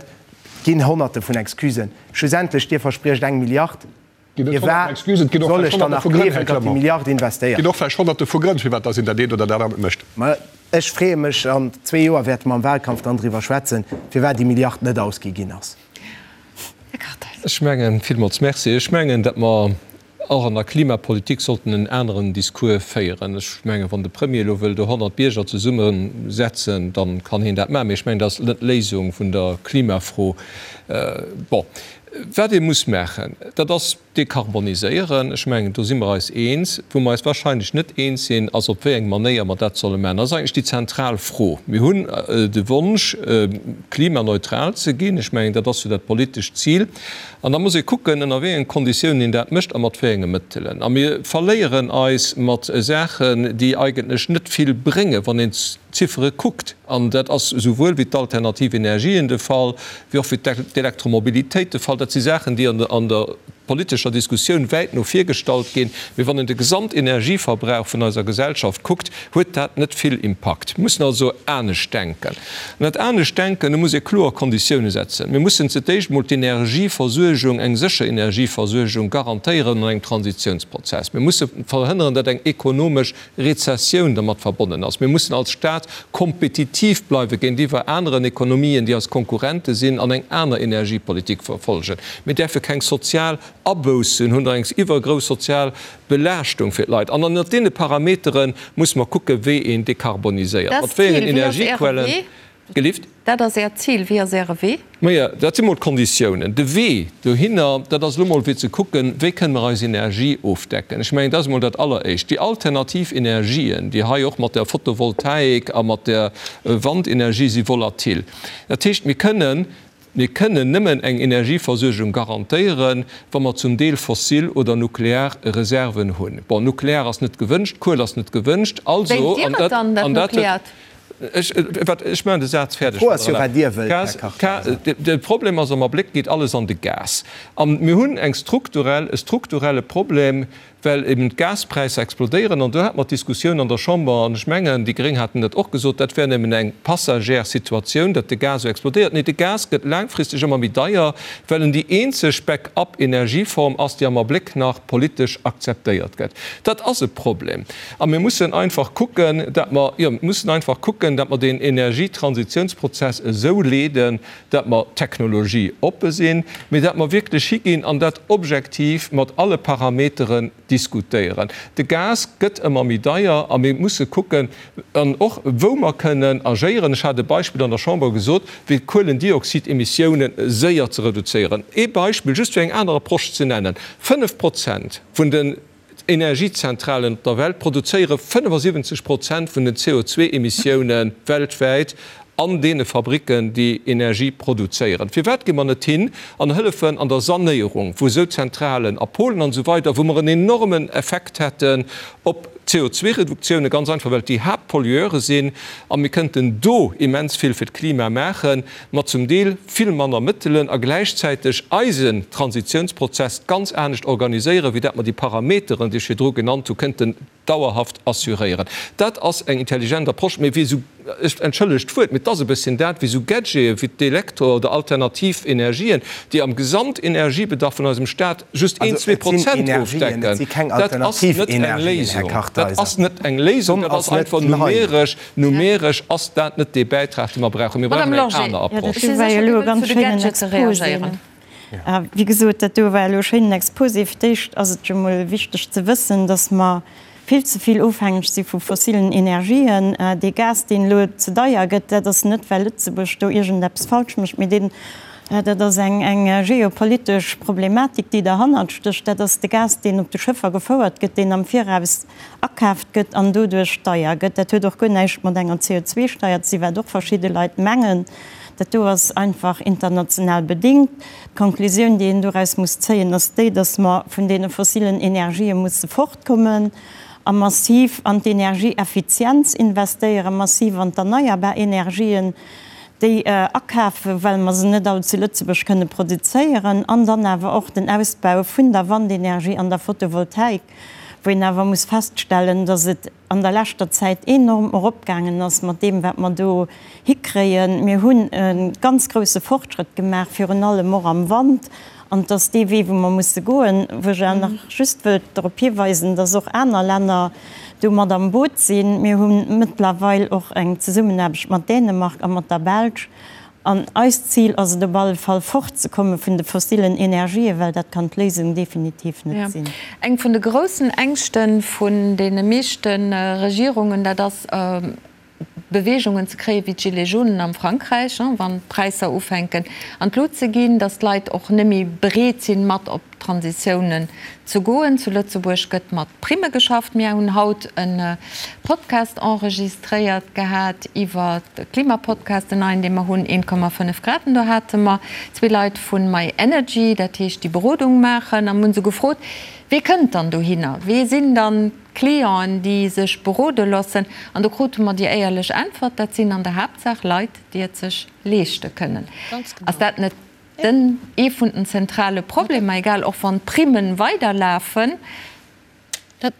[SPEAKER 7] Ginn Honnerte vun Excusen. Schlussendlech, Dir verspriecht eng Milliard. Firwat soll ech dann nach gleewen, datt déi Milliard investéiert
[SPEAKER 3] gëtt? Et ginn och vläicht Honnerte vu Grënn, firwat datt een dat eent oder dat anert mécht.
[SPEAKER 7] Mä ech freeë mech, an zwee Joer wäerte mer am Wahlkampf dann driwwer schwätzen, firwat déi Milliard net ausgi ginn ass.
[SPEAKER 1] Här Kartheiser.
[SPEAKER 8] Ech mengen, villmools Merci, ech mengen, datt mer och an der Klimapolitik sollten en aneren Discours féieren. Ech mengen, wann de Premier elo wëll do 100 Bierger zesummesetzen, da kann hien dat maachen. Mee ech mengen, dat ass net d'Léisung vun der Klimafro. Bon, wat ee muss maachen, dat ass dekarboniséieren. Ech mengen, do si mer eis eens. Wou mer eis wahrscheinlech net eens sinn, ass op wéi eng Manéier mer dat solle maachen. Dat ass eigentlech déi zentral Fro. Mir hunn de Wonsch, klimaneutral ze ginn. Ech mengen, dat ass jo dat politescht Zil. An da muss ee kucken, ënner wéi engen Konditiounen een dat mécht a mat wéi enge Mëttelen. A mir verléieren eis mat Saachen, déi eigentlech net vill bréngen, wann een d'Ziffere kuckt. An dat ass esouwuel wéi d'alternativ Energien de Fall, wéi och fir d'Elektromobilitéit de Fall. Dat si Saachen, déi an der politescher Diskussioun wäit no vir gestallt ginn. Mee wann een de Gesamtenergieverbrauch vun eiser Gesellschaft kuckt, huet dat net vill Impakt. Mir mussen also anescht denken. An dat anescht denken, do muss ee kloer Konditioune setzen. Mir mussen ze d'éischt emol d'Energieversuergung, eng sécher Energieversuergung garantéieren an engem Transitiounsprozess. Mir musse verhënneren, datt eng ekonomesch Rezessioun dermat verbonnen ass. Mir mussen als Staat kompetitiv bleiwe géintiwwer aneren Ekonomien, déi eis Konkurrente sinn, an eng aner Energiepolitik verfolgen. Mir däerfe keng sozial Aboussen hunn oder eng iwwergrouss sozial Belaaschtung fir d'Leit. An ënnert deene Parametere musse mer kucken, wéi een dekarboniséiert, mat wéi engen Energiequellen.
[SPEAKER 1] Gelift? Dat ass Äert Zil. Wéi ass Äre Wee?
[SPEAKER 8] Majo, dat si mol d'Konditiounen. De Wee dohinner, dat ass elo mol fir ze kucken, wéi kënne mer eis Energie ofdecken. Ech mengen, dat ass emol dat Alleréischt. Déi alternativ Energien, déi hei och mat der Photovoltaik a mat der Wandenergie si volatil. Dat heescht, mir kënnen, mir kënnen nëmmen eng Energieversuergung garantéieren, wa mer zum Deel fossil oder nuklear Reserven hunn. Bon, nuklear ass net gewënscht, Kuel ass net gewënscht, also,
[SPEAKER 1] Wéilt Dir
[SPEAKER 8] an
[SPEAKER 1] et
[SPEAKER 8] dat,
[SPEAKER 1] dann, dat
[SPEAKER 8] an dat huet,
[SPEAKER 1] Nukleart?
[SPEAKER 8] Ech, wat, ech maachen de Saz fäerdeg,
[SPEAKER 7] D'Fro ass jo, wat Dir wëllt, Här Kartheiser.
[SPEAKER 8] De Problem ass, am Abléck geet alles an de Gas. A mir hunn eng strukturell, e strukturelle Problem, well eben d'Gaspräisser explodéieren. An do hate mer d'Diskussioun an der Chamber, an ech mengen, déi Gréng haten dat och gesot, dat wär nëmmen eng passagère Situatioun, datt de Gas esou explodéiert. Nee, de Gas gëtt laangfristeg ëmmer méi deier, well en déi eenzeg Back-up-Energieform ass, déi am Abléck nach politesch akzeptéiert gëtt. Dat ass e Problem. A mir mussen einfach kucken, dat mer, jo, mir mussen einfach kucken, dat mer deen Energietransitionsprozess esou leeden, dat mer technologieoppe sinn, mee dat mer wierklech higinn an dat objektiv mat alle Parameteren diskutéieren. De Gas gëtt ëmmer méi deier a mir musse kucken, an och wou mer kënnen agéieren. Ech hat e Beispill an der Chamber gesot, wéi d'Kuelendioxidemissiounen séier ze reduzéieren. Ee Beispill, just fir eng aner Approche ze nennen, 5 Prozent vun den D'Energiezentralen op der Welt produzéiere 75 Prozent vun den CO2-Emissioune weltwäit an deene Fabricken, déi Energie produzéieren. Firwat gi mer net hin an hëllefen an der Sanéierung vu sou Zentralen a Polen an esou weider, wou mer en enormen Effekt hätten op d'CO2-Reduktioune, ganz einfach well et déi Haaptpollueure sinn a mir kënnten do immens vill fir d'Klima maachen. mat zum Deel vill manner Mëttelen a gläichzäiteg eisen Transitionsprozess ganz anescht organiséieren, wéi dat mer déi Parameteren, déi ech virdru genannt hu, kënnten dauerhaft assuréieren. Dat ass eng intelligent Approche, mee wéi esou, ech entschëllegt d'Wuert, mee et ass e bësschen dat, wéi esou Gadgete wéi d'Elektro oder alternativ Energien, déi am Gesamtenergiebedarf vun eisem Stat just een,
[SPEAKER 7] zwee
[SPEAKER 8] Prozent ofdecken, dat ass net eng Léisung. Dat ass net eng Léisung, dat ass einfach numeresch Numeresch ass dat net dee Bäitrag, dee mer brauchen. Mir brauchen eng aner Approche.
[SPEAKER 4] Ech si sécher, Dir wëllt zu de Gadgete reagéieren. Wéi gesot, dat do war elo e schéinen Exposé. Fir d'éischt ass et jo mol wichteg ze wëssen, dass mer vill ze vill ofhängeg si vu fossilen Energien. Dee Gas, deen elo ze deier gëtt, dat ass net, well Lëtzebuerg do iergendeppes falsch mécht, mee deen, dat ass eng geopolitesch Problematik, déi derhannert stécht. Dat ass de Gas, deen op de Schëffer gefouert gëtt, deen am Viraus akaaft gëtt an doduerch deier gëtt. Dat huet och guer näischt mat enger CO2-Steier ze sinn, wat och verschidde Leit mengen. Dat do ass einfach international bedingt. D'Konklusioun, déi een doraus muss zéien, ass déi, dass mer vun deene fossilen Energië musse fortkommen a massiv an d'Energieeffizienz investéieren, massiv an d'erneierbar Energien, déi akafen, well mer se net all zu Lëtzebuerg kënne produzéieren, an dann awer och den Ausbau vun der Wandenergie an der Photovoltaik, wou een awer muss feststellen, dass et an der leschter Zäit enorm eropgaangen ass mat deem, wat mer do hikréien. Mir hunn e ganz grousse Fortschrëtt gemaach, virun allem och am Wand. An et ass dee Wee, wou mer musse goen, wou ech awer nach just wëllt drop hiweisen, dass och aner Länner do mat am Boot sinn. Mir hu mëttlerweil och eng Zesummenaarbecht mat Dänemark a mat der Belsch. An eist Zil ass et op alle Fall, fortzekomme vun de fossilen Energien, well dat kann d'Léisung definitiv net sinn.
[SPEAKER 1] Eng vun de groussen Ängschte vun deene meeschte Regierungen, dat ass, Beweegungen ze kréien, wéi d'Gilets jaunen am Frankräich, wann d'Präisser ufänken an d'Lut ze ginn, datt d'Leit och net méi bereet sinn, mat op Transitiounen ze goen. Zu Lëtzebuerg gëtt mat Primme geschafft. Mir hunn haut e Podcast enregistréiert gehat iwwer de Klimapodcast, den neien, dee mer hunn, 1,5 Grad. An do hate mer zwee Leit vu My Energy, dat heescht déi Berodung maachen, a mir hunn se gefrot, Wee kënnt dann dohinner? Wee sinn dann d'Clienten, déi sech berode loossen? An do krute mer déi éierlech Äntwert, Dat sinn an der Haaptsaach Leit, déi et sech leeschte kënnen. Ass dat net Den ee vun den zentrale Problemer, egal och wann d'Primmen weiderlafen.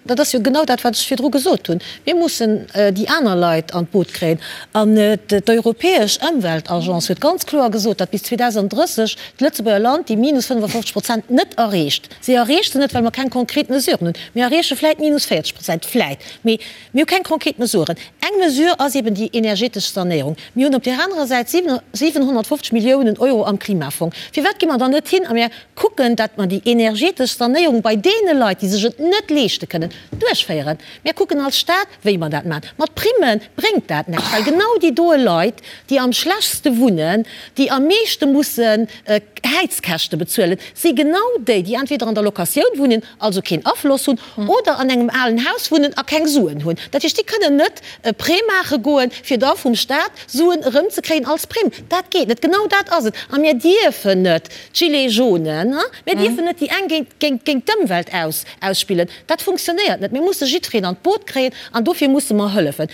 [SPEAKER 6] Dat ass jo genau dat, wat ech virdru gesot hunn. Mir mussen déi aner Leit an d'Boot kréien. An d'Europäesch Ëmweltagence huet ganz kloer gesot, datt bis 2030 d'Lëtzebuerger Land déi minus 55 Prozent net erreecht. Si erreecht se net, well mer keng konkret Mesuren hunn. Mir erreeche vläit minus 40 Prozent, vläit. Mee Mir hu keng konkret Mesuren. Eng Mesure ass eben déi energetesch Sanéierung. Mir hunn op där anerer Säit 750 Milliounen Euro am Klimafong. Firwat gi mer dann net hin a mir kucken, datt mer déi energetesch Sanéierung bei deene Leit, déi sech et net leeschte kënnen, duerchféieren? Mir kucken als Stat, wéi mer dat maachen. Mat Primme bréngt dat näischt, well genau déi doe Leit, déi am schlechtste wunnen, déi am meeschte mussen Häizkäschte bezuelen, si genau déi, déi entweder an der Locatioun wunnen, also keen Afloss hunn, oder an engem alen Haus wunnen a keng Suen hunn. Dat heescht, déi kënnen net e Prêt maache goen, fir da vum Staat Suen erëmzekréien als Primm. Dat geet net. Genau dat ass et. A mir dierfen net d'Gilets jaunes, mir dierfen net déi eng géint géint d'Ëmwelt ausspillen. Dat funktionéiert net. Mir musse jiddwereen an d'Boot kréien an dofir musse mer hëllefen.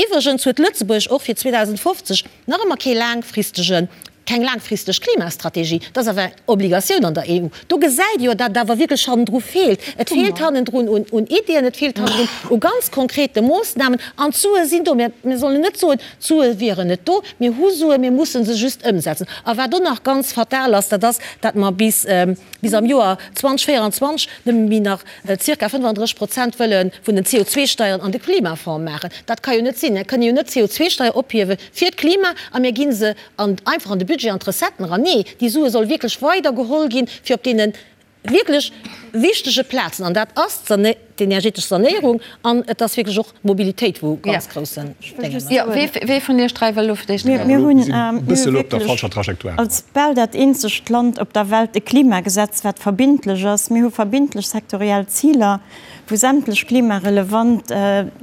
[SPEAKER 6] Iwwregens huet Lëtzebuerg och fir 2050 nach ëmmer kee laangfristege Keng laangfristeg Klimastrategie, dat ass awer eng Obligatioun an der EU. Do gesäit ee jo, datt et awer wierklech hannendru feelt. Et feelt hannendrun un Iddien, et feelt hannendrun u ganz konkrete Moossnamen. An d'Sue sinn do. Mir sollen net soen, d'Sue wieren net do. Mir hu Suen, mir musse se just ëmsetzen. A wat och nach ganz fatal ass, dat ass, datt mer bis bis am Joer 2024 nëmme méi nach zirka 35 Prozent wëlle vun den CO2-Steieren an de Klimafonds maachen. Dat ka jo net sinn. Mir kënne jo net d'CO2-Steier ophiewe fir d'Klima a mir gi se an einfach an de Budget, an d'Recetten eran. Nee, déi Sue solle wierklech weider geholl ginn, fir op deene wierklech wichtege Plazen, an dat ass d'energetesch Sanéierung an et ass wierklech och d'Mobilitéit, wou ganz groussen Déngen ass.
[SPEAKER 1] Jo, wee vun Iech 3 wëll elo fir d'éischt
[SPEAKER 4] Mir hunn wierklech als bal dat eenzegt Land op der Welt e Klimagesetz, wat verbindlech ass. Mir hu verbindlech sektoriell Ziler, wou sämtlech klimarelevant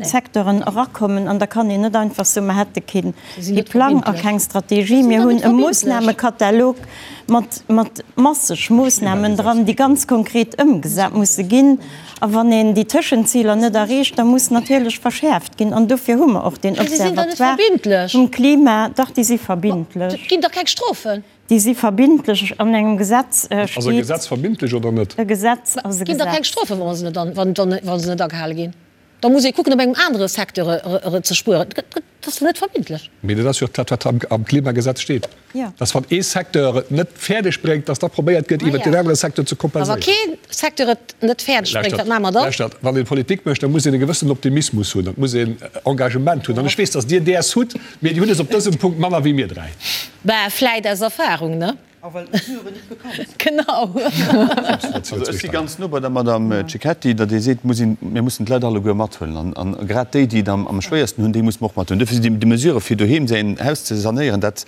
[SPEAKER 4] Secteuren erakommen. An da kann een net einfach soen, mer hätte keen Plang a keng Strategie. Mir hunn e Moossnamekatalog mat mat masseg Moossnamen dran, déi ganz konkret ëmgesat musse ginn. A wann een déi Tëschenziler net erreecht, da muss natierlech verschäerft ginn. An dofir hu mer och deen Observatoire vum Klima. Dach, déi si verbindlech.
[SPEAKER 6] Et ginn dach keng Strofen.
[SPEAKER 4] Déi si verbindlech. An engem Gesetz steet.
[SPEAKER 3] Ass e Gesetz verbindlech oder net?
[SPEAKER 4] E Gesetz ass e
[SPEAKER 6] Gesetz. Ginn dach keng Strofen, wa se net agehale ginn. Da muss ee kucken, op engem anere Secteur ze spueren. Dat ass net verbindlech.
[SPEAKER 3] Mee dat ass jo dat, wat am Klimagesetz steet, dass wann ee Secteur et net fäerdeg bréngt, dass da probéiert gëtt, iwwert deen anere Secteur ze kompenséieren.
[SPEAKER 6] A wa kee Secteur et net fäerdeg bréngt, wat maache mer dann?
[SPEAKER 3] Lauschtert, wann ee Politik mécht, da muss een e gewëssenen Optimismus hunn, et muss een Engagement hunn. An ech weess, dass Dir däers hutt, mee Dir hutt es op dësem Punkt manner wéi mir 3.
[SPEAKER 6] Bah, vläit aus Erfahrung, ne?
[SPEAKER 2] A well d'Mesuren net bekannt sinn.
[SPEAKER 6] Genau.
[SPEAKER 5] Also ech si ganz no bei der Madame Cecchetti, datt ee seet, muss een, mir mussen d'Leit alleguer mathuelen. An grad déi, déi et am schwéiersten hunn, déi musse mer och mathuelen. Duerfir sinn déi Mesurë fir doheem säin Haus ze sanéieren, dat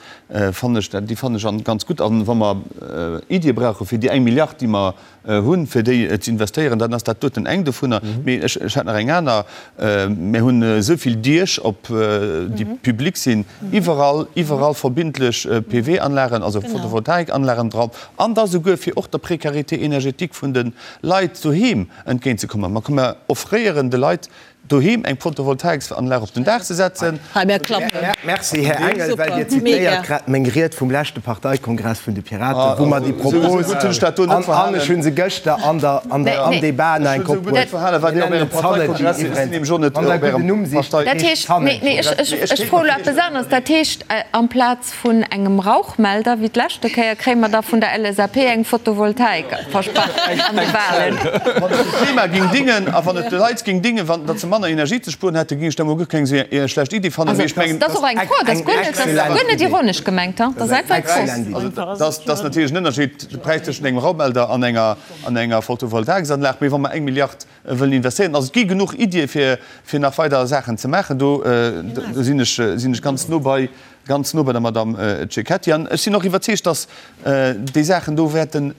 [SPEAKER 5] fannen ech, déi fannen ech ganz gutt. An wa mer Iddie brauche fir déi eng Milliard, déi mer hunn, fir déi ze investéieren, dann ass dat doten eng dovunner. Mee ech hätt nach eng aner. Mir hunn esou vill Diech, op déi public sinn, iwwerall, iwwerall verbindlech PV-Anlagen, also Photovoltaikanlagen dran, an da souguer fir och der Précarité énergétique vun de Leit doheem entgéintzekommen. Mer offréieren de Leit doheem eng Photovoltaiksanlag op den Daach ze setzen.
[SPEAKER 6] Hei, mär klappen.
[SPEAKER 7] Merci, Här Engel, well Dir zitéiert grad meng Ried vum leschte Parteikongress vun de Piraten, wou mer déi Propos, an ech hu se gëschter an der, an der, am Debat nach eng Kéier opbruecht, mir nennen et Zanegy iwwerens, wann Der e gudden Numm sicht,
[SPEAKER 1] Dat heescht, nee, nee, ech, ech froe elo eppes aneres. Dat heescht, amplaz Vun engem Rauchmelder wéi d'leschte Kéier kréie mer da vun der LSAP eng Photovoltaik versprach an de Wahlen.
[SPEAKER 5] Wann et dem Klima ging dingen a wann et de Leit ging dingen, wann datt se manner Energie ze spueren hätten, ging ech dat mol guer keng esou schlecht Iddi fannen. Mee ech mengen,
[SPEAKER 1] Dat ass och eng Fro, dat ass guer net, dat ass guer net ironesch gemengt, dat ass einfach eng Fro.
[SPEAKER 5] Also dat ass natierlech en Ënnerscheed, de Präis tëschent engem Rauchmelder an enger an enger Photovoltaiksanlag. Mee wa mer eng Milliard wëllen investéieren, also et gi genuch Iddie fir fir nach weider Saachen ze maachen, do do sinn ech sinn ech ganz no bei Ganz no bei der Madame Cecchetti. An ech sinn och iwwerzeegt, dass déi Saachen do wäerten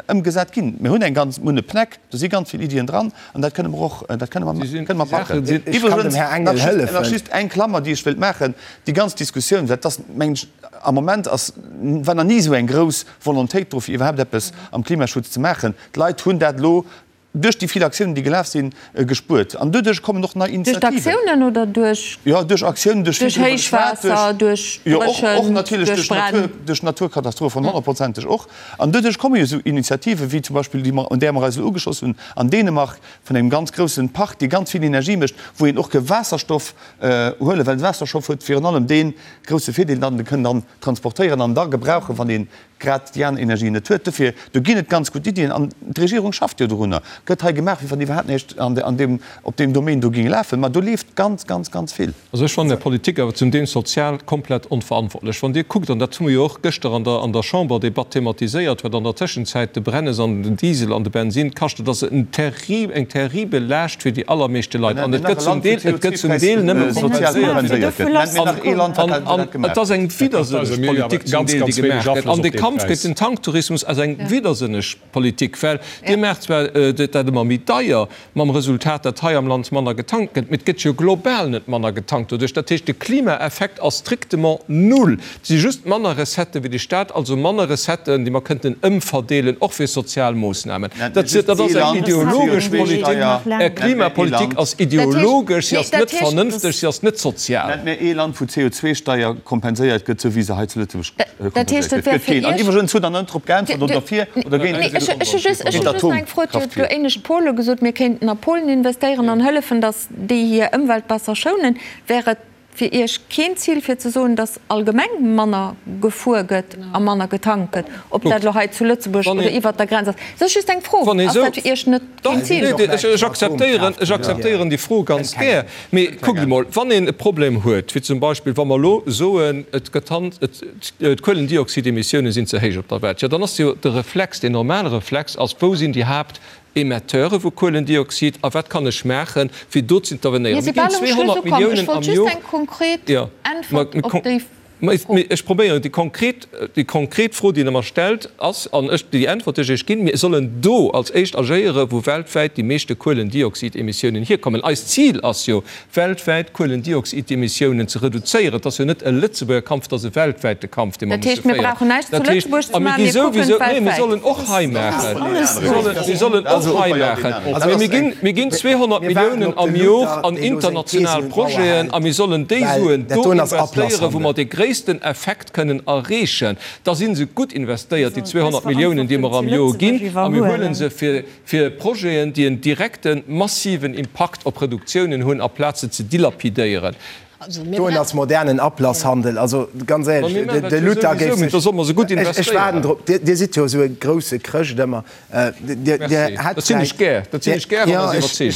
[SPEAKER 5] ëmgesat ginn. Mir hunn eng ganz, mir hunn e PNEC, do si ganz vill Iddien dran an dat kënne mer och, dat kënne mer, kënne mer packen. Iwwregens, nach just, nach just eng Klammer, déi ech wëilt maachen, Déi ganz Diskussioun, well et ass, mengen ech, am Moment ass, war nach ni esou eng grouss Volontéit do, fir iwwerhaapt eppes am Klimaschutz ze maachen. D'Leit hunn dat elo duerch déi vill Aktiounen, déi gelaf sinn, gespuert. An doduerch kommen och nei
[SPEAKER 1] Duerch
[SPEAKER 5] Initiativen.
[SPEAKER 1] d'Aktiounen oder duerch.
[SPEAKER 5] Jo, duerch Aktiounen, duerch vill
[SPEAKER 1] Duerch
[SPEAKER 5] driwwer geschwat,
[SPEAKER 1] Héichwaasser, duerch
[SPEAKER 5] jo, och, och
[SPEAKER 1] Dréchent,
[SPEAKER 5] natierlech
[SPEAKER 1] duerch
[SPEAKER 5] duerch
[SPEAKER 1] Bränn.
[SPEAKER 5] Natur, duerch Naturkatastrophen, honnertprozenteg och. An doduerch komme jo esou Initiativen, wéi zum Beispill déi mer, un där mer eis elo ugeschloss hunn an Dänemark, vun engem ganz groussen Park, dee ganz vill Energie mécht, wou een och ke Waasserstoff huelen, well de Waasserstoff huet virun allem dee grousse Virdeel, datt en e kënn dann transportéieren an da gebrauchen, wann ee grad déi aner Energien net huet. Dofir, do ginn et ganz gutt Iddien an d'Regierung schafft jo dorunner. Gëtt hei gemaach, wéi wann iwwerhaapt näischt an deem, op deem Domaine do géing lafen. Ma do leeft ganz, ganz, ganz vill.
[SPEAKER 8] Also ech fannen Är Politik awer zum Deel sozial komplett onverantwortlech. Wann Dir kuckt, an dat hu mer jo och gëschter an der an der Chamberdebatt thematiséiert, wat an der Tëschenzäit de Brennes an den Diesel an de Bensin kascht, dat ass en terri eng terribel Laascht fir déi allermeeschte Leit. An et gëtt zum Deel, et gëtt zum Deel nëmme kompenséiert. An et ass eng widdersënneg Politik zum Deel, déi gemaach gëtt. An de Kampf géint den Tanktourismus ass eng widdersënneg Politik, well Dir maacht zwar dat ëmmer méi deier, mam Resultat, datt hei am Land manner getankt gëtt, mee et gëtt jo global net manner getankt doduerch. Dat heescht, de Klimaeffekt ass strictement null. Et si just manner Recetten wéi de Staat, also manner Recetten, déi mer kënnten ëmverdeelen, och fir sozial Moossnamen. Dat ass eng ideologesch Politik. Är Klimapolitik ass ideologesch, si ass net vernënfteg, si ass net sozial.
[SPEAKER 5] Nennt mir ee Land, wou d'CO2-Steier kompenséiert gëtt, esou wéi se hei zu Lëtzebuerg kompenséiert gëtt. Gëtt keen. An iwwregens hutt Der net drop geäntwert, oder fir oder géint
[SPEAKER 1] Ech hu just nach eng Fro. Dir hutt elo éinescht Pole gesot, mir kéinten a Polen investéieren an hëllefen, datt déi hir Ëmwelt besser schounen. Wär et fir Iech keen Zil fir ze soen, datt allgemeng manner gefuer gëtt a manner getankt gëtt, ob dat elo hei zu Lëtzebuerg oder iwwert der Grenz ass? Dat ass just eng Fro. Ass dat fir Iech net keen Zil?
[SPEAKER 8] Ech akzeptéieren, ech akzeptéieren déi Fro ganz gär. Mee kuckt emol, wann een e Problem huet, wéi zum Beispill wa mer elo soen, et gëtt hand, et, d'Kuelendioxidemissiounen sinn ze héich op der Welt, jo dann ass jo de Reflex, deen normale Reflex ass, wou sinn déi Haapt Emetteure vu Kuelendioxid a wat kann ech maachen, fir do z'intervenéieren?
[SPEAKER 1] Mir si bal um Schluss ukomm. Ech wollt just eng konkret Äntwert op déi Fro.
[SPEAKER 8] Ech probéieren, déi konkret, déi konkret Fro, déi Der mer stellt, ass, an ech, déi Äntwert, déi ech Iech ginn, Mir sollen do als éischt agéieren, wou weltwäit déi meeschte Kuelendioxidemissiounen hierkommen. Eist Zil ass jo, weltwäit d'Kuelendioxidemissiounen ze reduzéieren. Et ass jo net e Lëtzebuerger Kampf, et ass e weltwäite Kampf, dee mer
[SPEAKER 1] Dat
[SPEAKER 8] musse
[SPEAKER 1] heescht, mir
[SPEAKER 8] féieren.
[SPEAKER 1] brauchen näischt zu
[SPEAKER 8] Dat heescht,
[SPEAKER 1] Lëtzebuerg ze
[SPEAKER 8] a mir
[SPEAKER 1] maachen,
[SPEAKER 8] gi
[SPEAKER 1] mir kucken
[SPEAKER 8] souwisou, nee, mir
[SPEAKER 1] weltwäit.
[SPEAKER 8] sollen och hei maachen, mir sollen och hei maachen. Mee mir ginn, mir ginn 200
[SPEAKER 7] Mir waarden
[SPEAKER 8] Milliounen
[SPEAKER 7] op
[SPEAKER 8] am
[SPEAKER 7] de
[SPEAKER 8] Jor
[SPEAKER 7] Luther,
[SPEAKER 8] an
[SPEAKER 7] deen elo seng
[SPEAKER 8] international
[SPEAKER 7] Thesen un d'Mauer
[SPEAKER 8] Projeten
[SPEAKER 7] hält,
[SPEAKER 8] a mir sollen déi
[SPEAKER 7] well
[SPEAKER 8] Suen
[SPEAKER 7] dat
[SPEAKER 8] do
[SPEAKER 7] doen ass
[SPEAKER 8] investéieren, wou
[SPEAKER 7] Ablasshandel.
[SPEAKER 8] mer de gréissten Effekt kënnen erreechen. Da si se gutt investéiert, déi 200 Milliounen, déi mer am Jor ginn, a mir huele se fir, fir Projeten, déi en direkten, massiven Impakt op Reduktiounen hunn, aplaz se ze dilapidéieren.
[SPEAKER 7] Doen ass modernen Ablasshandel. Also ganz éierlech, de Luther géif sech, ech waarden drop, Dir sidd jo esou e grousse Chrëscht ëmmer, Dir hätt vläicht, jo, ech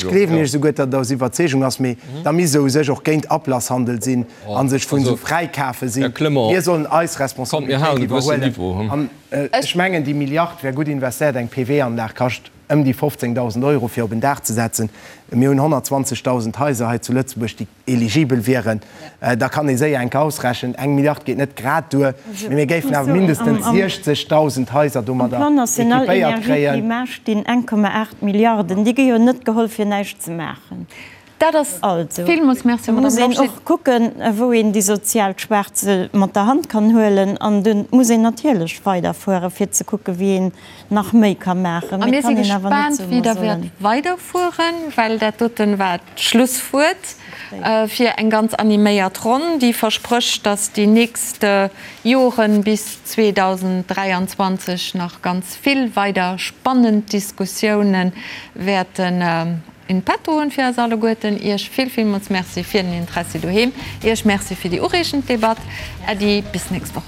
[SPEAKER 7] gleewen Iech esouguer, datt et aus Iwwerzeegung ass, mee da misst Der u sech och géint Ablasshandel sinn a sech vun esou Fräikafe sinn. Mir sollen eis Responsabilitéit iwwerhuelen. An ech mengen, déi Milliard wär gutt investéiert. Eng PV-Anlag kascht ëm déi 15.000 Euro fir op en Daach ze setzen. Mir hunn 120.000 Haiser hei zu Lëtzebuerg, déi eligibel wieren. Da kann ee séier enke ausrechnen, eng Milliard geet net grad duer, mee mir géifen awer mindestens 60.000 Haiser
[SPEAKER 4] Am
[SPEAKER 7] domadder
[SPEAKER 4] Plan national
[SPEAKER 7] équipéiert
[SPEAKER 4] énergie
[SPEAKER 7] kréien.
[SPEAKER 4] climat stinn 1,8 Milliarden. Déi gi jo net geholl fir näischt ze maachen.
[SPEAKER 1] Dat ass
[SPEAKER 4] Also,
[SPEAKER 1] villmools Merci,
[SPEAKER 4] da muss
[SPEAKER 1] Madame
[SPEAKER 4] een
[SPEAKER 1] Lorsché.
[SPEAKER 4] och kucken, wou een déi sozial Schwaach mat der Hand kann huelen. An do muss een natierlech weiderfueren, fir ze kucken, wéi een nach méi ka maachen.
[SPEAKER 1] A
[SPEAKER 4] Mee
[SPEAKER 1] mir
[SPEAKER 4] et
[SPEAKER 1] si
[SPEAKER 4] kann een awer net
[SPEAKER 1] gespaant,
[SPEAKER 4] soen,
[SPEAKER 1] wéi
[SPEAKER 4] mer
[SPEAKER 1] Der wäert
[SPEAKER 4] sollen.
[SPEAKER 1] weiderfueren, well dat doten war d'Schlusswuert fir eng ganz animéiert Ronn, déi versprécht, dass déi nächst Joren bis 2023 nach ganz vill weider spannend Diskussiounen wäerten in petto hunn fir eis alleguerten. Iech vill, villmools Merci fir den Interessi doheem. Iech Merci fir déi ureegend Debatt. Äddi, bis nächst Woch.